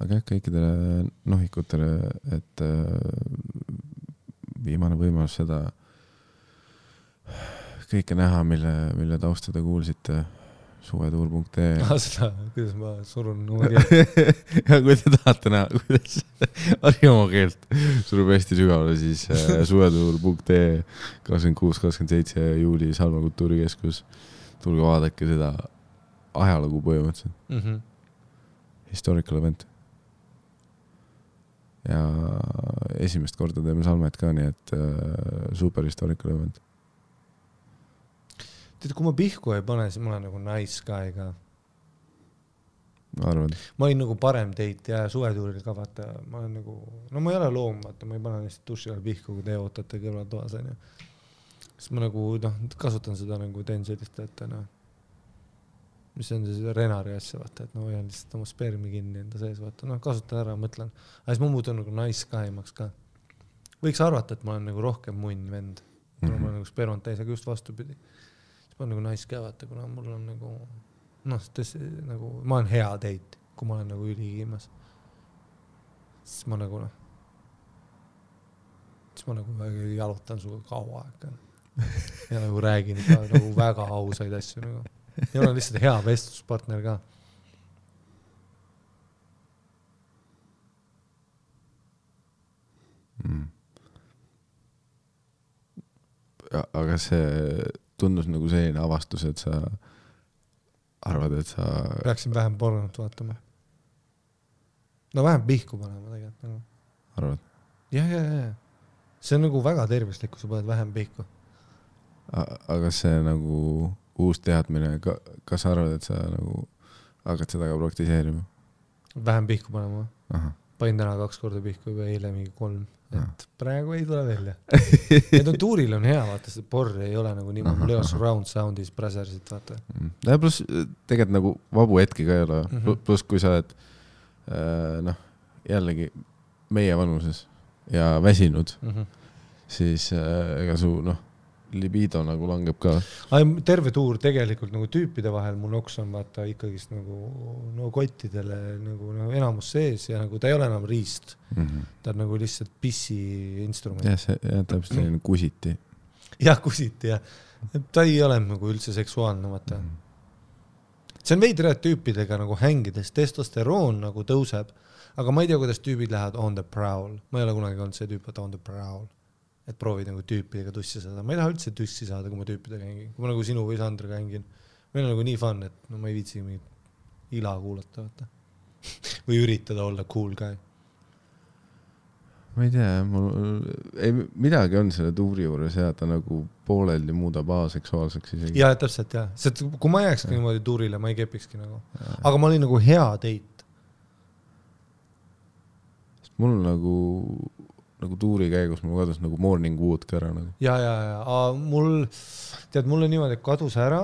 Aga kõikidele nohikutele, et viimane võimalus seda kõike näha, mille taustada kuulsite suvetuur.ee seda, kuidas ma surun oma keelt. ja kui te tahate näha, kuidas Harjumaa keelt surub hästi sügavale, siis suvetuur.ee 26-27 juuli Salma kultuurikeskus. Tulge vaadake seda ajalugu põhimõtteliselt. Historical event. Ja esimest korda teeme Salmet ka, nii et super historical event. Tead, kui ma pihku ei pane, siis ma olen nagu nice guy ka. Arvad? Ma olin nagu parem teit ja suvetuuril ka vaata, ma olen nagu, no ma ei ole loom, vaata, ma ei pane lihtsalt duši all pihku, kui te ootate kõrvaltoas. Siis ma nagu, kasutan seda nagu teen sellist, et mis on see renari asja, vaata, et hoian lihtsalt oma spermi kinni enda sees, vaata, kasutan ära, mõtlen. Aga siis ma muutun nagu nice guy-maks ka. Võiks arvata, et ma olen nagu rohkem munn vend, kuna ma olen nagu spermant täis, aga just vastupidi. Ma olen nagu nice guy, vaata, kuna mul on nagu, nagu, ma olen hea teit, kui ma olen nagu ülikiimas. Siis ma nagu, jalutan suga kaua aega. Ja nagu räägin ka nagu väga ausaid asju nagu. Ja olen lihtsalt hea vestluspartner ka. Aga see tundus nagu selline avastus, et sa arvad, et sa... Peaksin vähem pornot vaatama. No vähem pihku panema tegelikult. Nagu. Arvad? Ja. See on nagu väga tervislik, kui sa paned vähem pihku. Aga see nagu uus teadmine, kas sa arvad, et sa nagu hakkad seda ka praktiseerima? Vähem pihku panema. Aha. Panin täna 2 korda pihku ja eile mingi 3. Et praegu ei tule välja. Et on tuuril on hea, vaata, see porr ei ole nagu niimoodi, mul ei ole surround soundis Brazersit, vaata. Ja plus tegelikult nagu vabu hetki ka ei ole. Plus kui sa oled jällegi meie vanuses ja väsinud, siis ega su libido nagu langeb ka. Terve tuur tegelikult nagu tüüpide vahel mul noks on vaata ikkagist nagu kottidele nagu enamus sees ja nagu ta ei ole enam riist. Ta on nagu lihtsalt pissi instrument. Ja täpselt selline kusiti. Jah, kusiti ja ta ei ole nagu üldse seksuaalne vaata. See on veidre tüüpidega nagu hängides, testosteroon nagu tõuseb, aga ma ei tea, kuidas tüübid lähevad on the prowl. Ma ei ole kunagi olnud see tüüp, et on the prowl. Et proovid nagu tüüpidega tussi saada. Ma ei taha üldse tussi saada, kui ma tüüpidega hängin. Kui ma nagu sinu või Sandriga hängin. Meil on nagu nii fun, et ma ei viitsi mingit ila kuulata. Vaata. Või üritada olla cool guy. Ma ei tea, midagi on selle tuuri juures ja ta nagu pooleldi muudab aseksuaalseks isegi. Ja, täpselt jah. Kui ma jääkski niimoodi tuurile, ma ei kepikski nagu. Aga ma olin nagu hea teit. Mul nagu tuuri käigus mul kadus nagu morning wood ka ära. Nagu. Ja. Mul niimoodi kadus ära,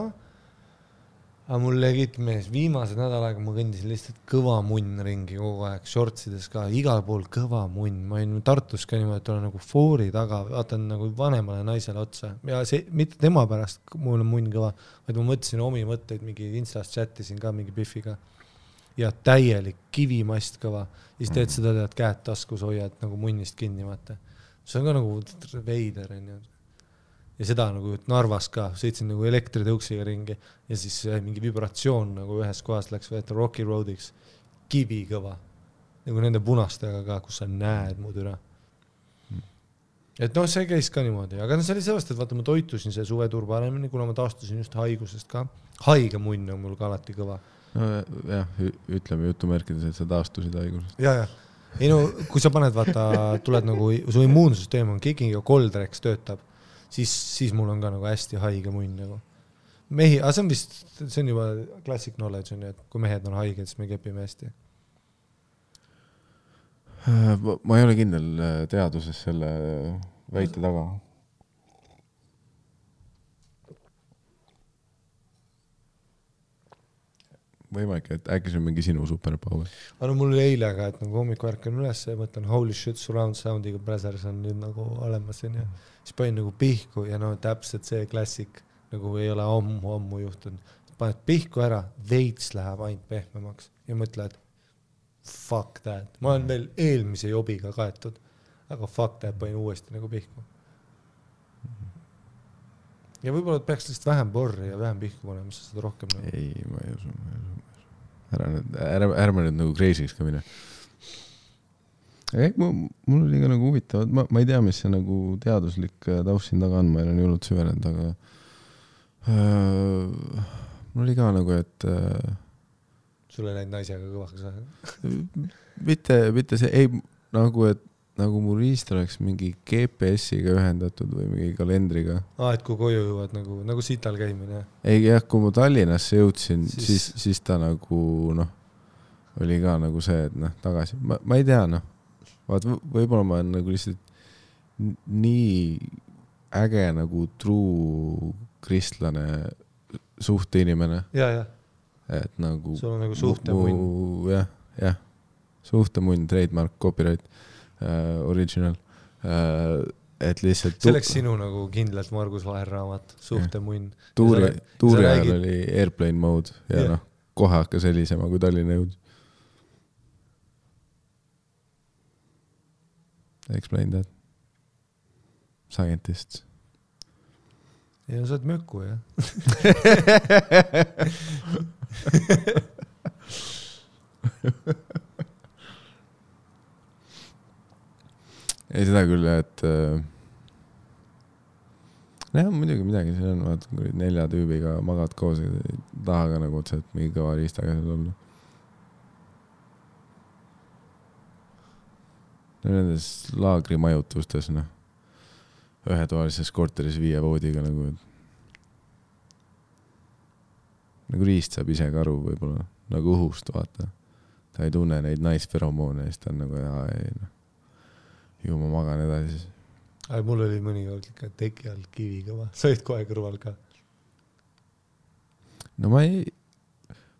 aga mul legit mees viimased nädal aega ma kõndisin lihtsalt kõva munn ringi kogu aeg, shortsides ka, igal pool kõva munn. Ma olin Tartus ka niimoodi, et olen nagu foori taga, vaatan nagu vanemale naisele otsa. Ja see, mitte tema pärast mul on munn kõva, vaid ma mõtlesin omi mõtteid, mingi Instas chatisin ka mingi Biffiga. Ja täielik kivimast kõva. Ja siis teed seda, et käed taskus hoiad nagu munnist kinni, vaata. See on ka nagu veider. Ja seda nagu Narvas ka, sõitsin nagu elektritõuksiga ringi ja siis mingi vibratsioon nagu ühes kohas läks võeta Rocky Roadiks. Kivi kõva. Nagu nende punastega ka, kus sa näed muud üle. Et see käis ka niimoodi. Aga see oli sellest, et vaata, ma toitusin see suvetuur paremini, kuna ma taastusin just haigusest ka. Haige munn on mul ka alati kõva. No jah, ütleme jutumärkides, et sa taastusid haigusest. Ja. Ei no, kui sa paned, vaata, tuled nagu, su immuunsüsteem on kicking ja Coldrex töötab, siis mul on ka nagu hästi haige munn nagu. Mehi, aga see on juba classic knowledge, et kui mehed on haiged, siis me kepime hästi. Ma ei ole kindel teaduses selle väite taga. Võimalik, et äkki see on mingi sinu superpower. Aga mul oli eile ka, et nagu hommiku ärkan üles ja mõtlen holy shit, surround soundiga Brazzers on nüüd nagu olemas ja siis panin nagu pihku ja täpselt see klassik nagu ei ole ammu juhtunud. Paned pihku ära, veits läheb ainult pehmemaks ja mõtled fuck that. Ma olen veel eelmise jobiga kaetud, aga fuck that panin uuesti nagu pihku. ja võib-olla peaks lihtsalt vähem porri ja vähem pihku panema, siis seda rohkem nagu. Ei, ma ei usu. Ärme nüüd nagu crazy'ks ka mine. Mul oli ka nagu huvitavad, ma ei tea, mis see nagu teaduslik taust siin taga on, ma ei ole nii hullult süvenenud, aga mul oli ka nagu, et sul ei läinud naisega kõvaks või? mitte see, ei nagu, et nagu mu riist oleks mingi GPS-iga ühendatud või mingi kalendriga. Et kui koju jõuad nagu sital käimine. Ei jah, kui ma Tallinnasse jõudsin, siis ta nagu oli ka nagu see, et tagasi. Ma ei tea, vaat võib-olla ma olen nagu lihtsalt nii äge nagu true kristlane suhteinimene. Ja. Et nagu sul on nagu suhtemunn. Jah. Suhtemunn, trademark, copyright. Original, et lihtsalt see oleks sinu nagu kindlalt Margus Vaher raamat, suhtemunn. Tuuri ajal oli airplane mode ja kohe hakkas helisema, kui Tallinna jõud. Explain that. Scientists. Ja sa oled möku, jah. Ei seda küll, et muidugi midagi siin on, vaata, kui 4 tüübiga magad koos ja taha ka nagu otsa, et mingi kõva riistaga seal olla. Nendes laagrimajutustes, ühetoalises korteris 5 voodiga nagu riist saab ise ka aru võib-olla, nagu õhust, vaata. Ta ei tunne neid naisferomoone ja siis ta on nagu, ju ma magan edasi. Mul oli mõni ikka teki all kivi kõva. Sa olid kohe kõrval ka. No ma ei...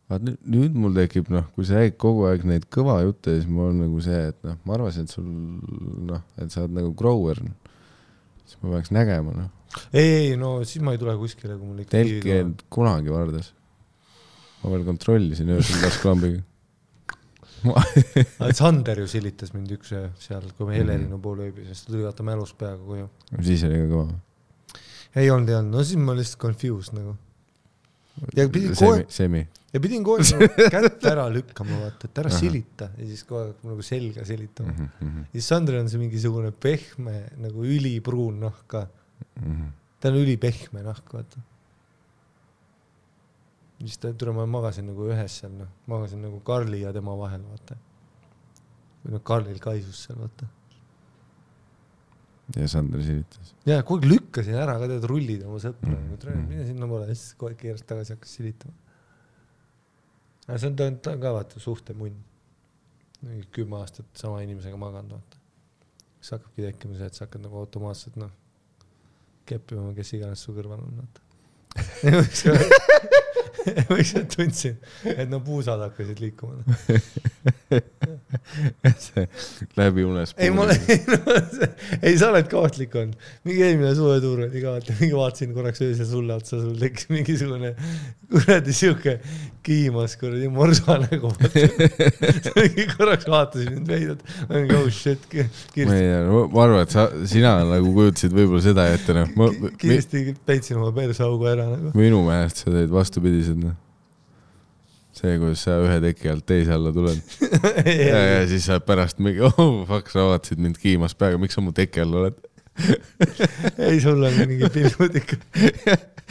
Vaat nüüd mul tekib, kui sa räägid kogu aeg neid kõva jutte, siis mul on nagu see, et ma arvasin, et sul, et sa oled nagu grower. Siis ma peaks nägema, Ei, siis ma ei tule kuskile, kui mul ikka kivi kõva. Telki kunagi vardas. Ma veel kontrollisin öösel lasklambiga. Sander ju silitas mind üks seal, kui me Helerinu pool ööbis, sest ta tuli vaata mälus peaga koju. Siis oli ka kõva. Ei olnud. Siis ma lihtsalt confused nagu. Ja pidin kohe kätt ära lükkama, vaata, et ära silita. Ja siis kohe nagu selga silitama. Ja siis Sander on see mingisugune pehme, nagu ülipruun nahka. Ta on ülipehme nahk, vaata. Siis ma magasin nagu ühes seal, magasin nagu Karli ja tema vahel, vaata. Või Karlil kaisus seal, vaata. Ja Sander silitas. Ja, kogu lükkasin ära, ka tead rullid oma sõpra. Mine sinna pole, siis kogu keerast tagasi hakkas silitama. See on ka, vaata, suhtemunn. 10 aastat sama inimesega maganud, vaata. Siis hakkabki tekkima see, et sa hakkad nagu automaatselt, keppima, kes iganes su kõrval on, vaata. Võiks et tundsin, et puusad hakkasid liikuma. See läbi unes puhul. Ei, sa oled kaotlik on. Mingi eelmine suvetuur oli ka, mingi vaatasin korraks öösel sulle otsa, sul tekkis mingisugune kuradi siuke kiimas kuradi morsa nägu. Mingi korraks vaatasin mind veidad. Oh shit. Ma arvan, et sina nagu kujutasid võib-olla seda ette. Kiiresti peitsin oma persaugu ära. Minu meelest sa teed vastupidised. See, kuidas sa ühe teki alt teise alla tuled. ja siis sa pärast mingi, fuck, sa vaatasid mind kiimas peaga, miks sa mu teki all oled? Ei, sul on mingi pilgud ikka.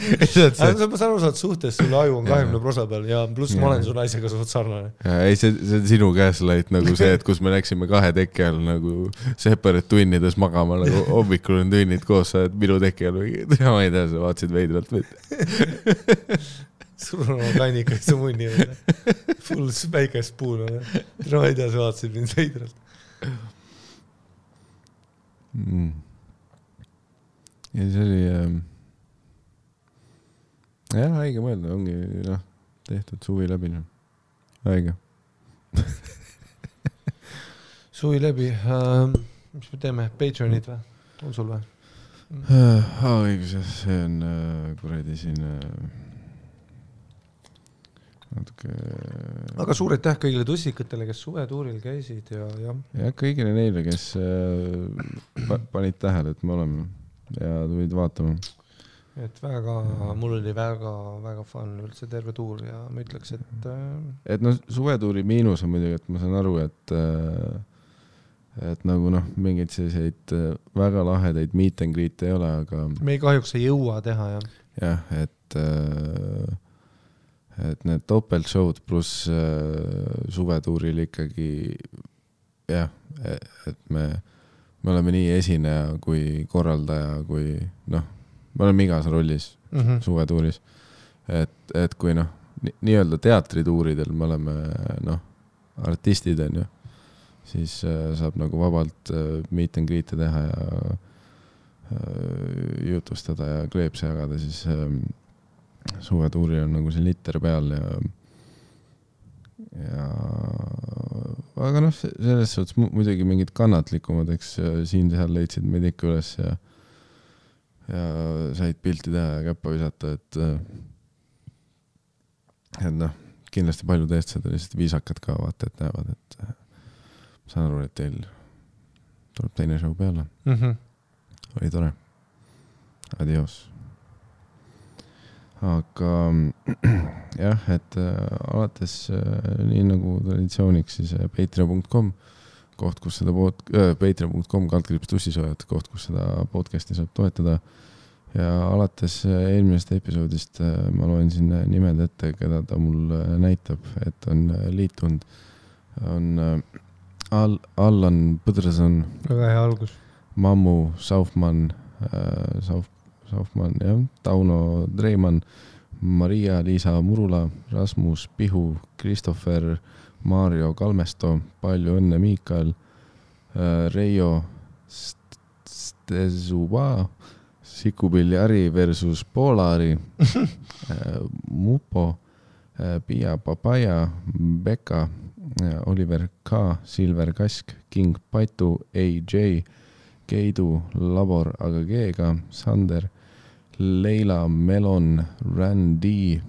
Ma saan aru, sa oled suhtes, sulle aju on 20% peal ja pluss ma olen su naisega suht sarnane. Ei, see on sinu gaslight nagu see, et kus me läksime 2 teki all nagu separate tunnides magama, nagu hommikul on tunnid koos, sa oled minu teki all või ma ei tea, sa vaatasid veidralt või? Sul on oma kannikas su munni on. Full päikest puun on. Ma ei tea, sa vaatasid mind veidralt. Ja see oli haige mõelda, ongi tehtud suvi läbi. Haige. Suvi läbi. Mis me teeme? Patreonid või? On sul või? Õigus, see on kuradi siin natuke... Aga suur aitäh kõigile tussikatele, kes suvetuuril käisid ja kõigile neile, kes panid tähele, et me oleme ja tulid vaatama. et väga, mul oli väga fun üldse terve tuur ja ma ütleks, et no suvetuuri miinus on muidugi, et ma saan aru, et nagu noh, mingeid selliseid väga lahedaid meet and greet ei ole, aga me ei kahjuks ei jõua teha, jah. Jah, et need topeltshowd pluss suvetuuril ikkagi jah, et me oleme nii esineja kui korraldaja, kui noh, me oleme igas rollis suvetuuris, et kui noh, nii-öelda teatrituuridel me oleme noh, artistid on ju, siis saab nagu vabalt meet and greet'e teha ja jutustada ja kleepse jagada, siis suvetuuri on nagu see litter peal ja aga noh, selles suhtes muidugi mingid kannatlikumad, eks siin-seal leidsid meid ikka üles ja said pilti teha ja käppa visata, et noh, kindlasti paljud eestlased on lihtsalt viisakad ka, vaata, et näevad, et saan aru, et teil tuleb teine show peale. Oli tore. Adios. Aga jah, et alates nii nagu traditsiooniks siis patreon.com koht, kus seda patreon.com /tussisoojad koht, kus seda podcasti saab toetada ja alates eelmisest episoodist ma loen siin nimed ette, keda ta mul näitab, et on liitunud, on Allan Põdrason, väga hea algus, Mammu Saufmann, jah, Tauno Dreimann, Maria-Liisa Murula, Rasmus Pihu, Christopher, Mario Kalmesto, palju õnne Miikael, Reijo Stezuba, Sikupilli Ari versus Polari, Mupo, Pia Papaya, Beka, Oliver K, Silver Kask, King Patu, AJ, Keidu, Labor AGG-ga, Sander, Leila Melon, Randy,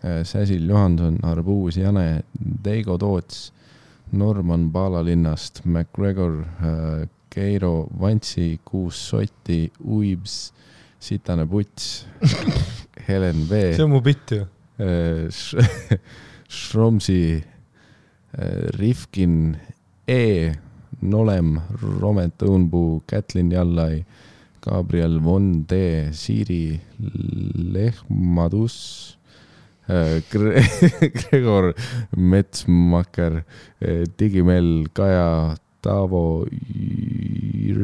Säsil Johanson, Arbuus Jane, Deigo Toots, Norman Paalalinnast, McGregor, Keiro Vantsi, Kuus Sotti, Uibs, Sitane Puts, Helen V. See on mu bitt ju. Shromsi, Rifkin E, Nolem, Romet Õunpuu, Kätlin Jallai, Gabriel Von D, Siiri Lehmadus, Gregor Metsmaker, Digimel, Kaja, Taavo,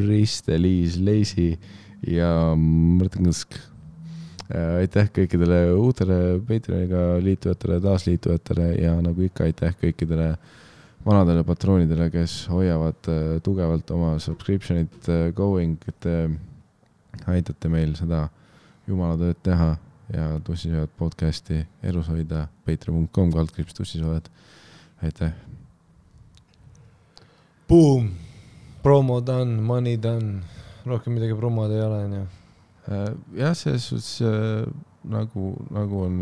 Riste-Liis Leisi ja Mõrtengusk. Aitäh kõikidele uutele Patreoniga liitujatele, taasliitujatele ja nagu ikka aitäh kõikidele vanadele patroonidele, kes hoiavad tugevalt oma subscriptionit going, et aitate meil seda jumala tööd teha ja Tussisoojad podcasti elus hoida, patreon.com /tussisoojad. Aitäh. Boom! Promo done, money done. Rohkem midagi promod ei ole, on ju. Jah, selles suhtes nagu on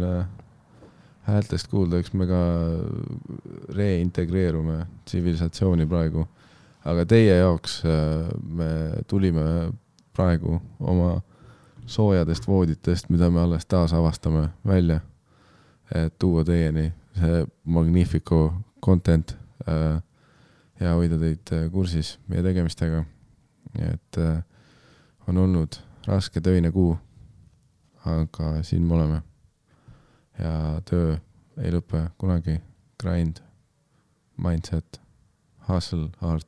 häältest kuulda, eks me ka reintegreerume tsivilisatsiooni praegu, aga teie jaoks me tulime praegu oma soojadest vooditest, mida me alles taas avastame välja, et tuua teieni see Magnifico content ja hoida teid kursis meie tegemistega. Et on olnud raske töine kuu, aga siin me oleme. Ja töö ei lõpe kunagi. Grind, mindset, hustle, heart,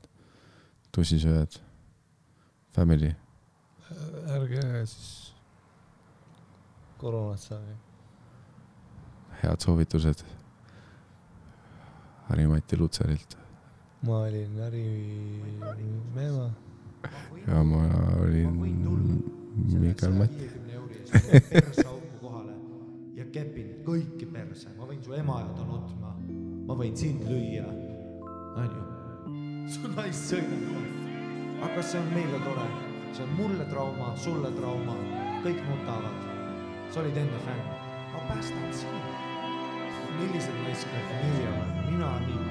tussisööjad, family. Ärge siis koroonat saagi. Head soovitused Harri-Mati Lutserilt. Ma olin Harri Meema. Ja ma olin Mikael Mati. Persauku kohale ja kepin kõiki perse. Ma võin su ema ja nutma. Ma võin sind lüüa. Anju, su naist sõina. Aga see on meile tore. See on mulle trauma, sulle trauma. Kõik nutavad. Sa olid enne fänn. Ma päästan sinu. Millised naiskad meie oleme? Mina nii.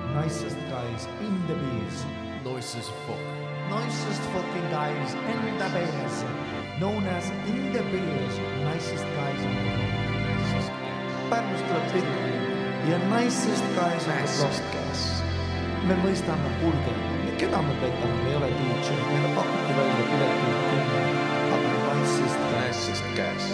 Nicest guys in the bees. Nicest fuck. Nicest fucking guys in the bees. known as in the village nicest guys on the block. Pärnust tuleb selline ja nicest guys on the block. Me mõistame, kuulge, keda me petame, me ei ole DJ, meile pakuti välja piletina 10, aga nicest guys.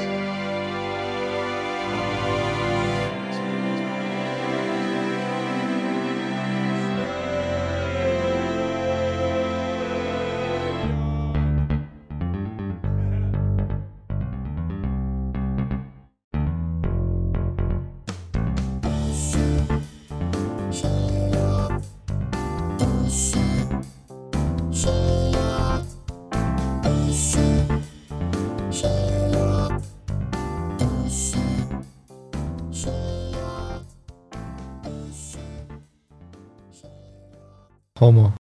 Homo.